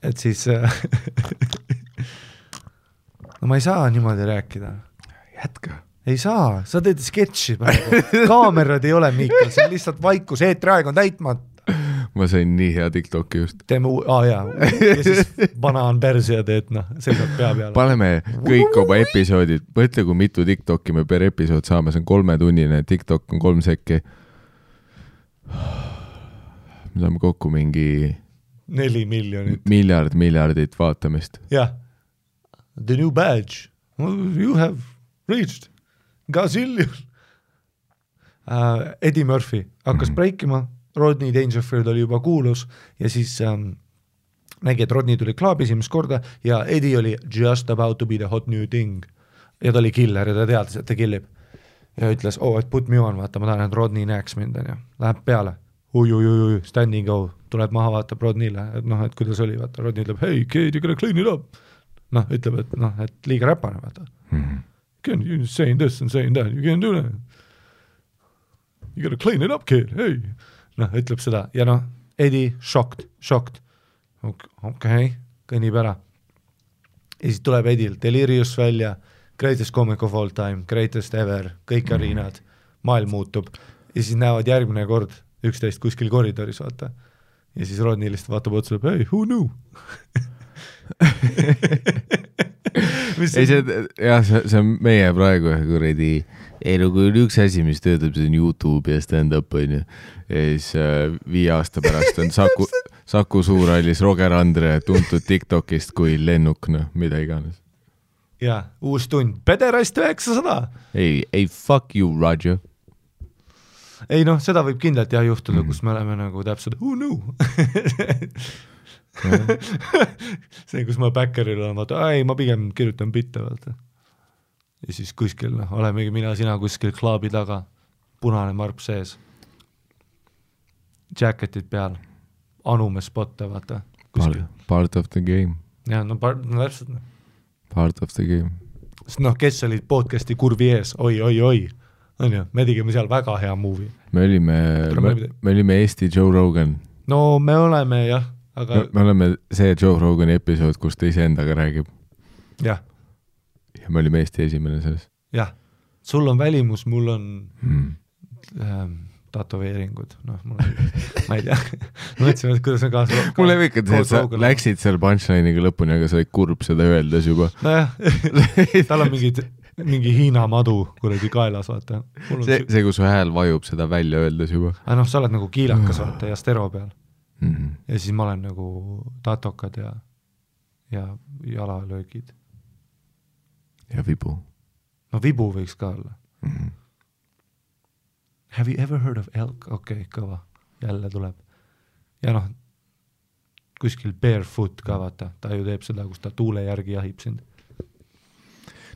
Et siis no ma ei saa niimoodi rääkida. Jätka. Ei saa, sa teed sketši praegu. Kaamerad ei ole, Miikal, see on lihtsalt vaikus, eetriaeg on täitmata. Ma sain nii hea TikToki just. Teeme ja siis banaan persi ja teed, noh, seisab pea peale. Paneme kõik oma episoodid, mõtle kui mitu TikToki me per episood saame, see on 3-tunnine, TikTok on 3 sekki. me saame kokku mingi 4 miljonit. miljardit vaatamist. jah. The new badge. You have reached gazillion. Eddie Murphy hakkas breikima, Rodney Dangerfield oli juba kuulus ja siis nägi, et Rodney tuli klaabi esimest korda ja Eddie oli just about to be the hot new thing. Ja ta oli killer ja ta teadis, et ta killib. Ja ütles, et put me on, vaata, ma tahan, et Rodney näeks mind, ja läheb peale. Ui, standing go, tuleb maha, vaatab Rodneyle, et et kuidas oli, vaata, Rodney ütleb, hey, kid, you gotta clean it up. Ütleb, et liiga räpane, vaata. You're saying this and saying that, you can't do that. You gotta clean it up, kid, hey. Ütleb seda, ja Eddie, shocked. Okei, kõnnib ära. Ja siis tuleb Eddil Delirious välja, greatest comic of all time, greatest ever, kõik arinad, maailm muutub. Ja siis näevad järgmine kord 11 kuskil koridoris, vaata. Ja siis Rodney lihtsalt vaatab otsa, hey, who knew? see on meie praegu kuradi kui üks asi, mis töötab, see on YouTube ja stand-up on ju. Ja siis 5 aasta pärast on Saku Suurhallis Roger Andre tuntud TikTokist kui lennuk, mida iganes. Ja, uus tund, Pederast 900. Ei, fuck you, Roger. Ei seda võib kindlalt juhtuda, kus me oleme nagu täpselt, who knew? See, kus ma backeril olen, vaata, ma pigem kirjutan bitte, vaata. Ja siis kuskil, olemegi sina kuskil klaabi taga, punane marp sees, jacketid peal, anume spotte, vaata. Part of the game. Ja, täpselt. Part of the game. Sest kes olid podcasti kurvi ees, oi, on ju, me tegime seal väga hea movie. Me olime Eesti Joe Rogan. No me oleme, jah, aga... Me oleme see Joe Rogani episood, kus ta ise endaga räägib. Jah. Ja me olime Eesti esimene selles. Jah. Sul on välimus, mul on tatoveeringud. Ma ei tea. Mõtlesin, et kuidas on kaasa... Mul ei ikka, et sa läksid seal punchline'iga lõpuni, aga sa olid kurb seda öeldes juba. Nojah, tal on mingi Hiina madu kuradi kaelas, vaata. See, kus su hääl vajub seda välja öeldes juba. Sa oled nagu kiilakas, vaata, ja stero peal. Ja siis ma olen nagu tatokad ja jalalöögid. Ja vibu. No vibu võiks ka olla. Have you ever heard of elk? Okei, kõva. Jälle tuleb. Ja kuskil barefoot ka, vaata. Ta ju teeb seda, kus ta tuule järgi jahib sind.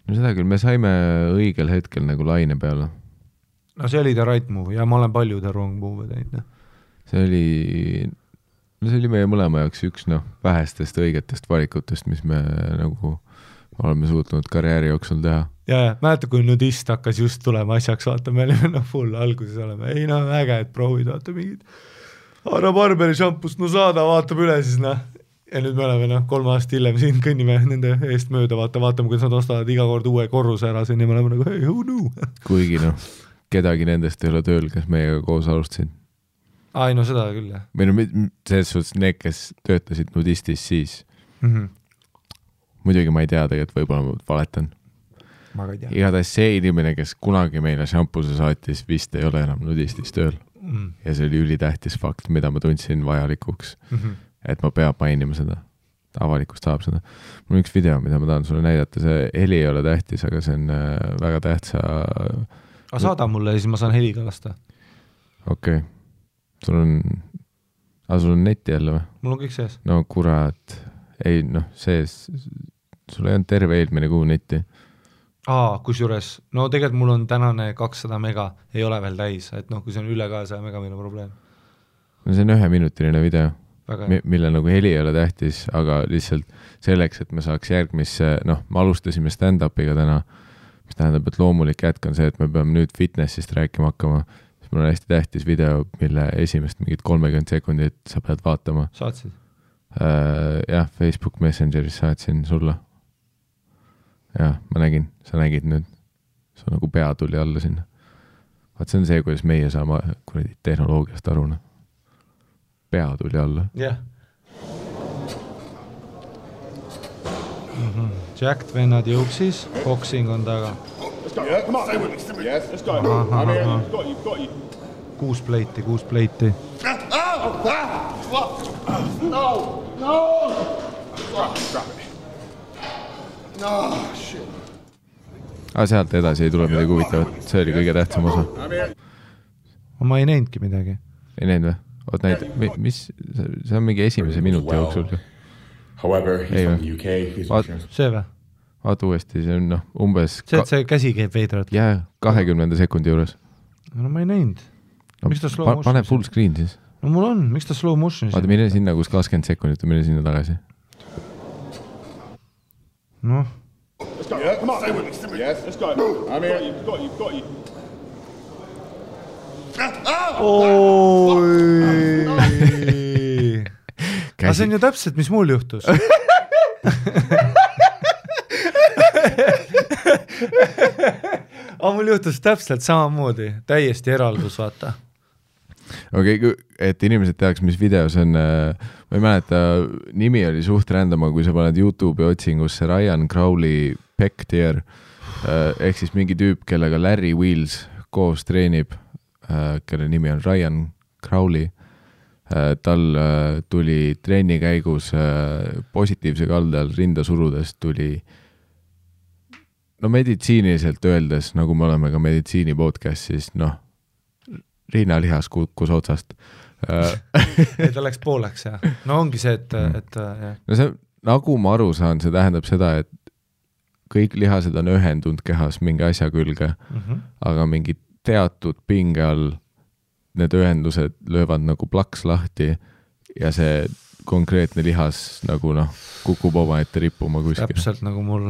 No seda küll, me saime õigel hetkel nagu laine peale. No see oli the right move ja ma olen palju the wrong move teinud. See oli meie mõlema jaoks üks vähestest õigetest valikutest, mis me nagu oleme suutnud karjääri jooksul teha. Ja, mäletan, kui nudist hakkas just tulema asjaks, vaata, me olime full alguses oleme. Ei äge, et proovid, vaata mingid Ara Barberi šampust, saada, vaatab üle siis, Ja nüüd me oleme 3 aastat hiljem siin kõnnime nende eest mööda, vaatame, kuidas nad ostavad iga kord uue korruse ära siin ja me oleme nagu, hey, who knew? Kuigi kedagi nendest ei ole tööl, kes meiega koos alustasid. Ai, seda küll, jah. Või selles suhtes need, kes töötasid nudistis siis. Muidugi ma ei tea tegelikult, võib-olla ma valetan. Ma ka ei tea. Igatahes see inimene, kes kunagi meile šampuse saatis, vist ei ole enam nudistis tööl. Ja see oli ülitähtis fakt, mida ma tundsin vajalikuks. Et ma peab mainima seda. Avalikust saab seda. Mul on üks video, mida ma tahan sulle näidata. See heli ei ole tähtis, aga see on väga tähtsa... saada mulle ja siis ma saan heliga lasta. Okei. Sul on netti jälle või? Mul on kõik sees. No kurat. Ei, sees. Sul ei on terve eelmine kuu netti. Kusjuures, tegelikult mul on tänane 200 mega, ei ole veel täis, et kui see on üle 200 mega, meil on probleem. See on 1-minutiline video, mille nagu heli ei ole tähtis, aga lihtsalt selleks, et me saaks järgmisse, me alustasime stand-upiga täna, mis tähendab, et loomulik jätk on see, et me peame nüüd fitnessist rääkima hakkama, siis mul on hästi tähtis video, mille esimest mingit 30 sekundit sa pead vaatama. Saatsid? Jah, Facebook Messengeris saatsin sulle. Jah, ma nägin, sa nägid nüüd. See nagu pea tuli alla sinna. Vaat see on see, kuidas meie saame tehnoloogiast aru. Pea tuli alla. Jah. Jacked vennad jõuksis, boxing on taga. Let's go. Yeah, come on. Stay with me. Yes, let's go. Got you. 6 pleiti. Sealt edasi ei tule midagi huvitavat, see oli kõige tähtsam osa. Ma ei näinudki midagi. Ei näinud või? Oot näid, mis, see on mingi esimese minuti jooksul. Ei või? See või? Vaata uuesti, see on umbes... See käsi käib veidrat. Jaa, 20 sekundi juures. No ma ei näinud. Miks ta slow motion? Pane full screen siis. No mul on, miks ta slow motion? Vaata, mine sinna, kus 20 sekundit, mine sinna tagasi. Noh. Let's go. Yeah, come on. Stay with me. Stay with me. Yes. Let's go. I'm here. You've got you. Aga see on ju täpselt, mis mul juhtus. Aga mul juhtus täpselt samamoodi. Täiesti eraldus, vaata. Okei, et inimesed teaks, mis videos on, ma ei mäleta, nimi oli suht rändama, kui sa paned YouTube'i otsingusse Ryan Crowley Pectier, ehk siis mingi tüüp, kellega Larry Wheels koos treenib, kelle nimi on Ryan Crowley. Tal tuli treeni käigus positiivse kaldal rinda surudes tuli meditsiiniliselt öeldes, nagu me oleme ka meditsiini podcastis, riinalihas kukkus otsast. Ta läks pooleks, jah. No ongi see, et no see, nagu ma aru saan, see tähendab seda, et kõik lihased on ühendunud kehas mingi asja külge, aga mingi teatud pinge all need ühendused löövad nagu plaks lahti ja see konkreetne lihas nagu kukub oma ette rippuma kuskil. Täpselt nagu mul.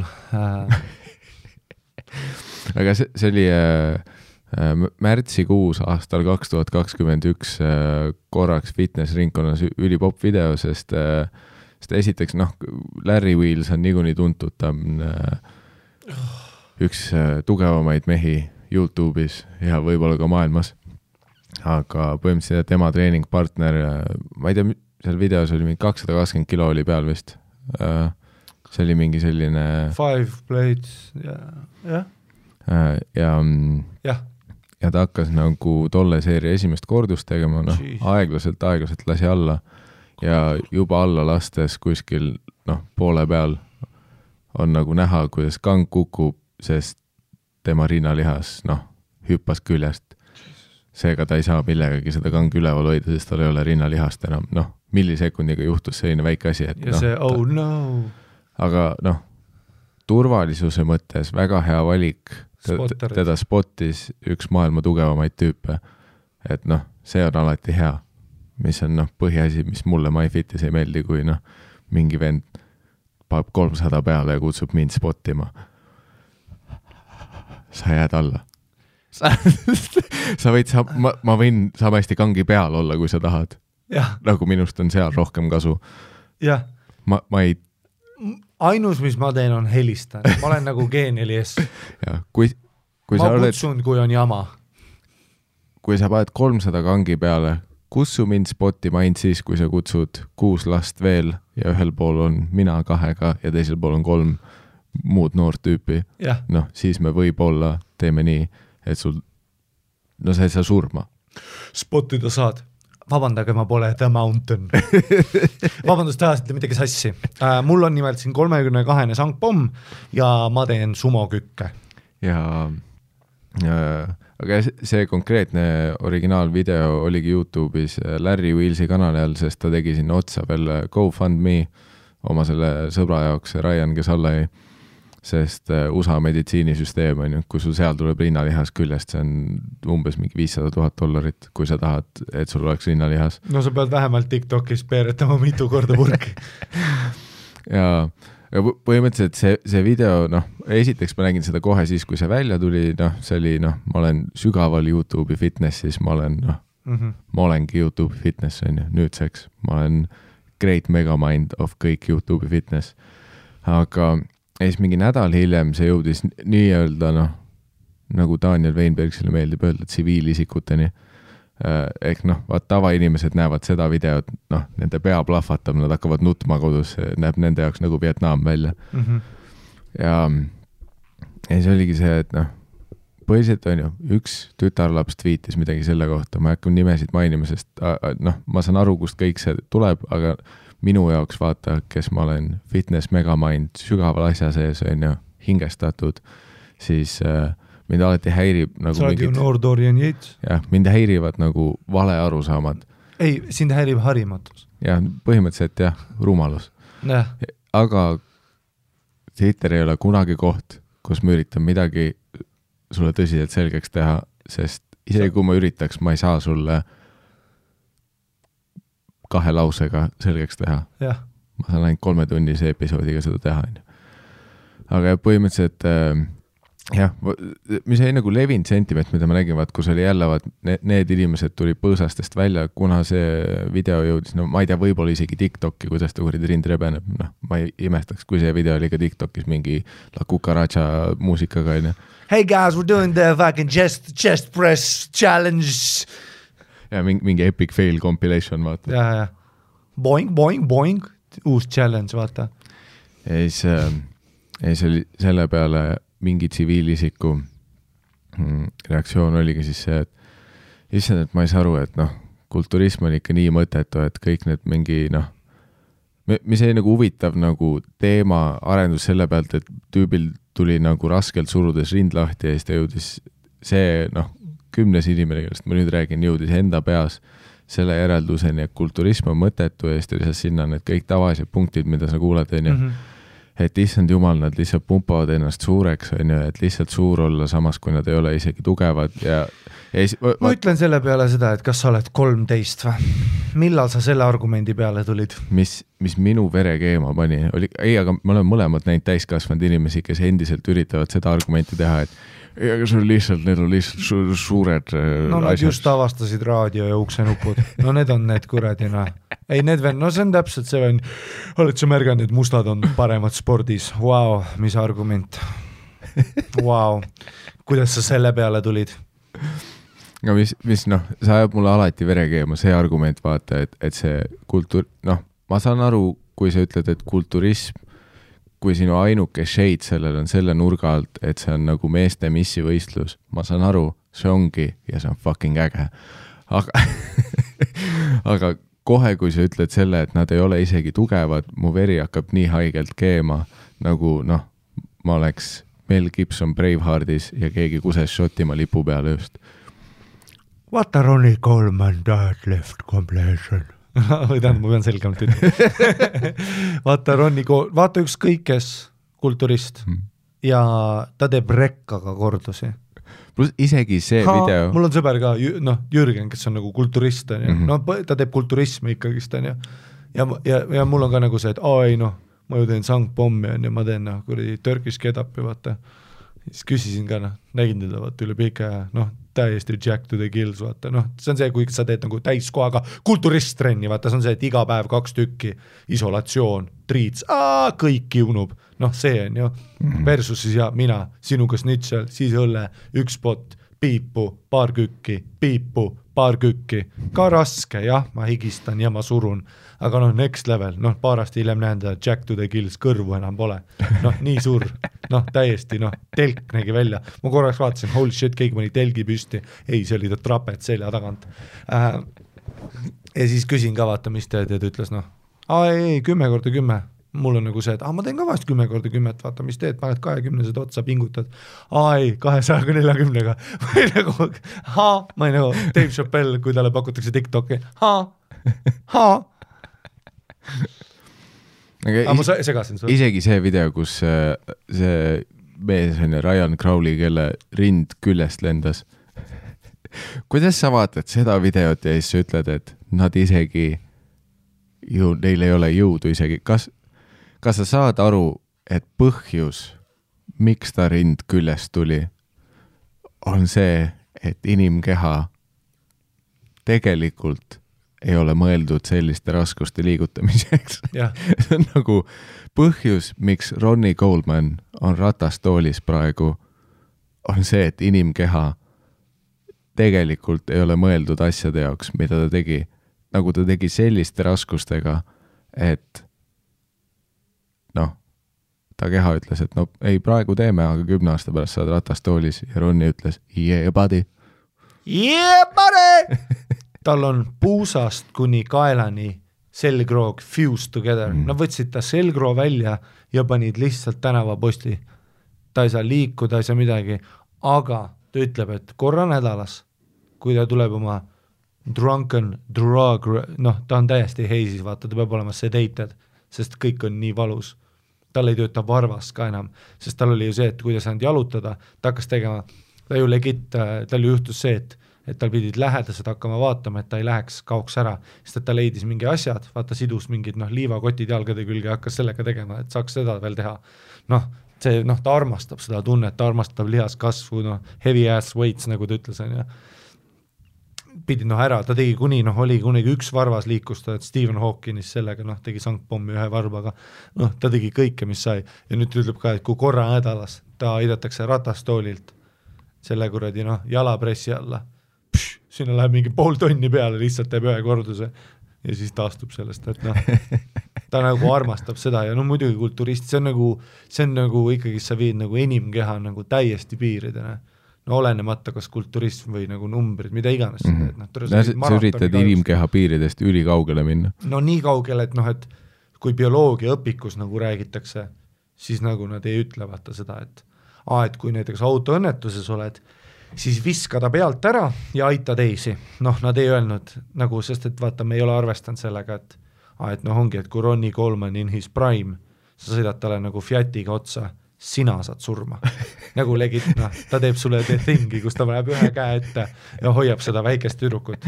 Aga see oli märtsikuus aastal 2021 korraks fitness-ringkonnas ülipopp video, sest esiteks, Larry Wheels on niikuinii tuntud, ta on üks tugevamaid mehi YouTube'is ja võib-olla ka maailmas. Aga põhimõtteliselt tema treeningpartner, ma ei tea, seal videos oli mingi 220 kilo oli peal vist. See oli mingi selline... 5 plates, jah. Ja ta hakkas nagu tolle seeria esimest kordust tegema, aeglaselt lasi alla ja juba alla lastes kuskil poole peal on nagu näha, kuidas kang kukub, sest tema rinnalihas hüppas küljest. Seega ta ei saa millegagi seda kangi üleval hoida, sest tal ei ole rinnalihast enam. Millisekundiga juhtus selline väike asi, et ja see, no. Aga turvalisuse mõttes väga hea valik. Teda spottis üks maailma tugevamaid tüüpe. Et see on alati hea, mis on põhiasi, mis mulle MyFitis ei meeldi, kui mingi vend paneb 300 peale ja kutsub mind spottima. Sa jääd alla. Sa võid, ma võin samasti kangi peal olla, kui sa tahad. Nagu minust on seal rohkem kasu. Jah. Ma ei... Ainus, mis ma teen, on helistan. Ma olen nagu G4S. Ja, kui ma kutsun, kui on jama. Kui sa paned 300 kangi peale, kutsu mind spottima ainult siis, kui sa kutsud 6 last veel ja ühel pool on mina 2 ja teisel pool on 3 muud noort tüüpi. Siis me võib-olla teeme nii, et sul, sa ei saa surma. Spotida saad. Vabandage, ma pole The Mountain. Vabandust, ajasite midagi sassi. Mul on nimelt siin 32 sangpomm ja ma teen sumokükke. Aga see konkreetne originaalvideo oligi YouTube'is Larry Wheelsi kanali all, sest ta tegi sinna otsa veel GoFundMe oma selle sõbra jaoks, Ryan, kes alla jäi. Sest USA meditsiinisüsteem on ju, kui sul seal tuleb rinnalihas küljest, see on umbes mingi $500,000, kui sa tahad, et sul oleks rinnalihas. No sa pead vähemalt TikTokis peeretama mitu korda purki. ja põhimõtteliselt see video, esiteks ma nägin seda kohe siis, kui see välja tuli, see oli, ma olen sügaval YouTube'i fitnessis, ma olengi YouTube'i fitness, on ju, nüüdseks. Ma olen great megamind of kõik YouTube'i fitness. Aga ja siis mingi nädal hiljem see jõudis nii-öelda, nagu Daniel Weinbergsile meeldib öelda, tsiviilisikuteni. Ehk tavainimesed näevad seda videot, nende pea plahvatab, nad hakkavad nutma kodus, näeb nende jaoks nagu Vietnam välja. Ja see oligi see, et põhiliselt on ju, üks tütarlaps tweetis midagi selle kohta, ma ei hakka nimesid mainima, sest ma saan aru, kust kõik see tuleb, aga minu jaoks vaata, kes ma olen fitness megamind sügaval asja sees, on ju, hingestatud, siis mind alati häirib nagu sa oled ju noor Dorian Yates. Jah, mind häirivad nagu vale arusaamad. Ei, sind häirib harimatus. Jah, põhimõtteliselt jah, rumalus. Aga Twitter ei ole kunagi koht, kus ma üritan midagi sulle tõsiselt selgeks teha, sest isegi kui ma üritaks, ma ei saa sulle 2 lausega selgeks teha. Ja. Ma saan ainult 3-tunnise episoodiga seda teha. Aga põhimõtteliselt jah, mis ei nagu levinud sentiment, mida ma nägin, vaat, kus oli jälle need inimesed tuli põõsastest välja, kuna see video jõudis, no ma ei tea, võib-olla isegi TikToki, kuidas ta kuridi rind rebeneb, noh, ma ei imestaks, kui see video oli ka TikTokis mingi La Cucaracha muusikaga, on ju. Hey guys, we're doing the fucking chest press challenge. Ja mingi epic fail compilation, vaata. Ja. Boing, boing, boing, uus challenge, vaata. Ja siis oli selle peale mingi tsiviilisiku reaktsioon oligi siis see, et issand, et ma ei saa aru, et noh, kulturism on ikka nii mõttetu, et kõik need mingi noh, mis ei nagu huvitav nagu teema arendus selle pealt, et tüübil tuli nagu raskelt surudes rind lahti ja siis ta jõudis see noh, 10 inimene, kellest ma nüüd räägin, jõudis enda peas selle järelduseni, et kulturism on mõttetu ja siis ta lisas sinna need kõik tavalised punktid, mida sa kuulad, on ju. Et issand jumal, nad lihtsalt pumpavad ennast suureks, on ju, et lihtsalt suur olla samas, kui nad ei ole isegi tugevad ja ma ütlen selle peale seda, et kas sa oled 13 või? Millal sa selle argumendi peale tulid? Mis minu vere keema pani, oli, ei, aga ma olen mõlemad näinud täiskasvanud inimesi, kes endiselt üritavad seda argumenti teha, et aga see on lihtsalt, need on lihtsalt suured no nad just avastasid raadio ja uksenupud, no need on need kuradina. Ei, need veel, no see on täpselt see on, oled sa märganud, et mustad on paremad spordis, wow, mis argument, wow, kuidas sa selle peale tulid? No mis noh, sa ajab mulle alati vere keema, see argument vaata, et see kultuur, noh, ma saan aru, kui sa ütled, et kulturism, kui sinu ainuke shade sellel on selle nurga alt, et see on nagu meeste missi võistlus, ma saan aru, see ongi ja see on fucking äge. Aga kohe, kui sa ütled selle, et nad ei ole isegi tugevad, mu veri hakkab nii haigelt keema, nagu noh, ma oleks Mel Gibson Braveheartis ja keegi kuses Šotimaa lipu peale just. What a Ronnie Coleman that left completion. Või tähendab, ma pean selgemalt ütlema. Vaata ükskõik kes kulturist ja ta teeb rekkaga kordusi. Plus isegi see video. Mul on sõber ka, noh, Jürgen, kes on nagu kulturist, no, ta teeb kulturismi ikkagist, ja mul on ka nagu see, et ei noh, ma ju teen sangpommi ja ma teen noh, kuradi Turkish kedapi, vaata. Siis küsisin ka, noh, nägin teda vaata üle pika ja noh, täiesti Jack to the Gills, vaata, noh, see on see, kui sa teed nagu täiskohaga kulturist-trenni, vaata, see on see, et iga päev 2 tükki, isolatsioon, triits, kõik kiunub, noh, see on ju, versus siis ja mina, sinuga snitšel, siis õlle, 1 pot, piipu, paar kükki, ka raske, jah, ma higistan ja ma surun, aga noh, next level, noh, paar aasta hiljem näen ta Jack to the Gills, kõrvu enam pole, noh, nii suur, noh, täiesti, noh, telk nägi välja, ma korraks vaatasin, holy shit, keegi mõni telgi püsti, ei, see oli ta trapet selja tagant, ja siis küsin ka, vaata, mis teed, ja ta ütles, noh, ei, 10x10, mul on nagu see, et ma teen ka vahest 10x10, vaata, mis teed, paned 20-sed otsa, pingutad, ei, 240-ga, või nagu, ma ei nagu, Dave Chappelle, kui talle pakutakse TikToki, aga ma segasin sulle. Isegi see video, kus see mees on Ryan Crowley, kelle rind küljest lendas. Kuidas sa vaatad seda videot ja siis sa ütled, et nad isegi neil ei ole jõudu isegi. Kas sa saad aru, et põhjus, miks ta rind küljest tuli, on see, et inimkeha tegelikult ei ole mõeldud selliste raskuste liigutamiseks. See on nagu põhjus, miks Ronnie Coleman on ratastoolis praegu, on see, et inimkeha tegelikult ei ole mõeldud asjade jaoks, mida ta tegi. Nagu ta tegi selliste raskustega, et noh, ta keha ütles, et no ei, praegu teeme, aga 10 aasta pärast saad ratastoolis ja Ronny ütles, yeah buddy. Yeah buddy! Tal on puusast kuni kaelani selgroog fused together. Nad võtsid ta selgroo välja ja panid lihtsalt tänavaposti. Ta ei saa liikuda, ei saa midagi, aga ta ütleb, et korra nädalas, kui ta tuleb oma drunken drug, ta on täiesti heisis, vaata, ta peab olema sedated, sest kõik on nii valus. Tal ei tööta varvas ka enam, sest tal oli ju see, et kui ta saanud jalutada, ta hakkas tegema, tal ju juhtus see, et tal pidid lähedased hakkama vaatama, et ta ei läheks, kaoks ära, sest et ta leidis mingi asjad, vaata sidus mingid liivakotid jalgade külge, hakkas sellega tegema, et saaks seda veel teha. Ta armastab seda tunnet, ta armastab lihaskasvu, heavy ass weights, nagu ta ütles, on ju. Pidi ära, ta tegi oli kunagi üks varvas liikus, et Stephen Hawkins sellega tegi sankpommi ühe varbaga, ta tegi kõike, mis sai, ja nüüd ütleb ka, et kui korra nädalas ta aidatakse ratastoolilt selle kuradi jalapressi alla, sinna läheb mingi 0,5 tonni peale, lihtsalt teeb ühe korduse ja siis taastub sellest, et ta nagu armastab seda ja muidugi kulturist, see on nagu ikkagi sa viid nagu inimkeha nagu täiesti piiridena. Olenemata kas kulturism või nagu numbrid, mida iganes. Sa üritad inimkeha piiridest üli kaugele minna. Nii kaugele, et kui bioloogia õpikus nagu räägitakse, siis nagu nad ei ütle vaata seda, et kui näiteks autoõnnetuses oled, siis viska ta pealt ära ja aita teisi. Nad ei öelnud, nagu, sest et vaata, me ei ole arvestanud sellega, et ongi, et kui Ronnie Coleman in his prime, sa sõidad talle nagu Fiatiga otsa, sina saad surma. Nagu legit, ta teeb sulle tingi, kus ta läheb ühe käe ette ja hoiab seda väikest tüdrukut,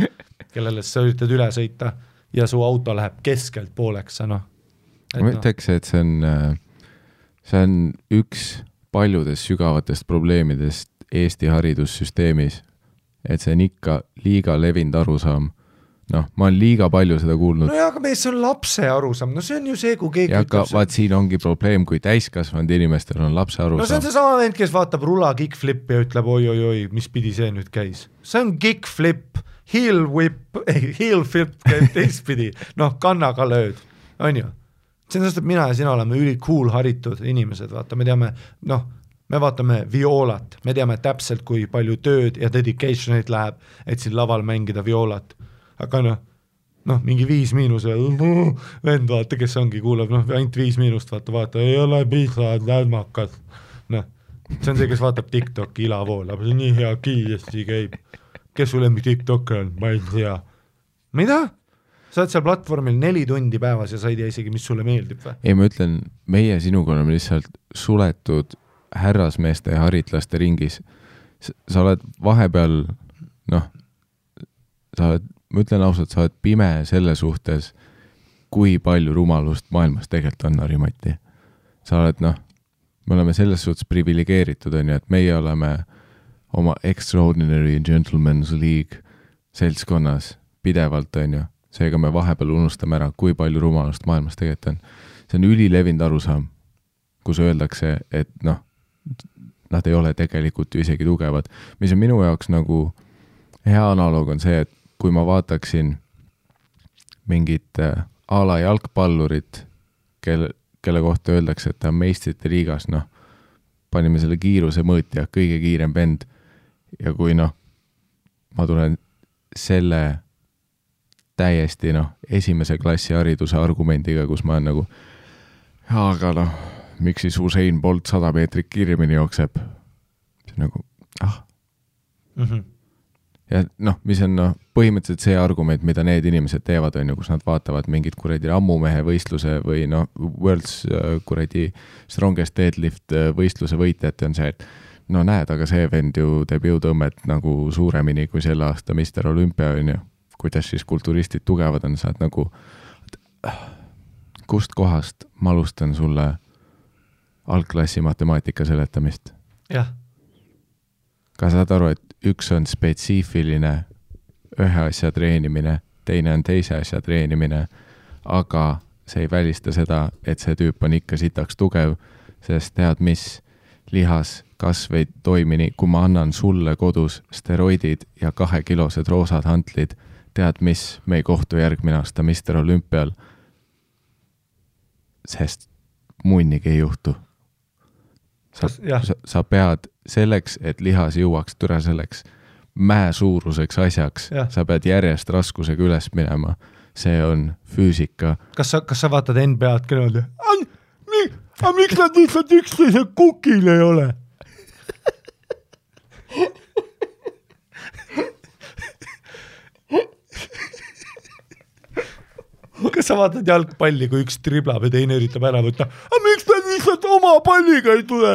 kellele sa üritad üle sõita ja su auto läheb keskelt pooleks. Ma ütleks, et see on üks paljudest sügavatest probleemidest Eesti haridussüsteemis, et see on ikka liiga levinud arusaam. Ma olen liiga palju seda kuulnud. Aga see on lapse arusaam, see on ju see, kui keegi ütleb see. Vaat siin ongi probleem, kui täiskasvanud inimestel on lapse arusaam. See on see sama vend, kes vaatab rula kickflip ja ütleb oi, mis pidi see nüüd käis. See on kickflip, heel flip käib teistpidi, kannaga lööd, on ju. See on sest, et mina ja sina oleme üli cool haritud inimesed, vaata, me teame, me vaatame violat, me teame täpselt, kui palju tööd ja dedicationit läheb, et siin laval mängida violat. Aga mingi 5 vend vaata, kes ongi, kuulab, ainult 5 vaata, ei ole piisavad lädmakad. See on see, kes vaatab TikToki ilavoolab, see on nii hea kiiresti käib. Kes sul lemmi TikToker on? Ma ei tea. Mida? Sa oled seal platvormil 4 tundi päevas ja sa ei tea isegi, mis sulle meeldib või? Ei, ma ütlen, meie sinuga oleme lihtsalt suletud härrasmeeste ja haritlaste ringis. Sa oled vahepeal, ma ütlen ausalt, sa oled pime selle suhtes, kui palju rumalust maailmas tegelikult on, Harimati. Sa oled, me oleme selles suhtes privilegeeritud, on ju, et meie oleme oma Extraordinary Gentleman's League seltskonnas pidevalt, on ju. Seega me vahepeal unustame ära, kui palju rumalust maailmas tegelikult on. See on ülilevinud arusaam, kus öeldakse, et nad ei ole tegelikult ju isegi tugevad. Mis on minu jaoks nagu hea analoog on see, et kui ma vaataksin mingit ala jalgpallurit, kelle kohta öeldakse, et ta on meistrite liigas, panime selle kiiruse mõõtja, kõige kiirem vend. Ja kui ma tulen selle täiesti esimese klassi hariduse argumendiga, kus ma olen nagu, aga miks siis Usain Bolt 100 meetrit kiiremini jookseb? See on nagu, Ja mis on põhimõtteliselt see argument, mida need inimesed teevad, on ju, kus nad vaatavad mingit kuradi ammumehe võistluse või World's kuradi Strongest Deadlift võistluse võitjate on see, et näed, aga see vend ju teeb jõutõmmet nagu suuremini kui selle aasta Mr. Olympia, on ju. Kuidas siis kulturistid tugevad on, saad nagu, kust kohast ma alustan sulle algklassi matemaatika seletamist? Jah. Ka saad aru, et üks on spetsiifiline ühe asja treenimine, teine on teise asja treenimine, aga see ei välista seda, et see tüüp on ikka sitaks tugev, sest tead mis, lihas kasv ei toimi nii, kui ma annan sulle kodus steroidid ja 2-kilosed roosad hantlid, tead mis, me ei kohtu järgmine aasta Mr. Olümpial, sest munnigi ei juhtu. sa pead selleks, et lihas jõuaks türa selleks mäe suuruseks asjaks, sa pead järjest raskusega üles minema. See on füüsika. Kas sa vaatad NBA-d kõnelda? Miks nad lihtsalt üksteise kukil ei ole? Kas sa vaatad jalgpalli, kui üks triblab ja teine üritab ära võtta? Miks nad lihtsalt oma palliga ei tule?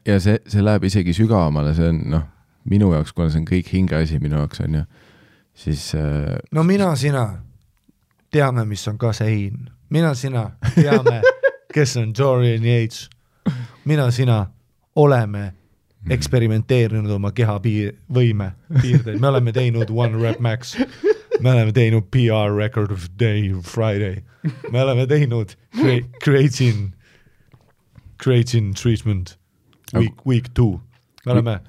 Ja see läheb isegi sügavamale, see on minu jaoks, kuna see on kõik hingeasi minu jaoks on ju, siis no sina teame, mis on kasein. Sina teame, kes on Dorian Yates. Sina oleme eksperimenteerinud oma keha võime piirdeid. Me oleme teinud One Rep Max. Me oleme teinud PR Record of Day Friday. Me oleme teinud creatine treatment week 2. Me oleme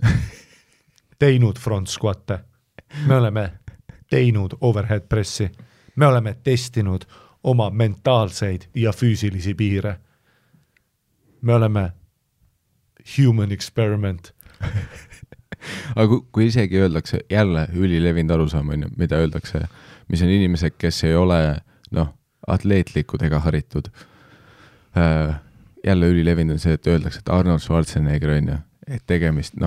teinud front squatte. Me oleme teinud overhead pressi. Me oleme testinud oma mentaalseid ja füüsilisi piire. Me oleme human experiment. Aga kui isegi öeldakse, jälle ülilevinud arusaam on, mida öeldakse, mis on inimesed, kes ei ole atleetlikud ega haritud. Jälle ülilevinud on see, et öeldakse, et Arnold Schwarzenegger on, et tegemist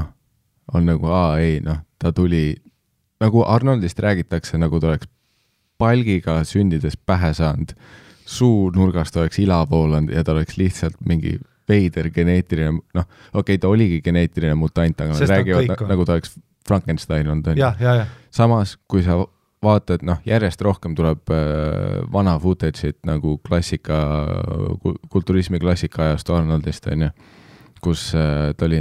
on nagu, ta tuli, nagu Arnoldist räägitakse, nagu ta oleks palgiga sündides pähe saanud, suu nurgast oleks ilapoolanud ja ta oleks lihtsalt mingi veider geneetiline, ta oligi geneetiline mutant, aga nad räägivad nagu ta oleks Frankenstein on. Samas, kui sa vaatad, järjest rohkem tuleb vana footage'it nagu kulturismi klassika ajast Arnoldist, kus ta oli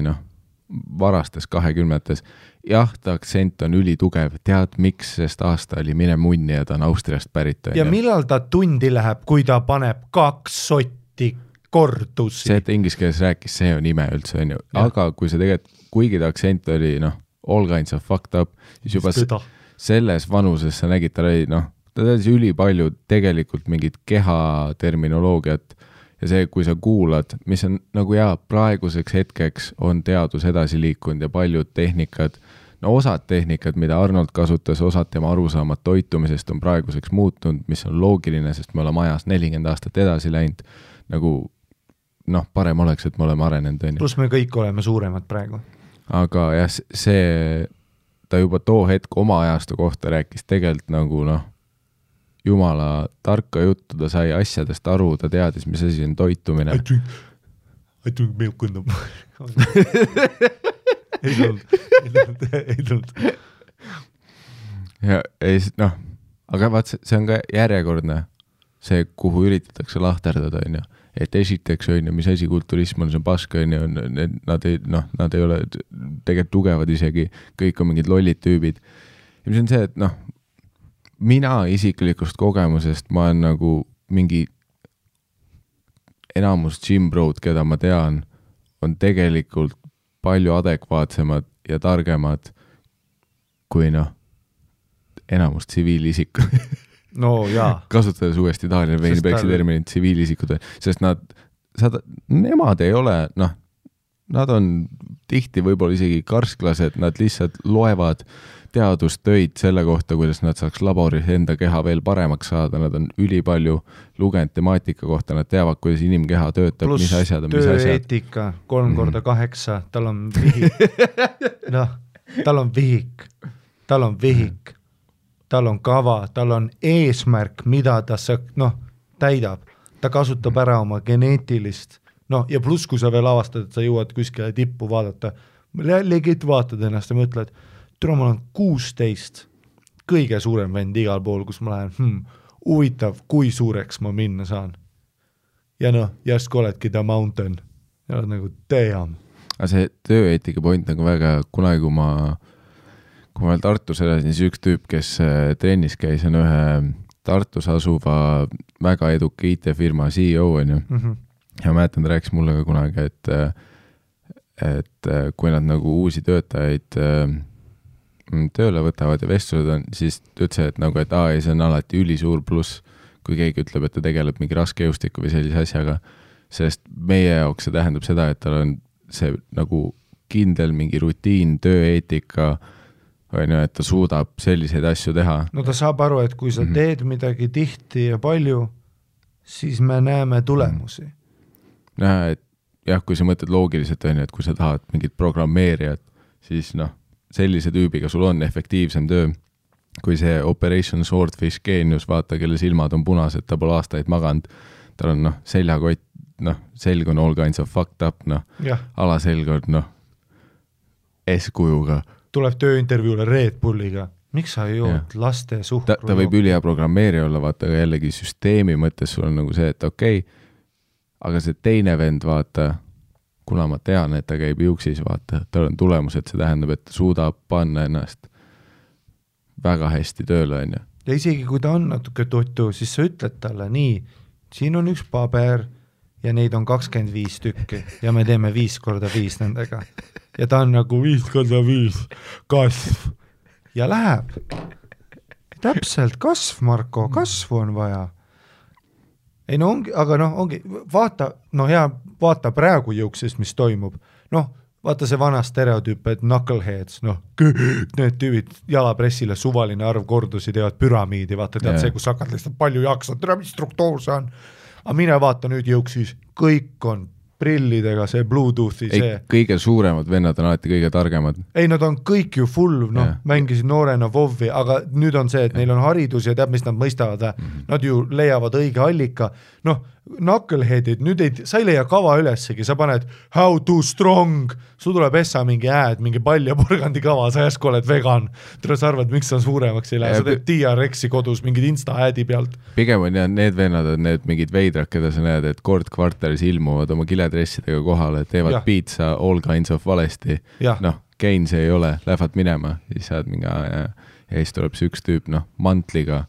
varastes 20-tes. Jah, ta aktsent on ülitugev, tead miks, sest aasta oli mine munni ja ta on Austriast pärit. Ja millal ta tundi läheb, kui ta paneb 2 sotti kordusi? See, et inglise keeles rääkis, see on ime üldse, on ju. Aga kui see tegelikult, kuigi ta aktsent oli, all kinds of fucked up, siis juba selles vanuses sa nägid, ta oli, ta teadis ülipalju tegelikult mingit keha terminoloogiat ja see, kui sa kuulad, mis on nagu praeguseks hetkeks on teadus edasi liikunud ja paljud tehnikad, osad tehnikad, mida Arnold kasutas, osad tema arusaamad toitumisest on praeguseks muutunud, mis on loogiline, sest me oleme ajas 40 aastat edasi läinud, nagu parem oleks, et me oleme arenenud. Plus me kõik oleme suuremad praegu. Aga jah, see, ta juba too hetk oma ajastu kohta rääkis tegelikult nagu jumala tarka juttu, ta sai asjadest aru, ta teadis, mis asi on toitumine. I drink milk in the morning. Ei tulnud. Ja aga vaat see on ka järjekordne see, kuhu üritatakse lahterdada, on ju. Et esiteks on ju, mis asi kulturism on, see on paska, on ju, nad ei ole tegelikult tugevad isegi, kõik on mingid lollid tüübid. Ja mis on see, et mina isiklikust kogemusest, ma olen nagu mingi enamus gym bro'd, keda ma tean, on tegelikult palju adekvaatsemad ja targemad kui enamus tsiviilisikud. No jaa. Kasutades uuesti Daniel Weinbergsi terminit tsiviilisikud, sest nemad ei ole, nad on tihti võib-olla isegi karsklased, nad lihtsalt loevad teadustöid selle kohta, kuidas nad saaks laboris enda keha veel paremaks saada, nad on ülipalju lugenud temaatika kohta, nad teavad, kuidas inimkeha töötab, mis asjad on, mis asjad. Plus tööeetika 3x8, tal on vihik. Tal on vihik. Tal on vihik. Tal on kava, tal on eesmärk, mida ta täidab. Ta kasutab ära oma geneetilist. Ja pluss, kui sa veel avastad, et sa jõuad kuskile tippu vaadata, legit vaatad ennast ja mõtled, ma olen 16, kõige suurem vend igal pool, kus ma lähen, huvitav, kui suureks ma minna saan. Ja järsku oledki the mountain. Ja oled nagu, damn. Aga see tööeetika point nagu väga, kunagi kui ma veel Tartus elasin, siis üks tüüp, kes trennis käis, on ühe Tartus asuva väga eduka IT-firma CEO, on ju. Ja mäletan, ta rääkis mulle ka kunagi, et kui nad nagu uusi töötajaid tööle võtavad ja vestlused on, siis ütles, et nagu, et see on alati ülisuur pluss, kui keegi ütleb, et ta tegeleb mingi raske jõustiku või sellise asjaga, sest meie jaoks see tähendab seda, et tal on see nagu kindel mingi rutiin, tööeetika, on ju, et ta suudab selliseid asju teha. No ta saab aru, et kui sa teed midagi tihti ja palju, siis me näeme tulemusi. Näha, et jah, kui sa mõtled loogiliselt, on ju, et kui sa tahad mingit programmeerijat, siis noh, sellise tüübiga sul on efektiivsem töö. Kui see Operation Swordfish geenius, vaata, kelle silmad on punased, ta pole aastaid maganud, tal on seljakott, selg on all kinds of fucked up, alaselg on eskujuga. Tuleb tööintervjuule Red Bulliga. Miks sa jood laste suhkru? Ta võib ülihea programmeerija olla, vaata, aga jällegi süsteemi mõttes sul on nagu see, et okei, aga see teine vend, vaata, kuna ma tean, et ta käib juuksis, vaata, tal on tulemused, see tähendab, et ta suudab panna ennast väga hästi tööle, on ju. Ja isegi kui ta on natuke tuttu, siis sa ütled talle nii, siin on üks paber ja neid on 25 tükki ja me teeme 5x5 nendega. Ja ta on nagu 5x5 kasv ja läheb. Täpselt, kasv, Marko, kasvu on vaja. Ei no ongi, aga ongi, vaata, vaata praegu juuksis, mis toimub. Vaata see vana stereotüüp, et knuckleheads, need tüübid jalapressile suvaline arv kordusi teevad püramiidi, vaata tead see, kus hakkad lihtsalt palju jaksad, tere, mis struktuur see on. Aga mine vaata nüüd juuksis, kõik on prillidega, see Bluetoothi, see. Kõige suuremad vennad on alati kõige targemad. Ei, nad on kõik ju full, mängisid noorena Vovi, aga nüüd on see, et neil on haridus ja teab, mis nad mõistavad. Nad ju leiavad õige allika. Knuckleheadid, nüüd sa ei leia kava ülessegi, sa paned how to strong, sul tuleb essa mingi mingi pall ja porgandi kava, sa järsku oled vegan, sa arvad, miks sa suuremaks ei lähe, sa teed TRX-i kodus mingid Insta-äädi pealt. Pigem on need vennad on need mingid veidrad, keda sa näed, et kord kvartalis ilmuvad oma kiledressidega kohale, teevad pizza all kinds of valesti, Kein see ei ole, lähevad minema, siis saad mingi ja siis tuleb see üks tüüp, mantliga,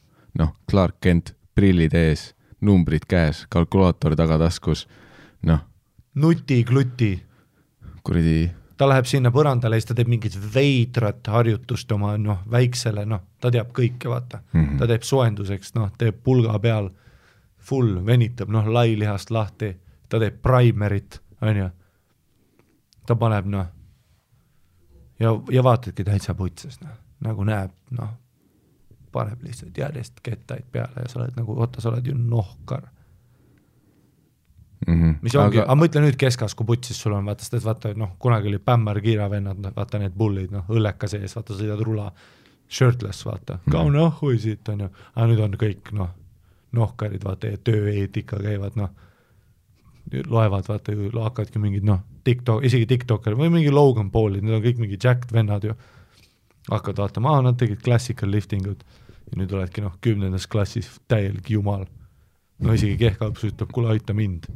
Clark Kent, prillid ees, numbrid käes, kalkulaator tagataskus, Nuti-kluti. Kuridi. Ta läheb sinna põrandale ja siis ta teeb mingit veidrat harjutust oma väiksele, ta teab kõike, vaata. Ta teeb soenduseks, teeb pulga peal, full, venitab, lailihast lahti, ta teeb primerit, on ju. Ta paneb, ja vaatadki täitsa putses, nagu näeb, paneb lihtsalt järjest kettaid peale ja sa oled nagu, sa oled ju nohkar. Mis ongi, aga mõtle nüüd keskas, kui putsis sul on, vaata, kunagi oli Pämmar Kiiravennad, vaata need bullid, õlleka sees, vaata, sõidad rula, shirtless, vaata, kaune ahhui siit on ju, aga nüüd on kõik, nohkarid, vaata, ja tööeetika käivad, loevad, vaata, ju hakkavadki mingid, isegi TikToker või mingi Logan Paulid, need on kõik mingi jacked vennad ju, hakkavad vaatama, nad tegid classical liftingut ja nüüd oledki 10. klassis täielik jumal. Isegi kehkalps ütleb, kuule aita mind.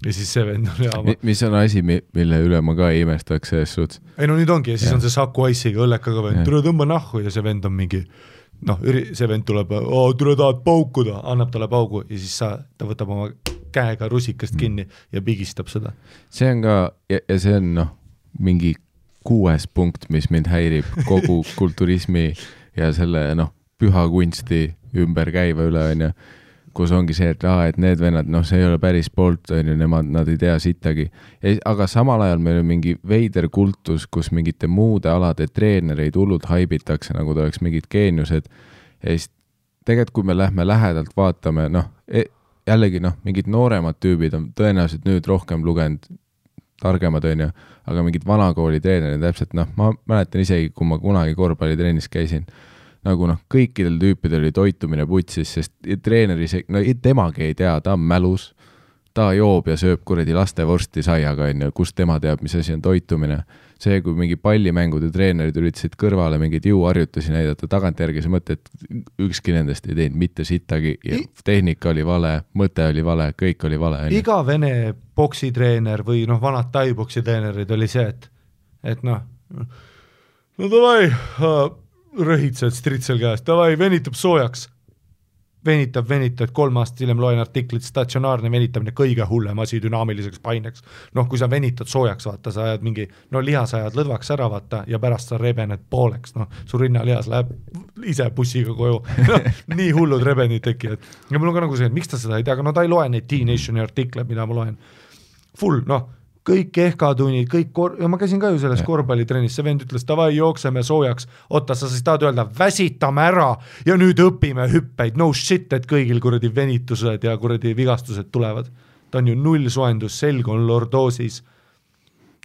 Ja siis see vend on mis on asi, mille üle ma ka ei imestaks selles suhtes? Ei nüüd ongi ja siis on see Saku Ice'iga õllekaga vend, tule tõmba nahku ja see vend on mingi, see vend tuleb, tule tahad paukuda, annab talle paugu ja siis ta võtab oma käega rusikast kinni ja pigistab seda. See on ka, ja see on mingi 6. punkt, mis mind häirib kogu kulturismi ja selle püha kunsti ümber käiva üle, on ju, kus ongi see, et need vennad, see ei ole päris poolt, on ju, nad ei tea sittagi. Aga samal ajal meil on mingi veider kultus, kus mingite muude alade treenereid hullult haibitakse, nagu ta oleks mingid geeniused. Ja siis tegelikult, kui me lähme lähedalt vaatame, jällegi mingid nooremad tüübid on tõenäoliselt nüüd rohkem lugenud targemad, on ju, aga mingid vanakooli treenerid täpselt, ma mäletan isegi, kui ma kunagi korvpallitrennis käisin, nagu kõikidel tüüpidel oli toitumine putsis, sest treeneri, temagi ei tea, ta on mälus, ta joob ja sööb kuradi lastevorsti saiaga, on ju, kus tema teab, mis asi on toitumine. See, kui mingi pallimängude treenerid üritasid kõrvale mingid jõuharjutusi näidata, tagantjärgi see mõte, et ükski nendest ei teinud mitte sittagi, tehnika oli vale, mõte oli vale, kõik oli vale. Iga vene boksitreener või vanad tai-boksi treenerid oli see, et davai, rõhitsed stritsel käest, davai, venitab soojaks. venitab, 3 aastat hiljem loen artiklit, statsionaarne venitamine kõige hullem asi dünaamiliseks paineks. Noh, kui sa venitad soojaks, vaata, sa ajad mingi, no lihas ajad lõdvaks ära, vaata, ja pärast sa rebened pooleks, noh, su rinnalihas läheb ise bussiga koju, no, nii hullud rebenid tekivad. Ja mul on ka nagu see, et miks ta seda ei tea, aga no ta ei loe neid T-Nationi artikle, mida ma loen. Full, noh, kõik kehkatunnid, ja ma käisin ka ju selles korvpallitrennis, see vend ütles, davai, jookseme soojaks, oota, sa siis tahad öelda, väsitame ära ja nüüd õpime hüppeid, no shit, et kõigil kuradi venitused ja kuradi vigastused tulevad. Ta on ju null soendus, selg on lordoosis.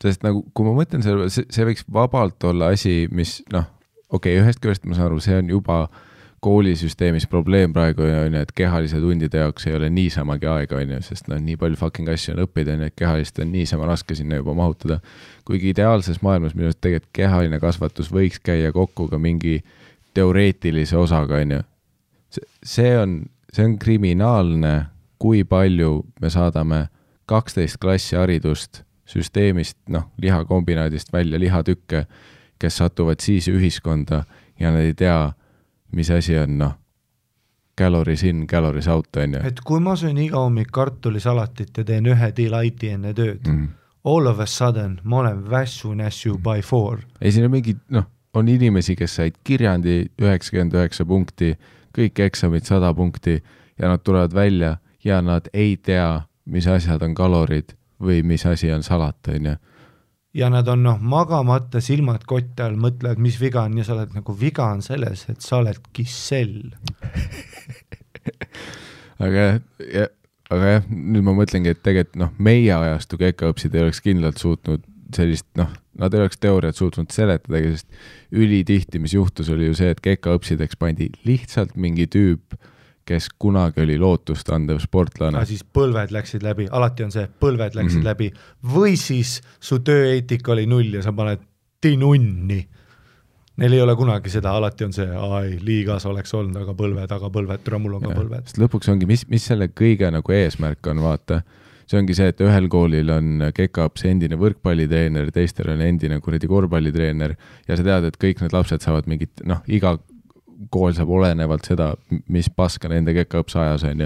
Sest nagu, kui ma mõtlen selle, see võiks vabalt olla asi, mis, noh, okei, ühest küljest ma saan aru, see on juba koolisüsteemis probleem praegu on, et kehalise tundide jaoks ei ole niisamagi aega, on, sest no, nii palju fucking asju on õppida, et kehalist on niisama raske sinna juba mahutada. Kuigi ideaalses maailmas minu arust tegelikult kehaline kasvatus võiks käia kokku ka mingi teoreetilise osaga, on. See on kriminaalne, kui palju me saadame 12 klassi haridust süsteemist, noh, lihakombinaadist välja lihatükke, kes satuvad siis ühiskonda ja nad ei tea, mis asi on, noh, calories in, calories out, on ju. Et kui ma söön iga hommik kartulisalatit ja teen 1 delighti enne tööd, all of a sudden ma olen vässu by 4. Ei, siin on mingi, noh, on inimesi, kes said kirjandi 99 punkti, kõik eksamid 100 punkti ja nad tulevad välja ja nad ei tea, mis asjad on kalorid või mis asi on salat, on ju. Ja nad on, noh, magamata silmad kotte all, mõtlevad, mis viga on ja sa oled nagu, viga on selles, et sa oled kissell. aga jah, nüüd ma mõtlengi, et tegelikult, noh, meie ajastu kekaõpsid ei oleks kindlalt suutnud sellist, noh, nad ei oleks teooriat suutnud seletadagi, sest ülitihti, mis juhtus, oli ju see, et kekaõpsideks pandi lihtsalt mingi tüüp, kes kunagi oli lootust andev sportlane. Siis põlved läksid läbi, alati on see, põlved läksid läbi, või siis su tööeetika oli 0 ja sa paned tinunni. Neil ei ole kunagi seda, alati on see, liigas oleks olnud, aga põlved, mul on ka põlved. Sest lõpuks ongi, mis selle kõige nagu eesmärk on, vaata, see ongi see, et ühel koolil on kekaõps endine võrkpallitreener, teistel on endine kuradi korvpallitreener ja sa tead, et kõik need lapsed saavad mingit, noh, iga kool saab olenevalt seda, mis paska nende kekaõps ajas on ju,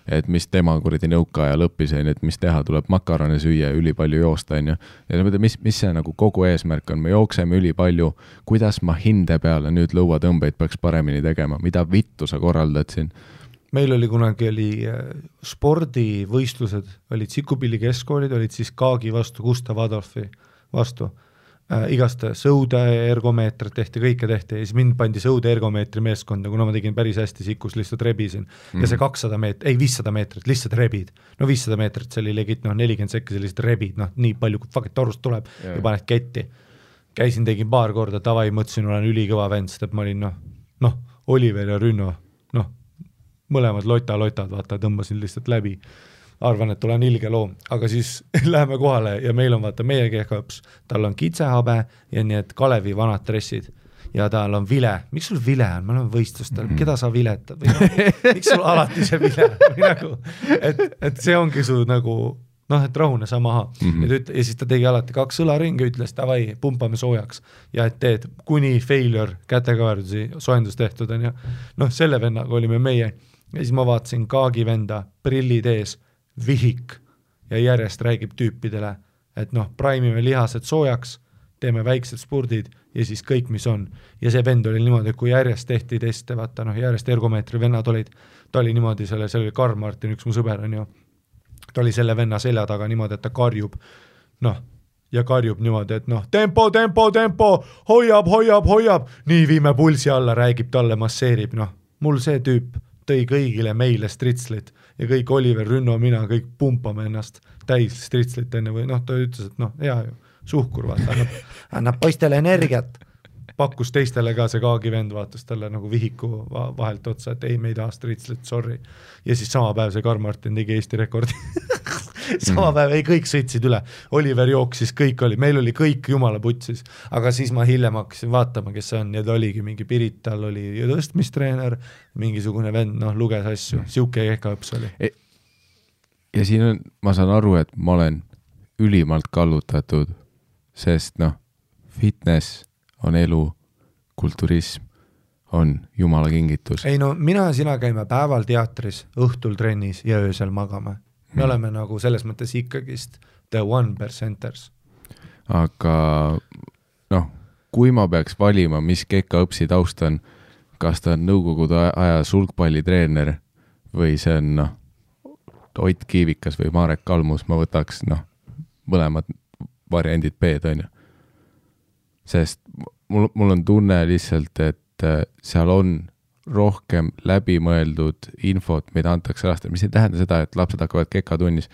et mis tema kuradi nõukaaja lõppis on, et mis teha, tuleb makarone süüa, üli palju joosta on ju. Ja mis see nagu kogu eesmärk on, me jookseme üli palju, kuidas ma hinde peale nüüd lõuatõmbeid peaks paremini tegema, mida vittu sa korraldad siin? Meil oli kunagi spordivõistlused, olid Sikupilli keskkoolid, olid siis Kaagi vastu, Gustav Adolfi vastu. Igast sõude ergomeetrit tehti, kõike tehti ja siis mind pandi sõude ergomeetri meeskonda, kuna ma tegin päris hästi Sikus, lihtsalt rebisin ja see 500 meetrit, lihtsalt rebid, no 500 meetrit, see oli legit, 40 sekki sellised rebid, nii palju kui fucking torust tuleb ja paned ketti. Käisin, tegin paar korda, tavai, mõtlesin, olen ülikõva vend, sest et ma olin, Oliver ja Rünno, mõlemad lotad, vaata, tõmbasin lihtsalt läbi. Arvan, et olen ilge loom, aga siis läheme kohale ja meil on, vaata, meie kehkaõps, tal on kitsehabe ja nii, et Kalevi vanad dressid ja tal on vile. Miks sul vile on? Me oleme võistlustel, keda sa viletad? Miks sul alati see vile? Nagu, et see ongi su nagu, et rahune sa maha. Ja siis ta tegi alati 2 õlaringi, ütles, davai, pumpame soojaks ja et teed kuni failure kätekaverdusi soendus tehtud on ja selle vennaga olime meie ja siis ma vaatasin Kaagi venda prillid ees, vihik ja järjest räägib tüüpidele, et praimime lihased soojaks, teeme väiksed spurdid ja siis kõik, mis on. Ja see vend oli niimoodi, et kui järjest tehti teste, vaata, järjest ergomeetri vennad olid, ta oli niimoodi, see oli Karl Martin, üks mu sõber on ju, ta oli selle venna selja taga niimoodi, et ta karjub, ja karjub niimoodi, et tempo, hoiab, nii viime pulsi alla, räägib talle, masseerib, mul see tüüp tõi kõigile meile stritslit ja kõik Oliver, Rünno, mina, kõik pumpame ennast täis stritslit enne või ta ütles, et hea ju, suhkur, vaata, annab poistele energiat. Pakkus teistele ka see Kaagi vend, vaatas talle nagu vihiku vahelt otsa, et ei, me ei taha stritslit, sorry. Ja siis sama päev see Karl Martin tegi Eesti rekordi. Sama päev, ei, kõik sõitsid üle. Oliver jooksis, kõik oli, meil oli kõik jumala putsis, aga siis ma hiljem hakkasin vaatama, kes see on, ja ta oligi mingi Pirital, oli tõstmistreener, mingisugune vend, luges asju, siuke kehkaõps oli. Ja siin on, ma saan aru, et ma olen ülimalt kallutatud, sest fitness on elu, kulturism on jumala kingitus. Ei no mina ja sina käime päeval teatris, õhtul trennis ja öösel magame. Me oleme nagu selles mõttes ikkagist the 1%ers. Aga noh, kui ma peaks valima, mis Keka õpsi taust on, kas ta on nõukogude aja sulgpallitreener või see on Ott Kiivikas või Marek Kalmus, ma võtaks mõlemad variandid B-d on ju. Sest mul on tunne lihtsalt, et seal on rohkem läbimõeldud infot, mida antakse lastele, mis ei tähenda seda, et lapsed hakkavad Keka tunnis.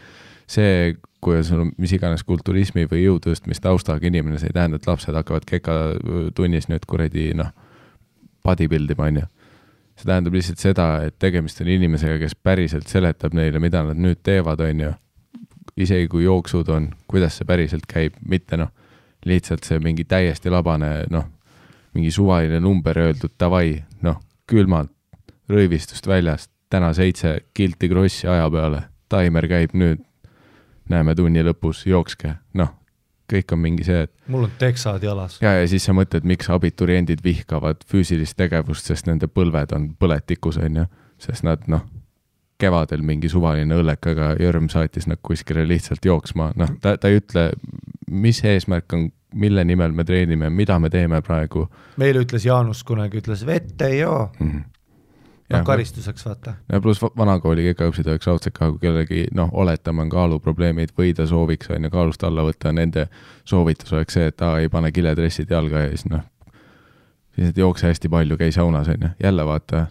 See, kui sul on mis iganes kulturismi või jõutõstmist taustaga inimene, see ei tähenda, et lapsed hakkavad Keka tunnis nüüd kuradi bodybuildima on ju. See tähendab lihtsalt seda, et tegemist on inimesega, kes päriselt seletab neile, mida nad nüüd teevad, on ju. Isegi kui jooksud on, kuidas see päriselt käib, mitte lihtsalt see mingi täiesti labane, mingi suvaline number öeldud, davai, külmalt, rõivistust väljast, täna 7 kilti krossi aja peale, taimer käib nüüd, näeme tunni lõpus, jookske, kõik on mingi see, et mul on teksad jalas. Ja siis sa mõtled, miks abituriendid vihkavad füüsilist tegevust, sest nende põlved on põletikus, on ju, sest nad, kevadel mingi suvaline õllekaga jörm saatis nad kuskile lihtsalt jooksma, ta ei ütle, mis eesmärk on, mille nimel me treenime, mida me teeme praegu. Meil ütles Jaanus kunagi, ütles vette ei joo. Karistuseks vaata. Ja pluss vanakooli Keka õpsid oleks raudselt ka, kui kellegi, oletame on kaaluprobleemid või ta sooviks on ja kaalust alla võtta, nende soovitus oleks see, et ei pane kiledressid jalga ja siis siis et jookse hästi palju, käi saunas on ja jälle vaata,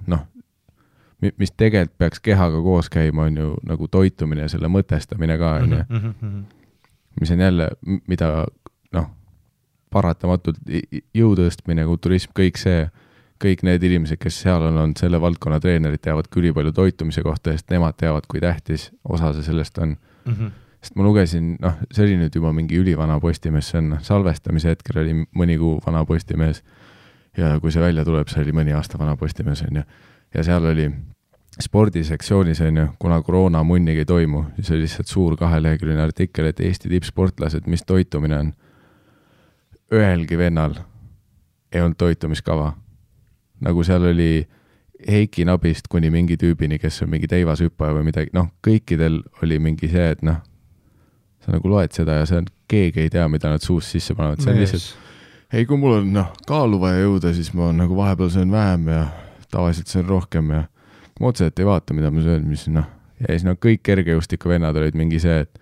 mis tegelikult peaks kehaga koos käima on ju nagu toitumine ja selle mõtestamine ka on ja mis on jälle, mida paratamatult jõutõstmine, kulturism, kõik need inimesed, kes seal on selle valdkonna treenerid, teavad küll palju toitumise kohta, sest nemad teavad, kui tähtis osa see sellest on. Sest ma lugesin, see oli nüüd juba mingi ülivana postimees, see on salvestamise hetkel oli mõni kuu vana postimees ja kui see välja tuleb, see oli mõni aasta vana postimees on ju. Ja seal oli spordisektsioonis on ju, kuna koroona munnigi ei toimu, siis oli lihtsalt suur 2-leheküljeline artikkel, et Eesti tippsportlased, mis toitumine on. Ühelgi vennal ei olnud toitumiskava. Nagu seal oli Heiki Nabist kuni mingi tüübini, kes on mingi teivashüppaja või midagi, kõikidel oli mingi see, et sa nagu loed seda ja see on, keegi ei tea, mida nad suust sisse panevad, see on lihtsalt ei, kui mul on kaalu vaja jõuda, siis ma nagu vahepeal söön vähem ja tavaliselt söön rohkem ja ma otseselt ei vaata, mida ma söön, mis ja siis kõik kergejõustiku vennad olid mingi see, et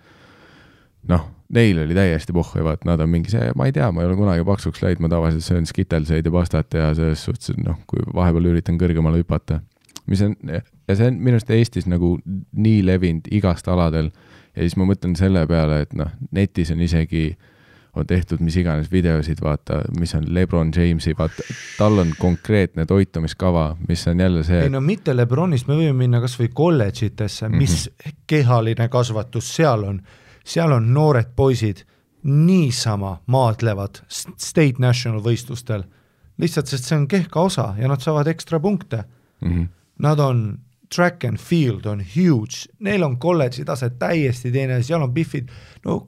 neil oli täiesti pohhu ja vaat, nad on mingi see, ma ei tea, ma ei ole kunagi paksuks läid, ma tavaliselt söön skitelseid ja pastat ja selles suhtes, kui vahepeal üritan kõrgemale hüpata. Ja see on minust Eestis nagu nii levinud igast aladel ja siis ma mõtlen selle peale, et netis on isegi on tehtud mis iganes videosid, vaata, mis on LeBron Jamesi, vaata, tal on konkreetne toitumiskava, mis on jälle see... Ei mitte LeBronist, me võime minna kas või kolledžitesse, mis kehaline kasvatus seal on noored poisid niisama maadlevad state national võistlustel, lihtsalt sest see on kehka osa ja nad saavad ekstra punkte. Nad on track and field on huge, neil on kolledži tase täiesti teine, seal on biffid,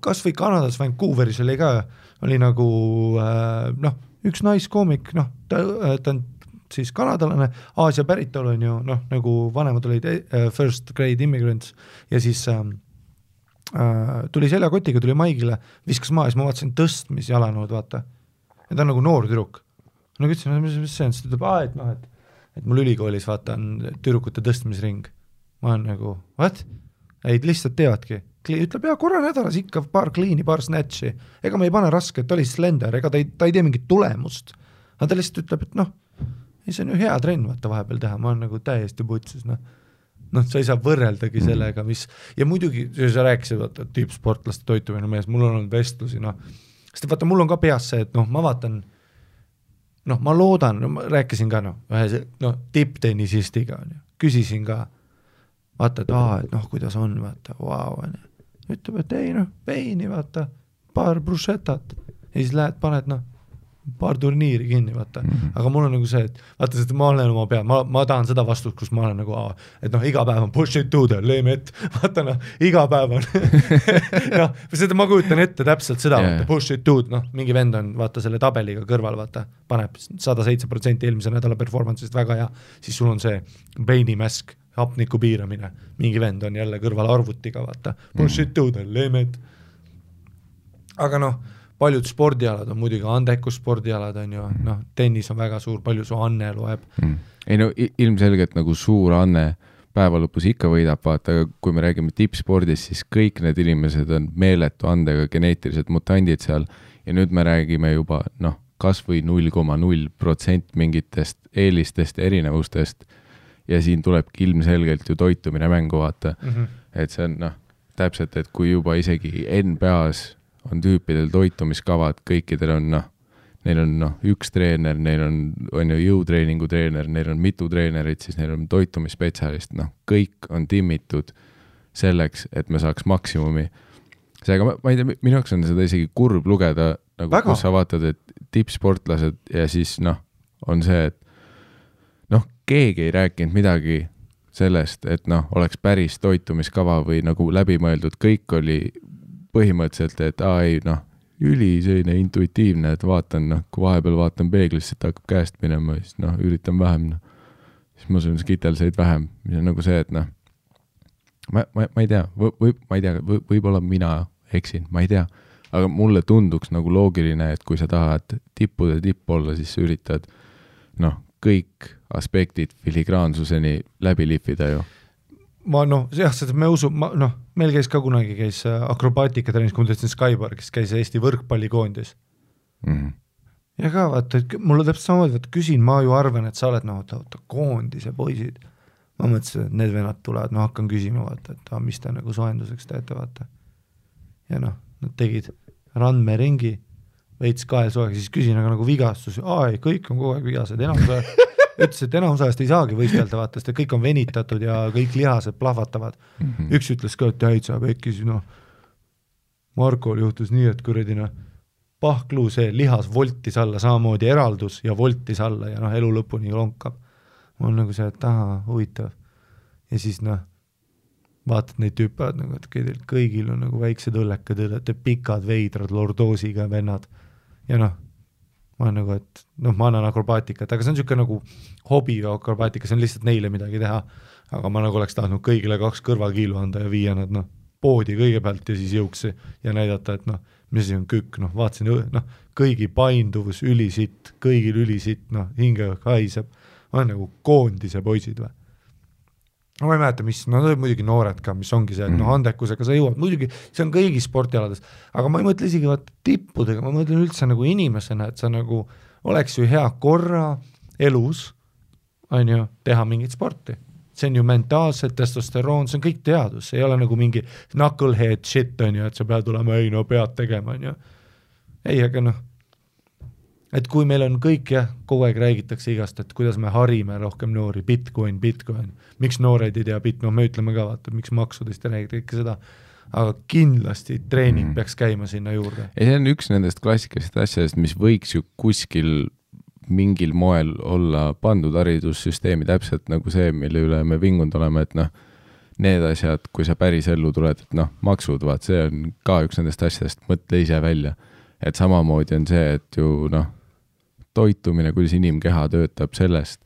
kas või Kanadas Vancouveris oli ka, oli nagu üks naiskoomik, ta on siis kanadalane, Aasia päritolu on ju, nagu vanemad olid first grade immigrants ja siis tuli seljakotiga, tuli maigile, viskas maa ja siis ma vaatasin tõstmisjalanõud, vaata. Ja ta on nagu noor tüdruk. Ütlesin, mis see on, siis ta ütleb, et mul ülikoolis vaata on tüdrukute tõstmisring. Ma olen nagu, what? Ei, lihtsalt teevadki. Ütleb, korra nädalas ikka paar kliini, paar snatchi. Ega ma ei pane raske, et ta oli slender, ega ta ei tee mingit tulemust. Aga ta lihtsalt ütleb, et see on ju hea trenn vaata vahepeal teha, ma olen nagu täiesti putsis, sa ei saa võrreldagi sellega, mis, ja muidugi, sa rääkisid, vaata, tippsportlaste toitumine mees, mul on olnud vestlusi, sest vaata, mul on ka peas see, et ma vaatan, ma loodan, ma rääkisin ka, tipptennisistiga, küsisin ka, vaata, et kuidas on, vaata, vau, ütleb, et ei, veini, vaata, paar bruschetat, ja siis lähed, paned, paar turniiri kinni, vaata. Aga mul on nagu see, et vaata, sest ma olen oma peal, ma tahan seda vastust, kus ma olen nagu, et noh, iga päev on push it to the limit, vaata noh, iga päev on noh, seda ma kujutan ette täpselt seda, vaata, push it to, noh, mingi vend on, vaata, selle tabeliga kõrval, vaata, paneb 107% eelmise nädala performance'ist väga hea, siis sul on see brainimäsk, hapniku piiramine, mingi vend on jälle kõrval arvutiga, vaata, push it to the limit. Aga noh, paljud spordialad on muidugi andekus spordialad on ju, noh, tennis on väga suur, palju su anne loeb. Ei no ilmselgelt nagu suur anne päeva lõpus ikka võidab, vaata, aga kui me räägime tippspordis, siis kõik need inimesed on meeletu andega geneetilised mutandid seal ja nüüd me räägime juba, noh, kas või 0,0% mingitest eelistest, erinevustest ja siin tulebki ilmselgelt ju toitumine mängu, vaata. Et see on, noh, täpselt, et kui juba isegi NBA-s on tüüpidel toitumiskavad, kõikidel on, noh, neil on, noh, üks treener, neil on ju jõutreeningu treener, neil on mitu treenerit, siis neil on toitumisspetsialist, noh, kõik on timmitud selleks, et me saaks maksimumi. Seega, ma ei tea, minu jaoks on seda isegi kurb lugeda, nagu väga. Kus sa vaatad, et tippsportlased ja siis, noh, on see, et noh, keegi ei rääkinud midagi sellest, et noh, oleks päris toitumiskava või nagu läbimõeldud, kõik oli põhimõtteliselt, et ei, noh, üli selline intuitiivne, et vaatan, noh, kui vahepeal vaatan peeglisse, et hakkab käest minema, siis noh, üritan vähem, noh, siis ma söön skitelseid vähem, mis on nagu see, et noh, ma ei tea, võib-olla mina eksin, ma ei tea, aga mulle tunduks nagu loogiline, et kui sa tahad tippude tipp olla, siis sa üritad, noh, kõik aspektid filigraansuseni läbi lihvida ju. Ma noh, jah, seda me usu, noh, meil käis ka kunagi akrobaatika trennis, kui ma tõstin Skybar, kes käis Eesti võrkpallikoondis. Ja ka vaata, et mulle täpselt samamoodi, vaata, küsin, ma ju arvan, et sa oled, noh, koondise poisid. Ma mõtlesin, et need venad tulevad, ma hakkan küsima, vaata, et mis te nagu soenduseks teete, vaata. Ja noh, nad tegid randmeringi, veits kaelsoega, siis küsin, aga nagu vigastus, ei, kõik on kogu aeg vigased, ütles, et enamusajast ei saagi võistelda, vaata, sest kõik on venitatud ja kõik lihased plahvatavad. Üks ütles ka, et täitsa pekkis, noh, Markol juhtus nii, et kuradina pahkluu see lihas voltis alla, samamoodi eraldus ja voltis alla ja noh, elu lõpuni lonkab. Ma on nagu see, et huvitav. Ja siis noh, vaatad neid tüüpad, nagu, et kõigil on nagu väiksed õllekad, pikad veidrad lordoosiga vennad. Ja noh, ma olen nagu, et noh, ma annan akrobaatikat, aga see on niisugune nagu hobi akrobaatika, see on lihtsalt neile midagi teha, aga ma nagu oleks tahtnud kõigile 2 kõrvakiilu anda ja viia nad noh, poodi kõigepealt ja siis jõuksi ja näidata, et noh, mis on kükk, noh, vaatasin, noh, kõigi painduvus ülisitt, kõigil ülisitt, noh, hinge haiseb, ma olen nagu koondise poisid või. Ma ei mäleta, mis, no muidugi noored ka, mis ongi see, et noh, andekusega sa jõuad, muidugi see on kõigis sportialades, aga ma ei mõtle isegi tippudega, ma mõtlen üldse nagu inimesena, et sa nagu oleks ju hea korra elus, on ju, teha mingit sporti. See on ju mentaalselt, testosteroon, see on kõik teadus, see ei ole nagu mingi knucklehead shit, on ju, et sa pead olema, ei no pead tegema, on ju. Ei, aga noh, et kui meil on kõik, jah, kogu aeg räägitakse igast, et kuidas me harime rohkem noori, Bitcoin, miks noored ei tea no me ütleme ka, vaata, miks maksudest ei räägida ikka seda, aga kindlasti treening peaks käima sinna juurde. Ja see on üks nendest klassikalisest asjadest, mis võiks ju kuskil mingil moel olla pandud haridussüsteemi täpselt nagu see, mille üle me vingunud oleme, et noh, need asjad, kui sa päris ellu tuled, et noh, maksud, vaat see on ka üks nendest asjadest, mõtle ise välja, et samamoodi on see, et ju noh, toitumine, kuidas inimkeha töötab sellest,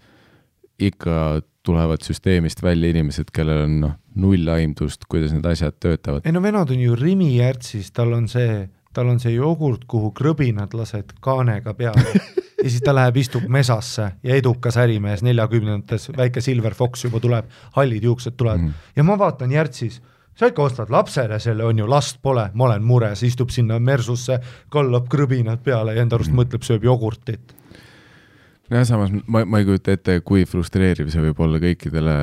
ikka tulevad süsteemist välja inimesed, kellel on noh, null aimdust, kuidas need asjad töötavad. Ei no venad on ju Rimi järtsis, tal on see jogurt, kuhu krõbinad lased kaanega peale ja siis ta läheb, istub mesasse ja edukas ärimees 40-ndates, väike Silver Fox juba tuleb, hallid juuksed tulevad ja ma vaatan järtsis, sa ikka ostad lapsele selle, on ju, last pole, ma olen mures, istub sinna mersusse, kallab krõbinad peale ja enda arust mõtleb, sööb jogurtit. Ja samas ma ei kujuta ette, kui frustreeriv see võib olla kõikidele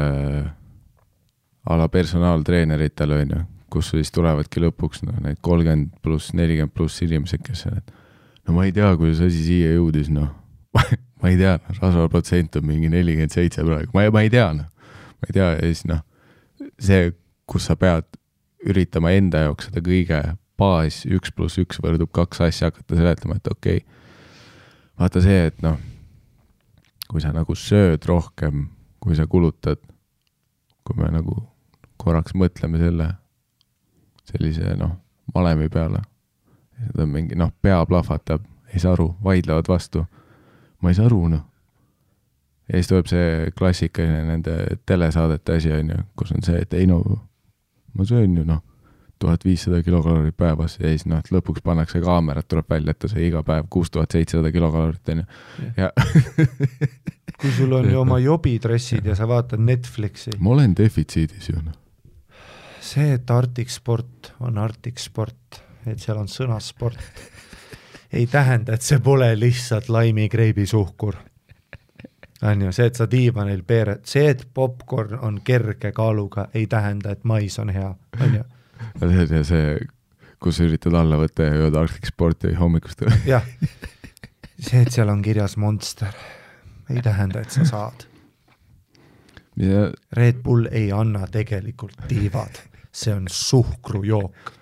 ala personaaltreeneritele, on ju, kus siis tulevadki lõpuks no, need 30 pluss, 40 pluss inimesed, kes on, et no ma ei tea, kuidas asi siia jõudis, noh, ma ei tea, rasvaprotsent on mingi 47 praegu, ma ei tea, noh, ma ei tea, ja siis noh, see, kus sa pead üritama enda jaoks seda kõige baas 1+1 võrdub 2 asja hakata seletama, et okei, vaata see, et noh, kui sa nagu sööd rohkem, kui sa kulutad, kui me nagu korraks mõtleme sellise valemi peale, seda mingi pea plahvatab, ei saa aru, vaidlevad vastu, ma ei saa aru, ja siis tuleb see klassikaline nende telesaadete asi, kus on see, et ei ma söön ju 1500 kilokalorit päevas ja siis lõpuks pannakse kaamerat, tuleb välja, et ta sai iga päev 6700 kilokalorit ja kui sul on ju oma jobidressid ja sa vaatad Netflixi. Ma olen defitsiidis ju. See, et Arctic Sport on Arctic Sport, et seal on sõna sport, ei tähenda, et see pole lihtsalt laimikreibisuhkur. On ju, see, et sa diivanil peered, see, et popcorn on kerge kaaluga, ei tähenda, et mais on hea. On ju? See, kus üritad alla võtta ja jõuda Arctic Sporti hommikust. Jah, see, et seal on kirjas Monster, ei tähenda, et sa saad. Ja... Red Bull ei anna tegelikult diivad, see on suhkrujook.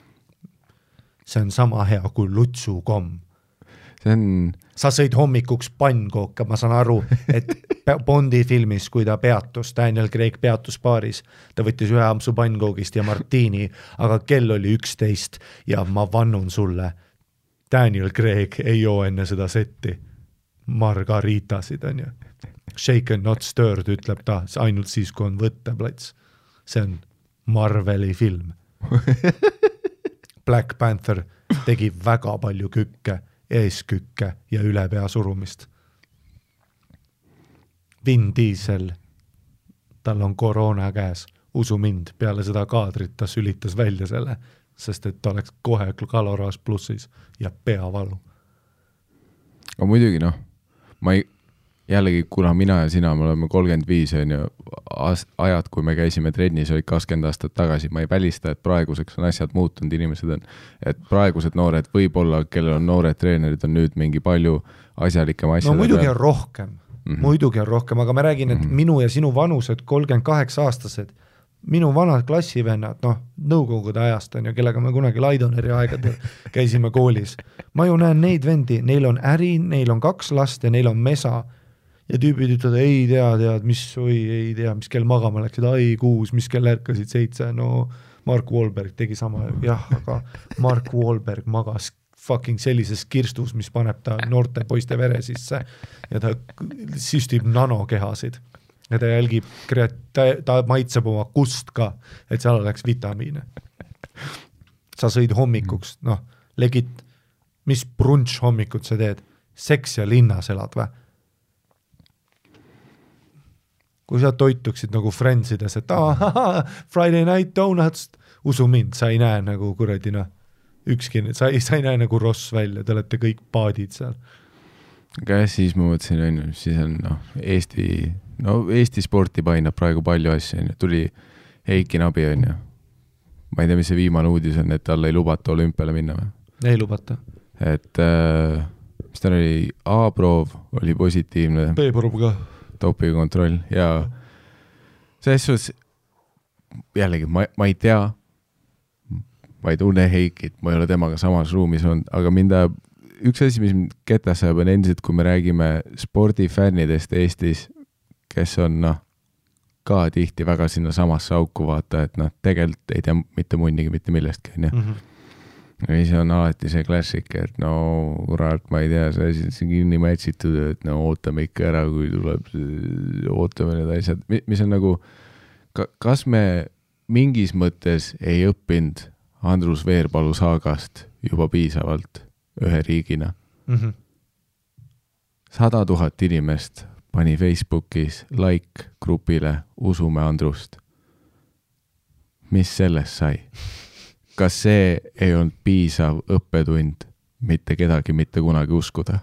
See on sama hea kui lutsukomm. See on... Sa sõid hommikuks pannkooka, ma saan aru, et Bondi filmis, kui ta peatus, Daniel Craig peatus baaris, ta võttis ühe ampsu pannkoogist ja martiini, aga kell oli 11 ja ma vannun sulle, Daniel Craig ei joo enne seda setti margaritasid, on ju. Shaken not stirred, ütleb ta, ainult siis, kui on võtteplats. See on Marveli film. Black Panther tegi väga palju kükke, eeskükke ja üle pea surumist. Vin Diesel, tal on koroona käes, usu mind, peale seda kaadrit ta sülitas välja selle, sest et ta oleks kohe kaloraas plussis ja peavalu. Aga muidugi ma ei, jällegi kuna mina ja sina, me oleme 35 on ju, ajad, kui me käisime trennis, olid 20 aastat tagasi, ma ei välista, et praeguseks on asjad muutunud, inimesed on, et praegused noored võib-olla, kellel on noored treenerid, on nüüd mingi palju asjalikem asjad. No muidugi on rohkem, muidugi on rohkem, aga ma räägin, et minu ja sinu vanused 38 aastased, minu vanad klassivennad, nõukogude ajast on ju, kellega me kunagi Laidoneri aegadel käisime koolis. Ma ju näen neid vendi, neil on äri, neil on 2 last ja neil on mesa ja tüübid ütlevad, ei tea, mis kell magama läksid, 6, mis kell ärkasid 7, Mark Wahlberg tegi sama, jah, aga Mark Wahlberg magas fucking sellises kirstus, mis paneb ta noorte poiste vere sisse ja ta süstib nanokehasid ja ta jälgib, ta maitseb oma kust ka, et seal oleks vitamiine. Sa sõid hommikuks, legit, mis brunch hommikut sa teed? Seks ja linnas elad või? Kui sa toituksid nagu Friendsides, et Friday night donuts, usu mind, sa ei näe nagu kuradi, ükski, sa ei näe nagu Ross välja, te olete kõik paadid seal. Aga siis ma mõtlesin, siis on Eesti sporti painab praegu palju asju, tuli Heiki Nabi, ma ei tea, mis see viimane uudis on, et talle ei lubata olümpiale minna või? Ei lubata. Et mis tal oli, A-proov oli positiivne. B-proov ka. Topikontroll ja selles suhtes jällegi ma ei tea, ma ei tunne Heikit, ma ei ole temaga samas ruumis olnud, aga üks asi, mis ketas sajab on endiselt, kui me räägime spordifännidest Eestis, kes on ka tihti väga sinna samasse auku vaata, et tegelikult ei tea mitte munnigi mitte millestki, ja siis on alati see klassik, et kurat, ma ei tea, see asi on kinni mätsitud, et ootame ikka ära, kui tuleb, ootame need asjad, mis on nagu, kas me mingis mõttes ei õppinud Andrus Veerpalu saagast juba piisavalt ühe riigina? 100 000 inimest pani Facebookis like grupile Usume Andrust. Mis sellest sai? Kas see ei olnud piisav õppetund mitte kedagi mitte kunagi uskuda?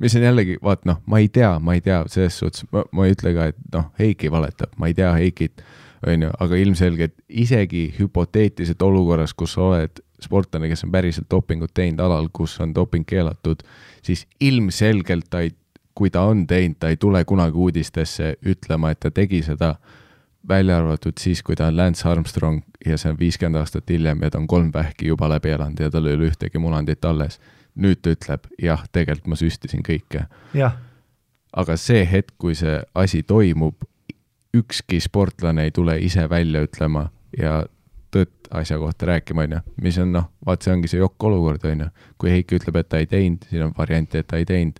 Mis on jällegi, vaat ma ei tea, selles suhtes, ma ei ütle ka, et Heiki valetab, ma ei tea Heikit, aga ilmselgelt isegi hüpoteetiliselt olukorras, kus sa oled sportlane, kes on päriselt dopingut teinud alal, kus on doping keelatud, siis ilmselgelt kui ta on teinud, ta ei tule kunagi uudistesse ütlema, et ta tegi seda, välja arvatud siis, kui ta on Lance Armstrong ja see on 50 aastat hiljem ja ta on 3 vähki juba läbi elanud ja tal ei ole ühtegi munandit alles. nüüd ta ütleb, jah, tegelikult ma süstisin kõike. Jah. Aga see hetk, kui see asi toimub, ükski sportlane ei tule ise välja ütlema ja tõtt asja kohta rääkima, mis on, vaat see ongi see jokk olukord, kui Heiki ütleb, et ta ei teinud, siin on variant, et ta ei teinud,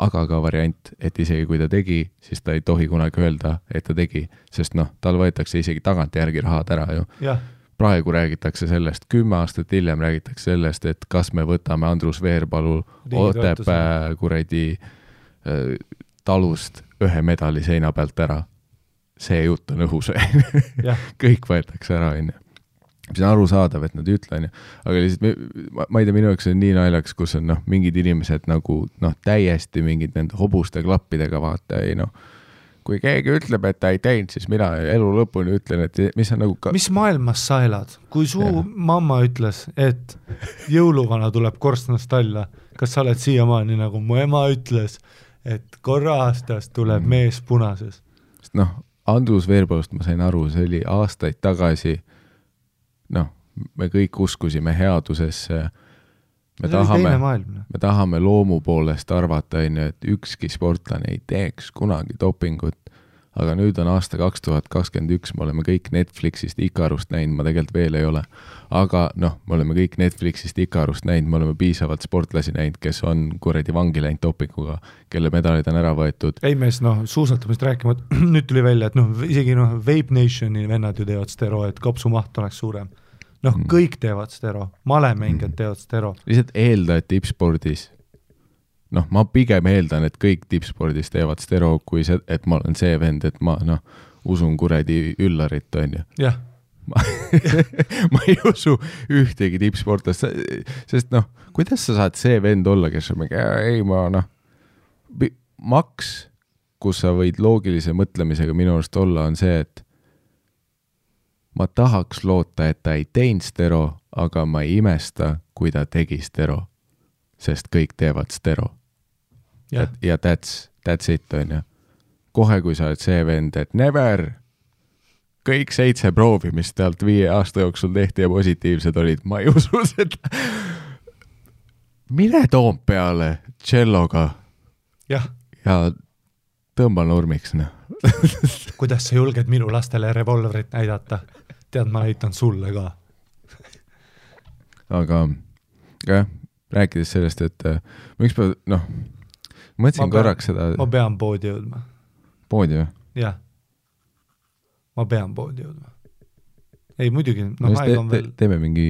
aga ka variant, et isegi kui ta tegi, siis ta ei tohi kunagi öelda, et ta tegi, sest tal võetakse isegi tagantjärgi rahad ära ju. Ja. Praegu räägitakse sellest, 10 aastat hiljem räägitakse sellest, et kas me võtame Andrus Veerpalu Otepää kuradi talust 1 medali seina pealt ära. See jutt on õhus. Kõik võetakse ära, mis on arusaadav, et nad ütlen, aga lihtsalt, ma ei tea, minu jaoks on nii naljaks, kus on mingid inimesed nagu täiesti mingid nende hobuste klappidega vaata, kui keegi ütleb, et ta ei teinud, siis mina elu lõpuni ütlen, et mis on nagu mis maailmas sa elad? Kui su mamma ütles, et jõuluvana tuleb korstnast alla, kas sa oled siiamaani nagu mu ema ütles, et korra aastas tuleb mees punases? Andrus Veerpalust ma sain aru, see oli aastaid tagasi, me kõik uskusime headusesse, me tahame loomu poolest arvata, et ükski sportlane ei teeks kunagi dopingut, aga nüüd on aasta 2021, me oleme kõik Netflixist Ikarust näinud, ma tegelikult veel ei ole, aga me oleme kõik Netflixist Ikarust näinud, me oleme piisavalt sportlasi näinud, kes on kuradi vangi läinud dopinguga, kelle medalid on ära võetud. Ei mees, suusatamist rääkima, nüüd tuli välja, et isegi Vape Nationi vennad ju teevad stero, et kopsumaht oleks suurem. Kõik teevad stero, malemängijad teevad stero. Lihtsalt eelda, et tippspordis, ma pigem eeldan, et kõik tippspordis teevad stero, kui see, et ma olen see vend, et ma usun kuradi Üllarit, on ju. Jah. Ma ei usu ühtegi tippsportlast, sest kuidas sa saad see vend olla, kes on maks, kus sa võid loogilise mõtlemisega minu arust olla, on see, et ma tahaks loota, et ta ei teinud stero, aga ma ei imesta, kui ta tegi stero, sest kõik teevad stero. Ja that's it, on ju. Kohe, kui sa oled see vend, et never, kõik 7 proovi, mis tealt 5 aasta jooksul tehti ja positiivsed olid, ma ei usu seda. Mine Toompeale celloga ja tõmba nurmiks. Kuidas sa julged minu lastele revolverit näidata? Tead, ma näitan sulle ka. Aga rääkides sellest, et ma ükspäev, mõtlesin korraks seda... Ma pean poodi jõudma. Poodi või? Jah. Ma pean poodi jõudma. Ei, muidugi, teeme mingi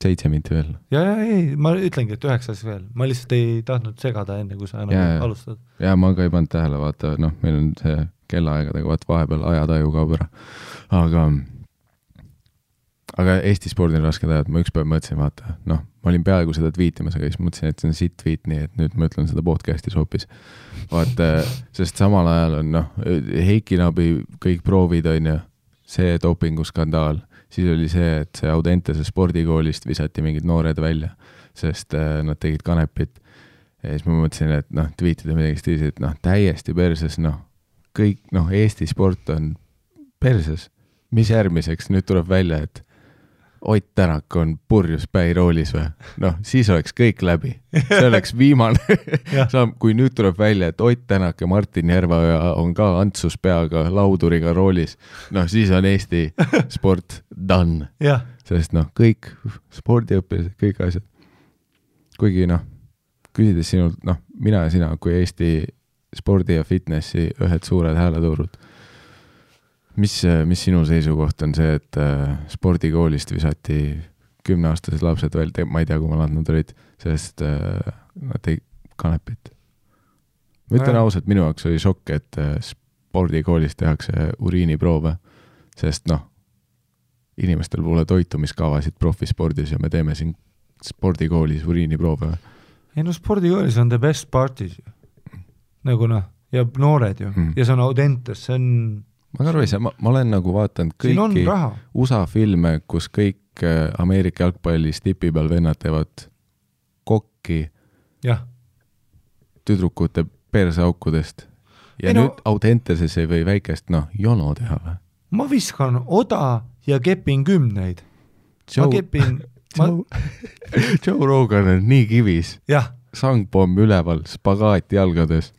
7 minti veel. Ei, ma ütlengi, et 9 veel. Ma lihtsalt ei tahtnud segada enne, kui sa alustad. Ja ma ka ei pannud tähele, vaata, meil on see kellaaegadega, vaata, vahepeal ajataju kaob ära. Aga Eesti spordil raske tajad, ma ükspäev mõtlesin, vaata, ma olin peaaegu seda tweetimas, aga siis mõtlesin, et see on sitt tweet, nii et nüüd ma ütlen seda podcastis hoopis. Vaata, sest samal ajal on, Heiki Nabi kõik proovid on ju, see dopinguskandaal, siis oli see, et see Audentese spordikoolist visati mingid noored välja, sest nad tegid kanepit. Ja siis ma mõtlesin, et tweetida midagi stiilis, et täiesti perses, kõik, Eesti sport on perses. Mis järgmiseks? Nüüd tuleb välja, et Ott Tänak on purjus päiroolis või? Siis oleks kõik läbi. See oleks viimane. Kui nüüd tuleb välja, et Ott Tänak ja Martin Järveoja on ka Antsus peaga lauduriga roolis, siis on Eesti sport done. Sest kõik spordiõpilased, kõik asjad. Kuigi küsides sinult, mina ja sina kui Eesti spordi ja fitnessi ühed suured hääletuurud, mis sinu seisukoht on see, et spordikoolist visati 10-aastased lapsed veel, ma ei tea, kui nad olid, sest nad tegid kanepit. Ma ütlen ausalt, minu jaoks oli šokk, et spordikoolist tehakse uriiniproove, sest inimestel pole toitumiskavasid profispordis ja me teeme siin spordikoolis uriiniproove. Ei spordikoolis on the best parties ju. Nagu ja noored ju. Ja see on Audentes, see on... Ma aru ei saa, ma olen nagu vaatanud kõiki USA filme, kus kõik Ameerika jalgpallis tipi peal vennad teevad kokki tüdrukute perseaukudest. Ja nüüd Audenteses ei või väikest, jono teha või? Ma viskan oda ja kepin 10. Ma kepin Joe Rogan on nii kivis. Jah. Sangpomm üleval, spagaat jalgades.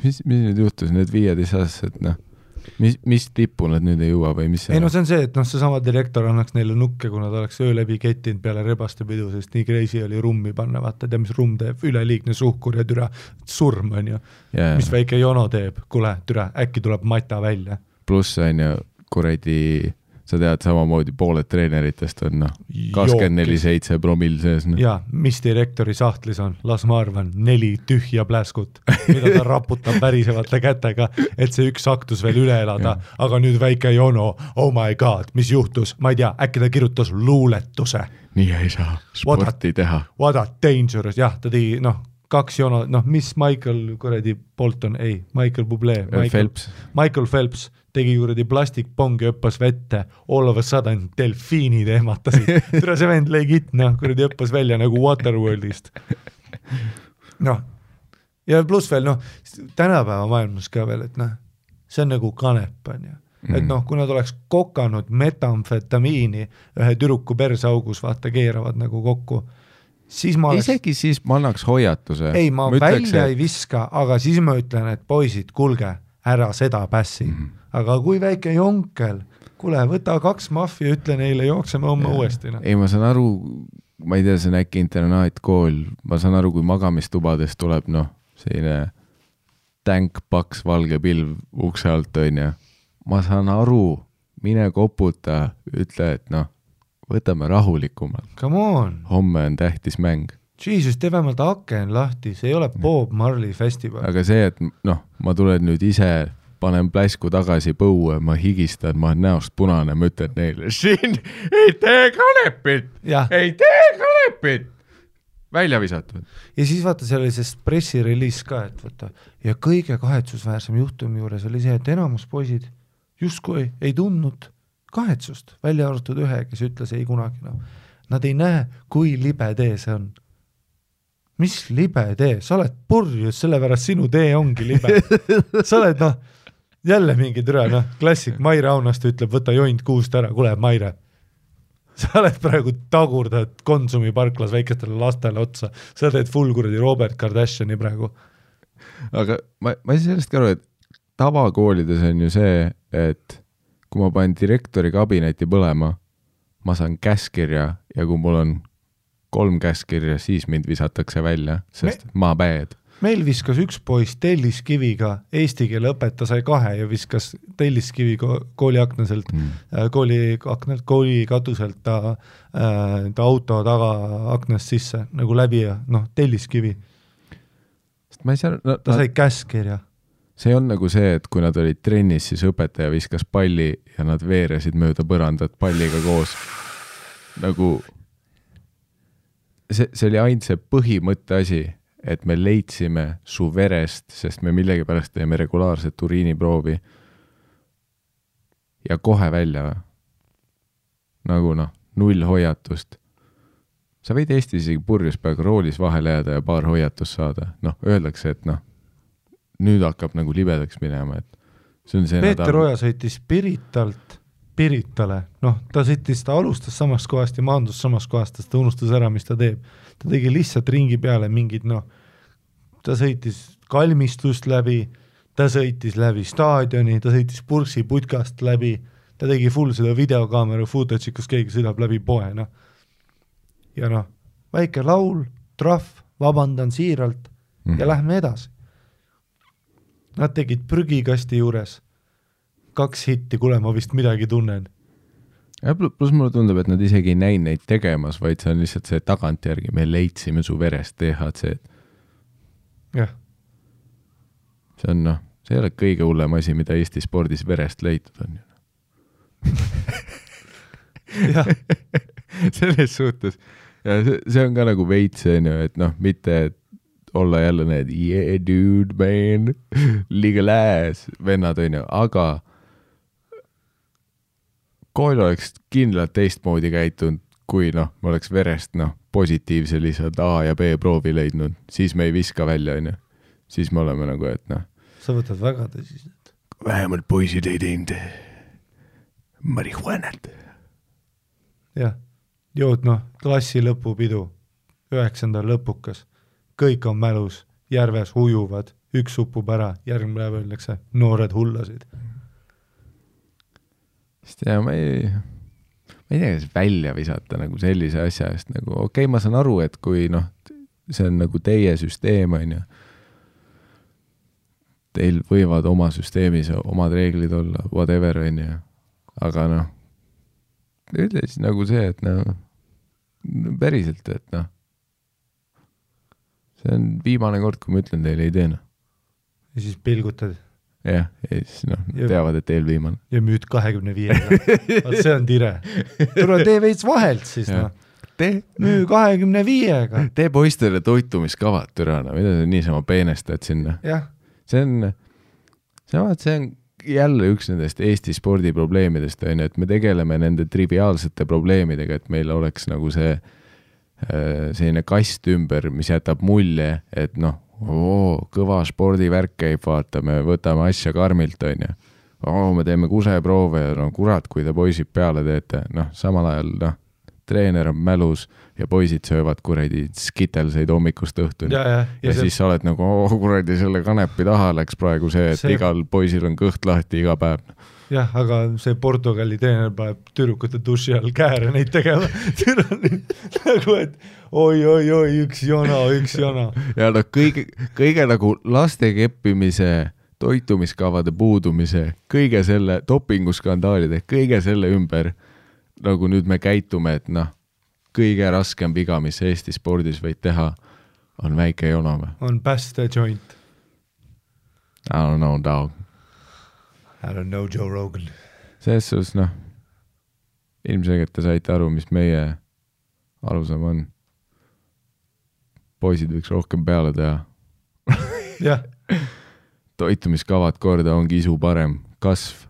Mis nüüd juhtus, need 15-aastased, noh? Mis tippu nad nüüd ei jõua või mis see? Ei no see on see, et see sama direktor annaks neile nukke, kui nad oleks öö läbi kettinud peale rebaste pidu, sest nii crazy oli rummi panna, vaata, tea mis rumm teeb, üleliigne suhkur ja türa surm on ju. Mis väike jono teeb, kuule, türa, äkki tuleb mata välja. Pluss on ju, kuradi, sa tead, samamoodi pooled treeneritest on 24/7 promill sees. No. Ja, mis direktori sahtlis on? Las ma arvan, 4 tühja pläskut, mida ta raputab värisevate kätega, et see üks aktus veel üle elada, aga nüüd väike jono, oh my god, mis juhtus? Ma ei tea, äkki ta kirjutas luuletuse. Nii ei saa sporti teha. What a dangerous, jah, ta tegi, 2 jono, mis Michael kuradi Bolton, ei, Michael Bublé. Michael Phelps tegi kuradi plastikpongi, õppas vette, all of a sudden delfiinid ehmatasid. Tere see vend legit, kuradi õppas välja nagu Waterworldist. Ja pluss veel, tänapäeva maailmas ka veel, et see on nagu kanep, on ju. Et kui nad oleks kokanud metamfetamiini ühe türuku persaugus, vaata, keeravad nagu kokku, siis ma oleks... Isegi siis ma annaks hoiatuse. Ei, ma välja ei viska, aga siis ma ütlen, et poisid, kulge, ära seda pässi. Aga kui väike jonkel, kuule, võta 2 maffi ja ütle neile, jookseme homme uuesti. Ei, ma saan aru, ma ei tea, see on äkki internaatkool, ma saan aru, kui magamistubades tuleb, selline tänk, paks, valge pilv ukse alt, on ja. Ma saan aru, mine koputa, ütle, et võtame rahulikumalt. Come on. Homme on tähtis mäng. Jesus, tee vähemalt aken lahti, see ei ole Bob Marley festival. Aga see, et ma tulen nüüd ise, panen pläsku tagasi põue, ma higistan, ma olen näost punane, ma ütlen neile, siin ei tee kanepit, ei tee kanepit. Välja visatud. Ja siis vaata, see oli see pressirelease ka, et vaata, ja kõige kahetsusväärsem juhtumi juures oli see, et enamus poisid justkui ei tundnud kahetsust, välja arvatud ühe, kes ütles ei kunagi. Nad ei näe, kui libe tee see on. Mis libe tee? Sa oled purjus, sellepärast sinu tee ongi libe. Sa oled, jälle mingi türa, klassik, Maire Aunast ütleb, võta joint kuust ära, kuule, Maire. Sa oled praegu tagurdad Konsumi parklas väikestele lastele otsa. Sa teed full kuradi Robert Kardashiani praegu. Aga ma ei sellest ka aru, et tavakoolides on ju see, et kui ma panen direktori kabineti põlema, ma saan käskirja ja kui mul on 3 käskirja, siis mind visatakse välja, sest ma bad. Meil viskas üks poiss telliskiviga, eesti keele õpeta sai 2 ja viskas telliskivi kooli aknaselt, kooli katuselt ta auto taga aknast sisse, nagu läbi ja telliskivi. Ma ei saa, ta sai käskirja. See on nagu see, et kui nad olid trennis, siis õpetaja viskas palli ja nad veeresid mööda põrandat palliga koos. Nagu see oli ainult see põhimõtte asi, et me leidsime su verest, sest me millegi pärast teeme regulaarset uriiniproovi ja kohe välja. Nagu 0 hoiatust. Sa võid Eestis isegi purjus peaga roolis vahele jääda ja paar hoiatust saada. Öeldakse, et nüüd hakkab nagu libedaks minema. Et see on see Peeter Oja sõitis Piritale. Ta sõitis, ta alustas samast kohast ja maandus samast kohast, ta unustas ära, mis ta teeb. Ta tegi lihtsalt ringi peale mingid, ta sõitis kalmistust läbi, ta sõitis läbi staadioni, ta sõitis Pursi putkast läbi, ta tegi full seda videokaamera footage, kus keegi sõidab läbi poe. Ja väike laul, trahv, vabandan siiralt ja lähme edasi. Nad tegid prügikasti juures 2 hitti, kuule, ma vist midagi tunnen. Ja plus mulle tundub, et nad isegi ei näinud neid tegemas, vaid see on lihtsalt see tagantjärgi, me leidsime su verest THC. Jah. See on, see ei ole kõige hullem asi, mida Eesti spordis verest leitud on. Jah. Selles suhtes. Ja see on ka nagu veits, et mitte olla jälle need yeah dude man, legal ass vennad, aga kool oleks kindlalt teistmoodi käitunud, kui me oleks verest positiivse lihtsalt A ja B proovi leidnud, siis me ei viska välja, siis me oleme nagu, et Sa võtad väga tõsiselt. Vähemalt poisid ei teinud marihuanat. Jah. jõudnud klassi lõpupidu, 9. lõpukas, kõik on mälus, järves ujuvad, üks upub ära, järgmine päev öeldakse, noored hullasid. Sest ma ei tea, kas välja visata nagu sellise asja eest, nagu okei, ma saan aru, et kui see on nagu teie süsteem, on ju, teil võivad oma süsteemis omad reeglid olla, whatever, on ju, aga ütle siis nagu see, et päriselt, et see on viimane kord, kui ma ütlen teile ei tee. Ja siis pilgutad. Jah, ja siis teavad, et teel viimane. Ja müüd 25. Vaat see on tire. Tule tee veits vahelt siis, müü 25-ga. Tee poistele toitumiskavad, türana, mida sa niisama peenestad sinna. Jah. See on jälle üks nendest Eesti spordiprobleemidest, et me tegeleme nende triviaalsete probleemidega, et meil oleks nagu selline kast ümber, mis jätab mulje, et kõva spordivärk käib, vaata, me võtame asja karmilt, on ju. Me teeme kuseproove ja kurat, kui te poisid peale teete. Samal ajal treener on mälus ja poisid söövad kuradi skitelseid hommikust õhtuni. Ja siis sa oled nagu, kuradi selle kanepi taha läks praegu see, et igal poisil on kõht lahti iga päev. Jah, aga see Portugali treener paneb tüdrukute duši all kääre neid tegema. Nagu, et oi, üks jona. Ja kõige nagu laste keppimise, toitumiskavade puudumise, kõige selle dopinguskandaalide, kõige selle ümber nagu nüüd me käitume, et kõige raskem viga, mis Eesti spordis võid teha, on väike jonome. On päästa joint. I don't know, dog. I don't know, Joe Rogan. Selles sus, ilmselgelt te saite aru, mis meie alusam on. Poisid võiks rohkem peale teha. Jah. Toitumiskavad korda ongi isu parem. Kasv.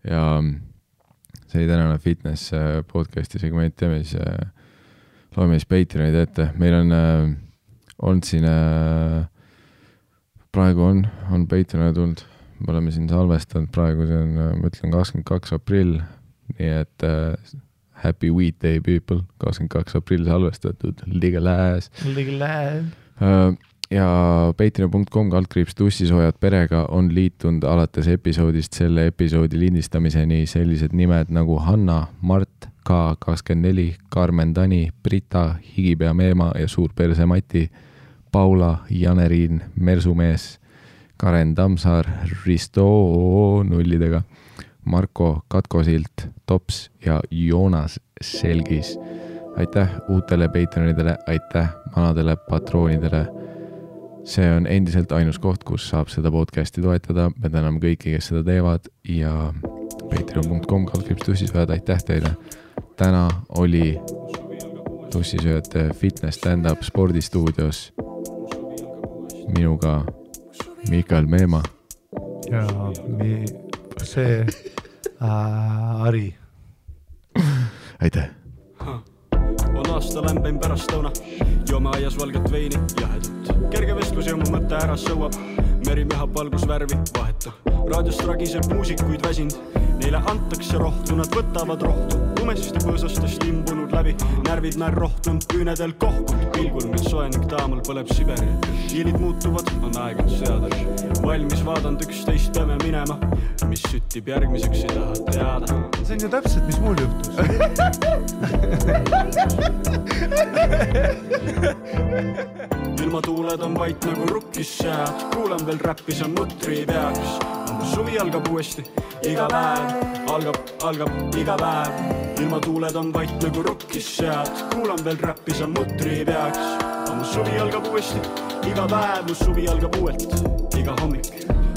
Ja see oli tänane fitness podcasti segment, teeme siis loeme siis Patreonid ette. Meil on olnud siin praegu on Patreonid tulnud, me oleme siin salvestanud praegu, see on, ma ütlen 22. aprill, nii et happy weed day people, 22. aprill salvestatud, legal ass. Ja patreon.com/tussisoojad perega on liitunud alates episoodist selle episoodi lindistamiseni sellised nimed nagu Hanna, Mart, K24, Carmen Tani, Brita, Higipea Meema ja Suurperse Mati, Paula, Janeriin, Mersumees, Karen Tamsaar, Risto nullidega, Marko Katkosilt, Tops ja Joonas Selgis. Aitäh uutele Patreonidele, aitäh vanadele patroonidele. See on endiselt ainus koht, kus saab seda podcasti toetada. Me täname kõiki, kes seda teevad ja patreon.com/tussisööjad, aitäh teile. Täna oli Tussisööjate fitness stand-up spordistuudios minuga Mikael Meema ja see Ari. Aitäh. On aasta lämbein pärast lõuna, joome aias valget veini ja hädut. Kerge vestlus ja mu mõtte ära sõuab, meri mehab valgusvärvi vahetu. Raadiost ragiseb muusikuid väsind, neile antakse rohtu, nad võtavad rohtu. Lumest põõsastest imbunud läbi, närvid näer rohtunud, küünedel kohkud. Pilgul mil soenik taamal põleb Siberi, hiilid muutuvad, on aeg on seada. Valmis vaadanud 11 peame minema, mis süttib järgmiseks ei taha teada. See on ju täpselt, mis mul juhtus. Ilmatuuled on vait nagu rukkis sead, kuulan veel räppi, see mutri peaks. Suvi algab uuesti, iga päev, algab iga päev. Ilmatuuled on vait nagu rukkis sead, kuulan veel räppi, see mutri peaks. Suvi algab uuesti, iga päev, suvi algab uuelt, iga hommik.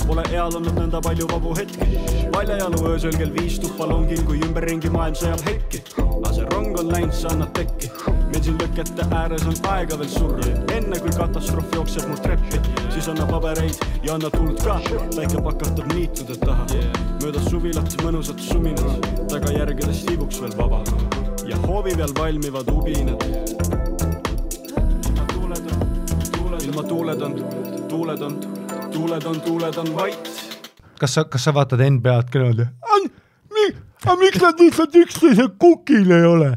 Pole eal olnud nõnda palju vabu hetki, valjajalu öösel kell 5 tuppa longil, kui ümberringi maailm sõjab hekki. Aga see rong on läinud, sa annad tekki, meil siin lõkete ääres on aega veel surra. Enne kui katastroof jookseb mul treppi, siis anna pabereid ja anna tuld ka. Päike pakatab niitude taha, mööda suvilat mõnusat suminad, tagajärgedest ibuks veel vaba ja hoovi peal valmivad ubinad. Tuuled on vait. Kas sa vaatad NBA-d küll? aga miks nad lihtsalt üksteise kukil ei ole?